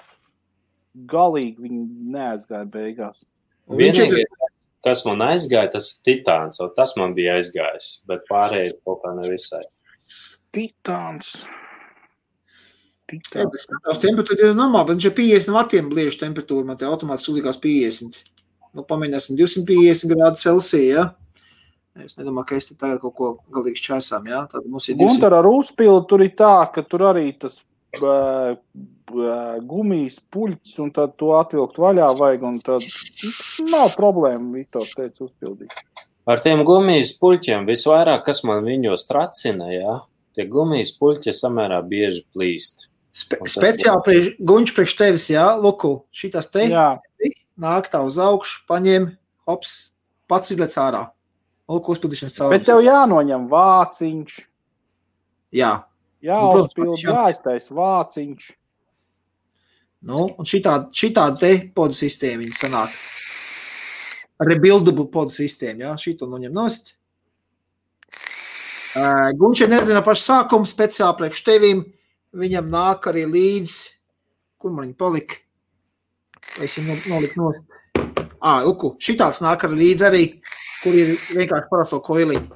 galīgi viņi neaizgāja beigās. Vienīgais, kas man aizgāja, tas ir Titāns, un tas man bija aizgājis, bet pārējie kaut kā nevisai. Titāns. Jā, bet temperatūra ir normāla, bet viņš ir 50 vatiem bliežu temperatūra, man te automātiski uzlikās 50. Nu, pamēģināsim 250 grādu Celsija, ja? Es nedomāju, ka es te tagad kaut ko galīgi šķēsām, ja? Tad mums ir 200. Gunter ar uzpildu tur ir tā, ka tur arī tas gumijas puļķis, un tad to atvilkt vaļā vajag, un tad nav problēma, Viktors teica, uzpildīt. Ar tiem gumijas puļķiem visvairāk, kas man viņos tracina, ja? Tie gumijas puļķi samērā bieži plīst. Speciāli guņš priekš tevis, jā, Luku, šitas te, nāk tā uz augšu, paņem, hops, pats izlec ārā. Luku uzpildīšanas caurums. Bet tev jānoņem vāciņš. Jā. Jāuzpild, jāiztais vāciņš. Nu, un šitā te podu sistēma viņa sanāk. Rebuildable podu sistēma, jā, šito noņem nost. Guņš ir neredzina pašu sākumu, speciāli priekš tevim. Viņam nāk arī līdz, kur man viņa palika? Vai es viņu noliku nost? Luku, šitāds nāk arī līdz arī, kur ir vienkārši parasto koiliņu.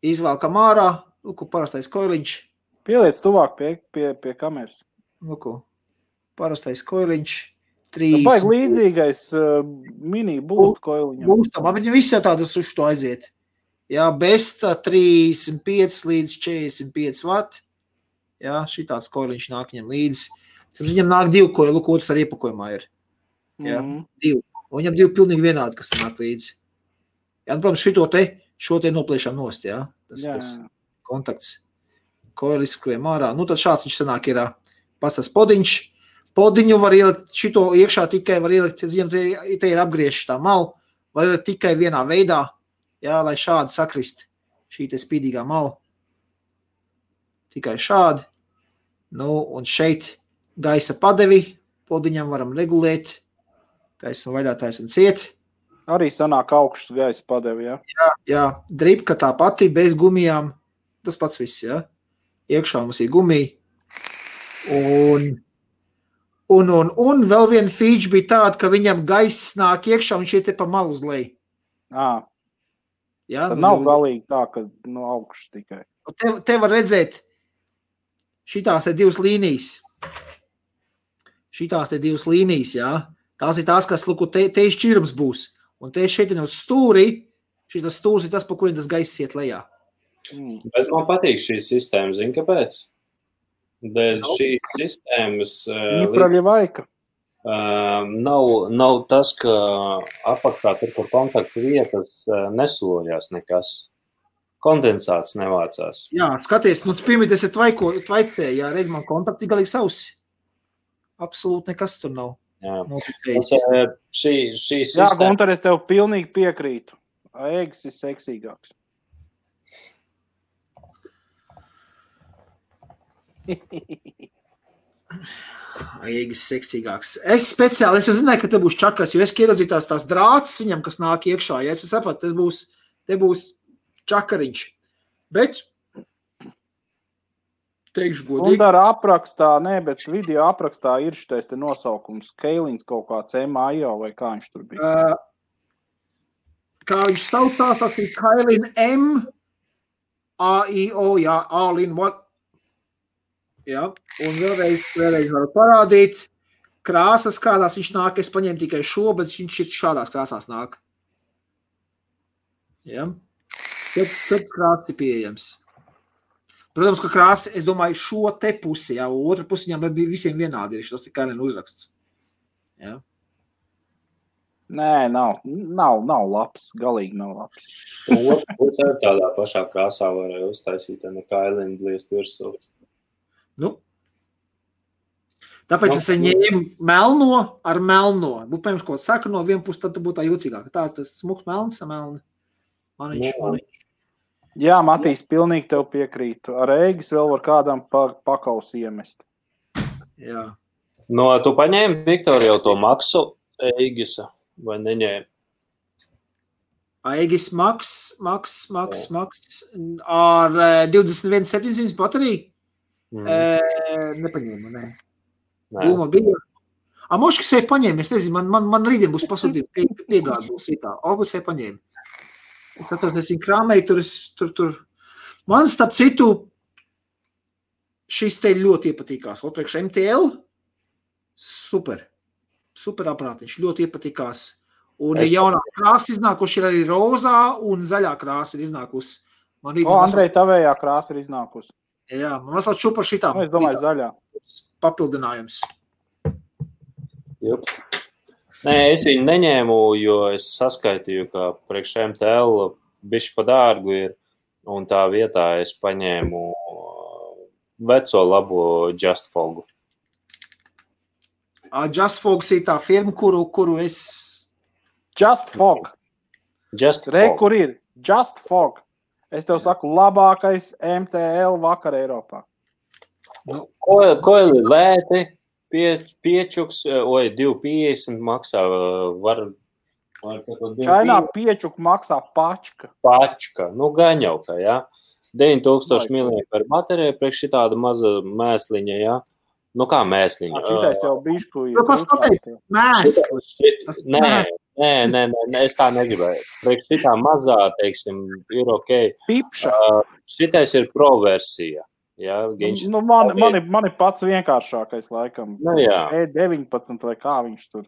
Izvēlkam ārā, Luku, parastais koiliņš. Pieliec tuvāk pie kameras. Luku, parastais koiliņš. Baigi līdzīgais mini būst koiliņam. Būstam, bet visi tādas uz to aiziet. Jā, Besta 35 līdz 45 vat. Jā, šitāds koiliņš nāk viņam līdz. Viņam nāk 2 koili, Luku, otrs ar iepakojumā ir. Jā, 2. Un viņam 2 pilnīgi vienādi, kas tur nāk līdzi. Jā, nu, protams, šo te nopliešām nost, jā. Tas kontakts. Koili izskrējam ārā. Nu, tad šāds viņš sanāk ir pats tas podiņš. Podiņu var ielikt, šito iekšā tikai var ielikt, te ir apgrieši tā malu, var ielikt tikai vienā veidā. Jā, lai šādi sakrist šī te spīdīgā mala. Tikai šādi. Nu, un šeit gaisa padevi. Podiņam varam regulēt. Taisam vaļā, taisam ciet. Arī sanāk augšas gaisa padevi, jā? Jā. Dripka tā pati, bez gumijām. Tas pats viss, jā. Iekšā mums ir gumija. Un vēl viena feature bija tāda, ka viņam gaiss nāk iekšā un šie te pa malu uz leju. Jā, tad nav galīgi tā, ka no augšas tikai. Te var redzēt šitās te 2 līnijas. Šitās te 2 līnijas, jā. Tās ir tās, kas, luku, te šķirums būs. Un te šeit ir uz stūri. Šitas stūrs ir tas, pa kuriem tas gaiss iet lejā. Bet man patīk šī sistēma, zini, kāpēc? Dēļ šīs sistēmas nav tas, ka apakšā tur, kur kontaktu vietas neslojās nekas. Kondensāts nevācās. Jā, skaties, nu pirmīties ir tvaicē, jā, redz man kontakti galīgi sausi. Absolūti nekas tur nav. Jā, šī sistēma. Jā, Gunter, es tev pilnīgi piekrītu. Eggs ir seksīgāks. Eggs seksīgāks. Es jau zināju, ka te būs čakas, jo es ieraudzīju tās drāts viņam, kas nāk iekšā. Ja es sapratu, te būs čakariņš. Bet teikšu godīgi. Un ar aprakstā, bet video aprakstā ir šitais te nosaukums. Keilins kaut kāds M.A.I.O. vai kā viņš tur bija? Kā viņš saucās, tas ir Keilin M.A.I.O. Jā, all in one. Jā, un vēlreiz varu parādīt krāsas, kādās viņš nāk. Es paņēmu tikai šo, bet viņš šādās krāsās nāk. Jā. Tad krāsas ir pieejams. Protams, ka krāsa, es domāju, šo te pusi, jā, otra pusi viņam bija visiem vienādi ir, tas tikai uzraksts. Jā. Nē, nav labs, galīgi nav labs. Otra pusi ar tādā pašā krāsā varēja uztaisīt, nekā Elina bliest virsū. Nu, Tāpēc es ņēmu melno ar melno. Būtu, pirms, ko saka no viena puses, tad būtu tā jūcīgāk. Tā, tas smuks melns, melni. Maniņš. Jā, Matīs, pilnīgi tev piekrītu. Ar Eigis vēl var kādam pakaus iemest. Jā. No, tu paņēmi, Viktor, jau to maksu Eigisa, vai neņēmi? Eigis maks ar 21,700 bateriju. Nepaņēmu, ne. Doma bija. Moškas jau paņēma, es nezinu, man rītdien būs pasūtīt piegādes būs tā. Augusts jau paņēma. Es atceros, es viņu krāmēju, tur. Man, starp citu, šis te ļoti iepatīkās. Otrēkš MTL, super aparātiņš, ļoti iepatīkās. Un jaunā krāsa iznākuši ir arī rozā un zaļā krāsa ir iznākusi. Andrej, tavējā krāsa ir iznākusi. Jā, man mazliet šupar šitām. Es domāju, zaļā. Papildinājums. Jup. Nē, es viņu neņēmu, jo es saskaitīju, ka priekš MTL bišķi pa dārgu ir, un tā vietā es paņēmu veco labo Just Fogu. Just Fogs ir tā firma, kuru es... Just Fog. Kur ir? Just Fog. Es tev saku, labākais MTL vakar Eiropā. Ko ir lēti? Piečuks, 2,50 maksā, var Čainā piečuk maksā pačka. Pačka, gan jau kā, jā. 9000 mAh baterija, priekš šitāda maza mēsliņa, jā. Kā mēsliņa? Šitais tev bišku ir. Kas pateikt? Mēsliņa. Nē, es tā negribēju. Priekš šitā mazā, teiksim, ir ok. Pipša. Šitais ir pro versija. Jā, man ir pats vienkāršākais laikam. E19 vai kā viņš tur.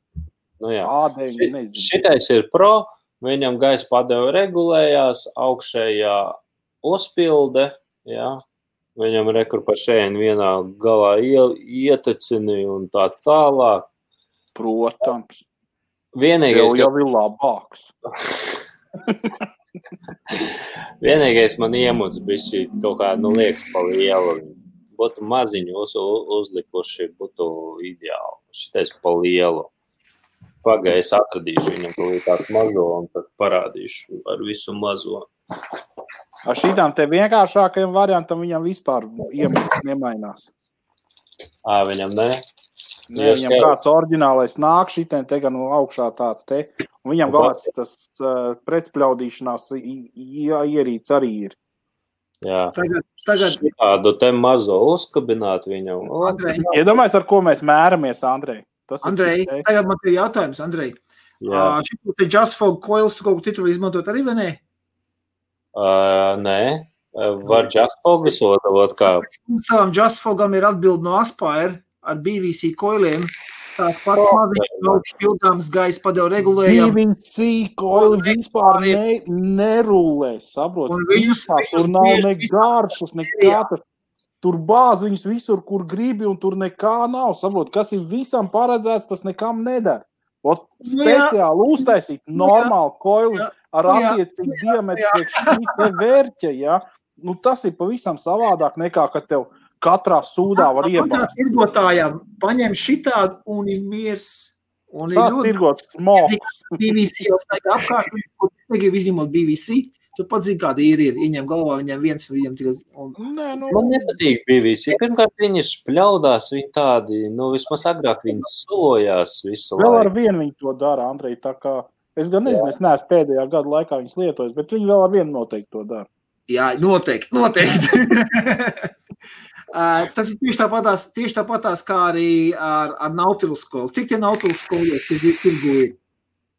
A9, nezinu. Šitais ir pro, viņam gaisa padeva regulējās, augšējā uzpilde, jā. Viņam rekur pa šeit vienā galā ietecini un tā tālāk. Protams. Vienīgais, jau ir labāks. Vienīgais man iemuds bišķi kaut kā, liekas pa lielu. Būtu maziņu uzlikuši, būtu ideāli. Šitais pa lielu. Pagai es atradīšu viņam tādu mazo un tad parādīšu ar visu mazo. Ar šitām te vienkāršākajam variantam viņam vispār iemuds nemainās. Viņam ne? Nē, viņam kāds oriģinālais nāk šitiem te gan augšā tāds te. Un viņam galāts tas pretspļaudīšanās ierīts arī ir. Jā. Tagad... Šitādu te mazo uzkabināt viņam. Iedomājies, ar ko mēs mēramies, Andrej. Andrej, tagad man ir jautājums, Andrej. Šitu te Just Fog coils tu kaut ko citu izmantot arī, vai ne? Nē. Var Just Fog visodavot kā? Savam Just Fogam ir atbildi no Aspire ar BVC coiliem. Tāds pats maziņš augš pildāms gaisa padeva regulējam. BVC coili vispār nerulē, saprot? Tur nav ne garšas, nekā. Tur bāz viņus visur, kur gribi, un tur nekā nav. Saprot, kas ir visam paredzēts, tas nekam nedara. Speciāli uztaisīt normālu koili ar attiecīgu diametru priekš šī vērķa, ja? Tas ir pavisam savādāk nekā, kad tev katrā sūdā var iebāzt. Tirgotājām paņem šitādu un ir miers. Sāc tirgot smoks. BVC jau staigā apkārt, kur negrib izņemot BVC. Tu pats zini, kāda ir. Ieņem galvā viņam viens, viņam tikai... Man nepatīk BVC. Pirmkārt, viņi špļaudās, viņi tādi, vismaz agrāk viņi solojās visu laiku. Vēl ar vienu viņi to dara, Andrej, tā kā... Es gan nezinu, es neesmu pēdējā gada laikā viņus lietojis, bet viņi vēl ar vienu noteikti to dara. Jā, noteikti. Tas ir tieši tāpatās kā arī ar Nautilus skolu. Cik tie Nautilus skolu tirgu ir?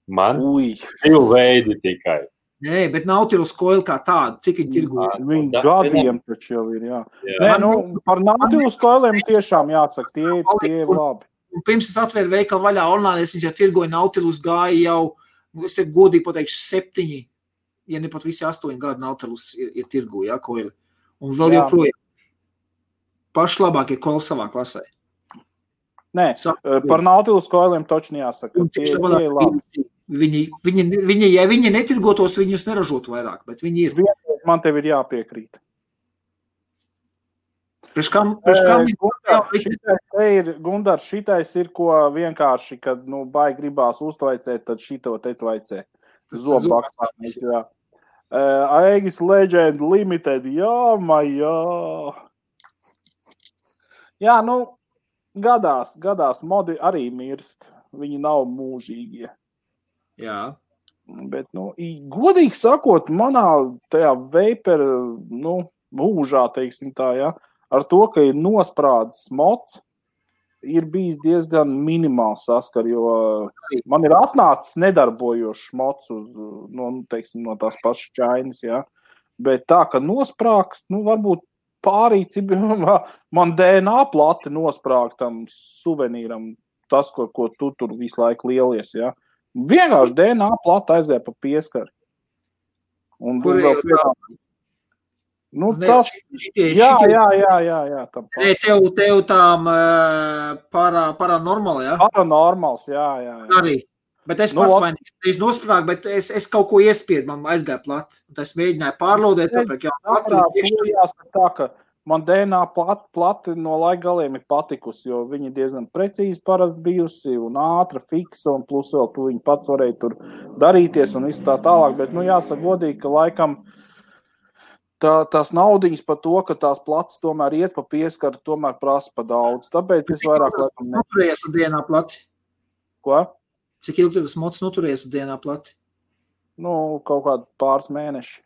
Man? 2 veidi tikai. Nē, bet Nautilus coil kā tādu, cik viņi tirgo? Viņi gadiem taču jau ir, jā. Nē, par Nautilus coiliem tiešām jāatsaka, tie ir labi. Pirms es atvēru veikalu vaļā online, es jau tirgoju Nautilus gāju jau, es te godīgi pateikšu 7, ja ne pat visi 8 gadu Nautilus ir tirgo, jā, coili. Un vēl joprojām. Paši labākie coili savā klasē. Nē, par Nautilus coiliem točni jāsaka, tie ir labi. Ja viņi netirgotos, viņus neražotu vairāk, bet viņi ir. Man tev ir jāpiekrīt. Gundars, šitais ir, ko vienkārši, kad, baigi gribās uztvaicēt, tad šito te tvaicē. Zobbakstājums, jā. Aegis Legend Limited, jā. Jā, gadās, modi arī mirst. Viņi nav mūžīgie. Jā. Bet, godīgi sakot, manā tajā vapor, mūžā, teiksim tā, jā, ar to, ka ir nosprādzis mods, ir bijis diezgan minimāls saskar, jo man ir atnācis nedarbojošs mods no tās pašas Chainas, jā. Bet tā, ka nosprāgst, varbūt pārīt, man DNA plati nosprāgt tam suvenīram, tas, ko tu tur visu laiku lielies, jā. Vienkārši DNA plata aizgāja pa pieskari. Kur ir tas? Jā. Tev tām paranormāli, jā? Paranormāls, jā. Arī. Bet es pats vainīgs. Es nosprāgu, bet es kaut ko iespiedu, man aizgāja plati. Es mēģināju pārlodēt, jāsaka tā, ka man DNA plati no laika galiem ir patikusi, jo viņi diezgan precīzi parasti bijusi un ātra, fiksa, un plus vēl tu viņi pats varēja tur darīties un visu tā tālāk, bet, jāsaka godīgi, ka laikam tās naudiņas par to, ka tās plats tomēr iet pa pieskaru, tomēr prasa pa daudz. Tāpēc es vairāk laikam noturējies ar DNA plati? Ko? Cik ilgi tas mods noturējies ar DNA plati? Kaut kādu pāris mēneši.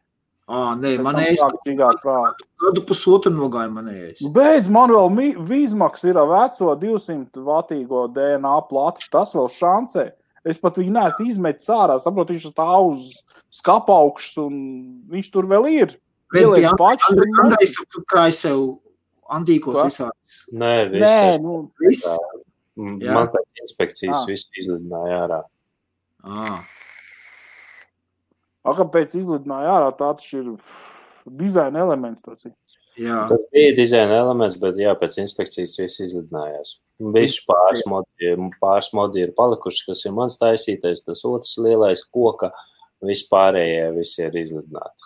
Nē, manējais gadu pusotru nogāja manējais. Beidz, man vēl Vīzmaks ir veco 200 vatīgo DNA plati, tas vēl šancē. Es pat viņu neesmu izmetis ārā, saprotu, viņš tā uz skapaukšs un viņš tur vēl ir. Andrejs tur krāj sev antīkos visāds. Nē, viss. Man pēc inspekcijas visu izlidināja ārā. Kāpēc izlidināja ārā, tāds ir dizaina elements tas ir. Jā. Tas bija dizaina elements, bet pēc inspekcijas viss izlidinājās. Bišķi pāris modi ir palikuši, kas ir mans taisītais, tas otrs lielais koka, vispārējie visi ir izlidināti.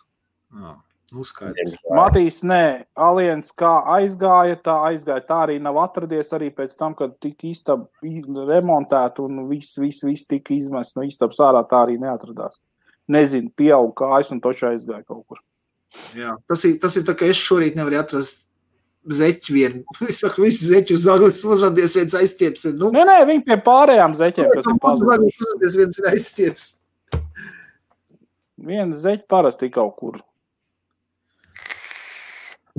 Uzskaidrs. Matīs, nē, Aliens kā aizgāja, tā arī nav atradies arī pēc tam, kad tika istaba remontēta un viss tika izmests no istabas ārā, tā arī neatradās. Nezinu, pieaug kājas un toču aizgāja kaut kur. Jā, tas ir tā, ka es šorīt nevaru atrast zeķi vienu. Es saku, visi zeķi uz zaglis uzradies viens aizstieps. Nē, viņi pie pārējām zeķiem, kas ir pazuduši. Uzradies viens ir aizstieps. Viens zeķi parasti kaut kur.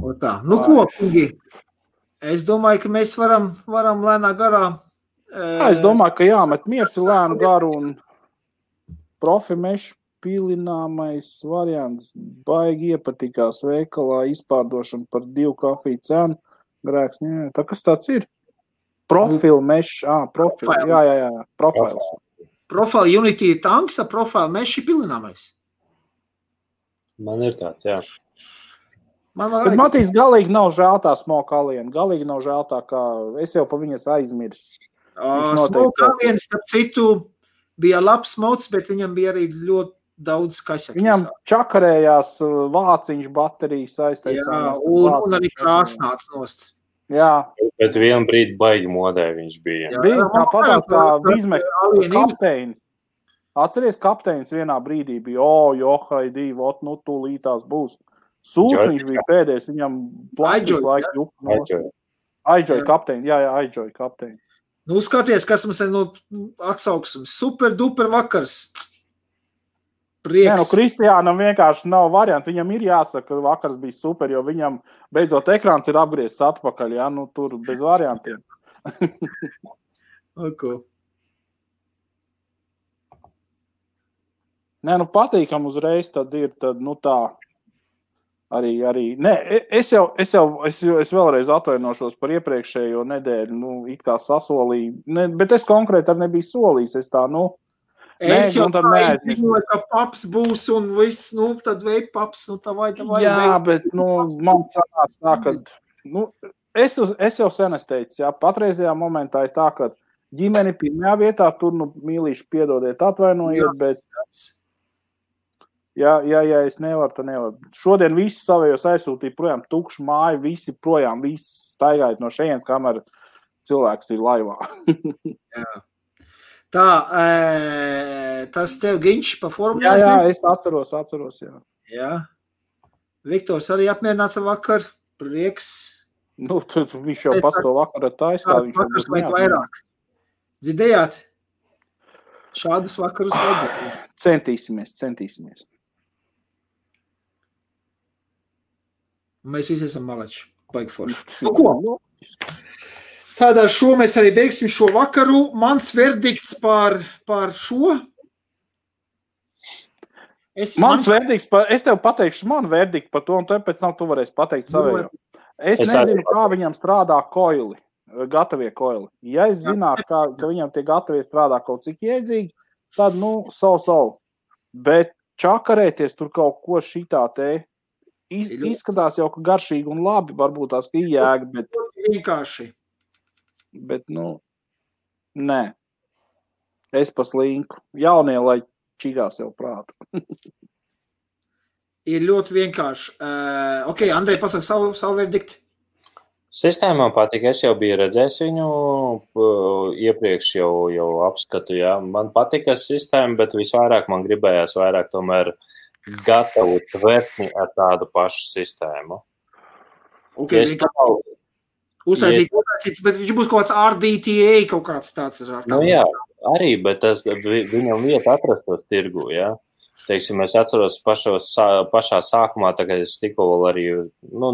O tā. Ko, kungi? Es domāju, ka mēs varam lēnā garā. Es domāju, ka jāmet miersi lēnu garu un profi mešu pilināmais variants baigi iepatikās veikalā izpārdošana par 2 kafiju cenu. Grēks, tā kas tāds ir? Profil mešs, profil, jā, profils. Profile Unity ir tanks, profile mesh ir pilināmais. Man ir tāds, jā. Bet Matīs galīgi nav žēl tā Smoke Alien, galīgi nav žēl tā, kā es jau pa viņas aizmirs. Smoke Alien, starp citu, bija labs mods, bet viņam bija arī ļoti daudz kaisek. Viņam čakarējās vāciņš baterijas aiztaisās. Jā, un arī krāsnāts nost. Jā. Bet vienu brīdi baigi modē viņš bija. Bija tāpatās kā Vizmek kapteinis. Atceries, kapteinis vienā brīdī bija, Haidī, tūlītās būs. Sūds viņš bija pēdējais, viņam plašs laika juka. Aidžoja kapteini, jā, Aidžoja kapteini. Skaties, kas mums atsauksim. Super duper vakars. Prieks. Kristiānam vienkārši nav varianti. Viņam ir jāsaka, ka vakars bija super, jo viņam beidzot ekrāns ir apgriezts atpakaļ. Jā, tur bez variantiem. Patīkam uzreiz tad ir tā. Arī. Nē, es vēlreiz atvainošos par iepriekšējo nedēļu, it kā sasolīju, bet es konkrēti arī nebiju solījis, es tā, Es jau tā izziņoju, ka paps būs un viss, tad vei paps, tā vai. Jā, bet, man sanās tā, ka, es jau sen es teicu, jā, patreizajā momentā ir tā, ka ģimeni pirmajā vietā, tur, mīlīši piedodiet, atvainojiet, bet Ja es nevaru, tad nevaru. Šodien visi savējos aizsūtīja projām tukšu māju, visi projām, visi staigājot no šejienes, kamēr cilvēks ir laivā. Jā. Tā, tas tev Ginč pa formu? Jā, es atceros, jā. Jā. Viktors arī apmierināts ar vakar, prieks. Nu, viņš jau pasto vakar ar taisā. Vakars vajag vairāk. Dzirdējāt? Šādas vakarus vajag. Centīsimies. Mēs visi esam malači. Baigi forši. Nu ko? Tādā šo mēs arī beigsim šo vakaru. Mans verdikts par šo. Es tev pateikšu manu verdiktu par to, un tev pēc tam tu varēsi pateikt savējo. Es nezinu, kā viņam strādā koili, gatavie koili. Ja es zinātu, ka viņam tie gatavie strādā kaut cik iedzīgi, tad, so. Bet čakarēties tur kaut ko šitā te izskatās jau, ka garšīgi un labi, varbūt tās iejēga, bet... Vienkārši. Bet, nē. Es paslinku. Jaunie, lai čigās jau prātu. Ir ļoti vienkārši. Ok, Andrej, pasaka savu verdiktu. Sistēmā patīk, es jau biju redzējis viņu iepriekš jau apskatu, jā. Man patika sistēma, bet visvairāk man gribējās vairāk tomēr gatavu tvertni ar tādu pašu sistēmu. Ok, uztaisīt, bet viņš būs kaut kāds RDTA, kaut kāds tāds. Jā, arī, bet viņam vieta atrastos tirgu, jā. Teiksim, es atceros pašā sākumā, tagad es tikko vēl arī,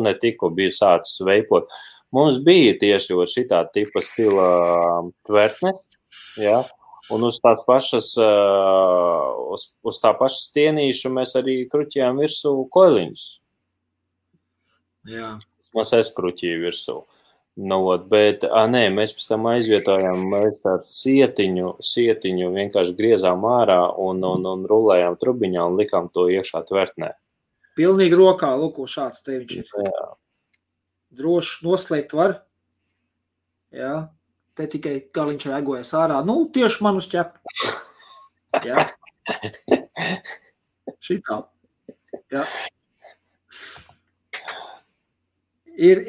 ne tikko biju sācis veipot. Mums bija tieši šitā tipa stila tvertnes, jā, un uz tās pašas, uz tā paša stienīšu mēs arī kruķījām virsū koiliņus. Jā. Mēs kruķīju virsū. Bet, mēs pēc tam aizvietojām ar sietiņu vienkārši griezām ārā un rulējām trubiņā un likām to iekšā tvertnē. Pilnīgi rokā, lūk, šāds te viņš ir. Jā. Droši noslēgt var. Jā. Te tikai galiņš regojas ārā. Tieši man uz ķepu. Jā. Šitā. Jā. Ir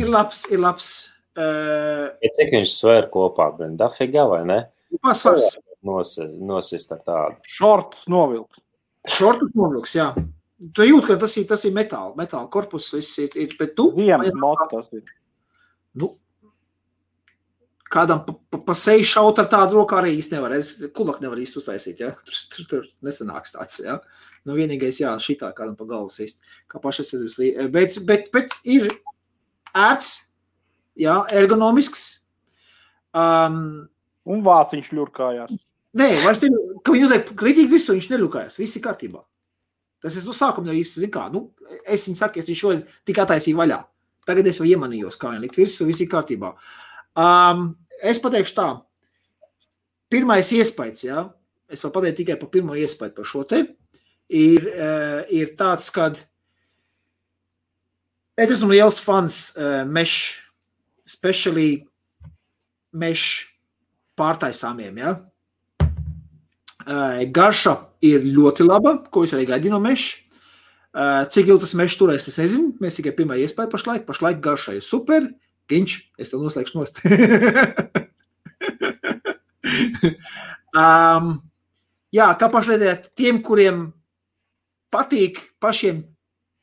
labs. Cik viņš svēr kopā, Dafiga, vai ne? Pasvars. Nosist ar tādu. Šortus novilks, jā. Tu jūt, ka tas ir metāla korpus, viss ir, bet tu... Ziemas mots tas ir. Kādam pa seju šaut ar tādu roku arī īsti nevar. Kulak nevar īsti uztaisīt, jā. Tur nesanāks tāds, jā. Vienīgais, jā, šitā kādam pa galvu sist. Kā pašas bet ir ērts, jā, ergonomisks. Un vāciņš ļurkājās. Nē, vairs te, ka viņi uzliek kritīgi visu, viņš neļurkājās. Viss ir kārtībā. Tas es sākumā jau īsti, zin kā, es viņu saku, es viņu šodien tik attaisīju vaļā. Tagad es jau iemanījos, kā viņi likt visu, viss ir kārtībā. Es pateikšu tā. Pirmais iespējas, jā, es vēl pateiktu tikai par pirmo iespēju par šo te, ir tāds, kad es esmu liels fans mesh, especially mesh pārtaisāmiem, jā. Garša ir ļoti laba, ko es arī gaidīju no mesh. Cik ilgi tas mesh turēs, es nezinu, mēs tikai pirmā iespēja pašlaik garša ir super. Ginč, es tev noslēgšu nost. Jā, kā pašlaidēt tiem, kuriem patīk pašiem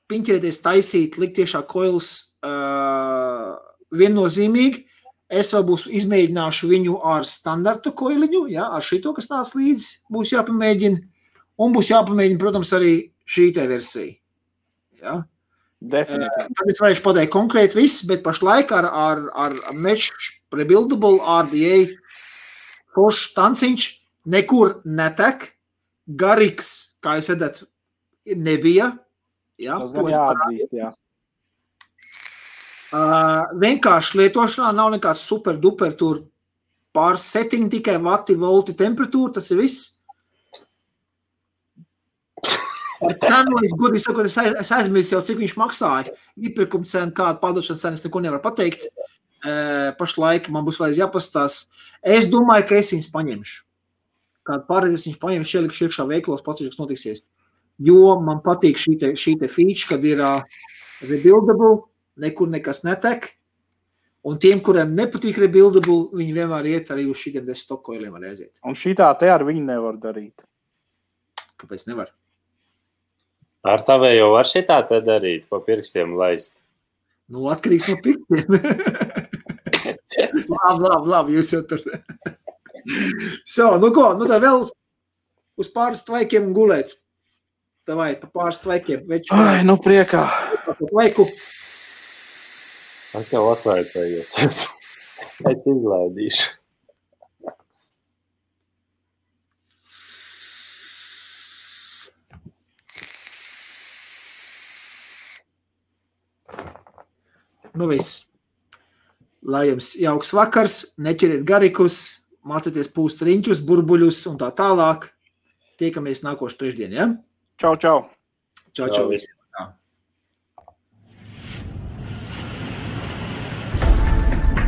piņķerēties taisīt, likt tiešā koilus viennozīmīgi, es vēl izmēģināšu viņu ar standarta koiliņu, jā, ar šito, kas nāc līdzi, būs jāpamēģina, un būs jāpamēģina, protams, arī šī te versija. Jā. Definitīvi. Tad es varēšu pateikt konkrēti viss, bet pašlaik ar mesh rebuildable RDA foršs tanciņš nekur netek, garīgs, kā jūs redzat, nebija. Jā, tas gan jāatzīst, jā. Vienkārši lietošanā nav nekāds super duper tur pāris setting, tikai vati, volti, temperatūra, tas ir viss. Ar cenu, es godīgi sakot, es aizmirsu jau, cik viņš maksāja. Iepirkuma cena, kāda pārdošanas cena, es neko nevaru pateikt. Pašlaik man būs vajag jāpastās. Es domāju, ka es viņus paņemšu. Kādu pārēdēs viņus paņemšu, ielikšu iekšā veiklos, pats, kas notiksies. jo man patīk šī te feature, kad ir rebuildable, nekur nekas netek, un tiem, kuriem nepatīk rebuildable, viņi vienmēr iet arī uz šitiem stokoiliem var aiziet. Un šitā te ar viņu nevar darīt. Kāpēc nevar? Ar tavējo var šitā te darīt, pa pirkstiem laist. Nu, atkarīgs no pirkstiem. Labi, jūs jau tur. Nu ko, nu tā vēl uz pāris tvaikiem gulēt. Davai, pa pāris tvaikiem. Ai, nu priekā. Tvaiku. Es jau atvaicējos. Es izlaidīšu. Nu viss. Lai jums jauks vakars, neķeriet garikus, mācieties pūst riņķus, burbuļus un tā tālāk. Tiekamies nākošu trešdien, ja? Čau, čau. Čau, čau. Visi.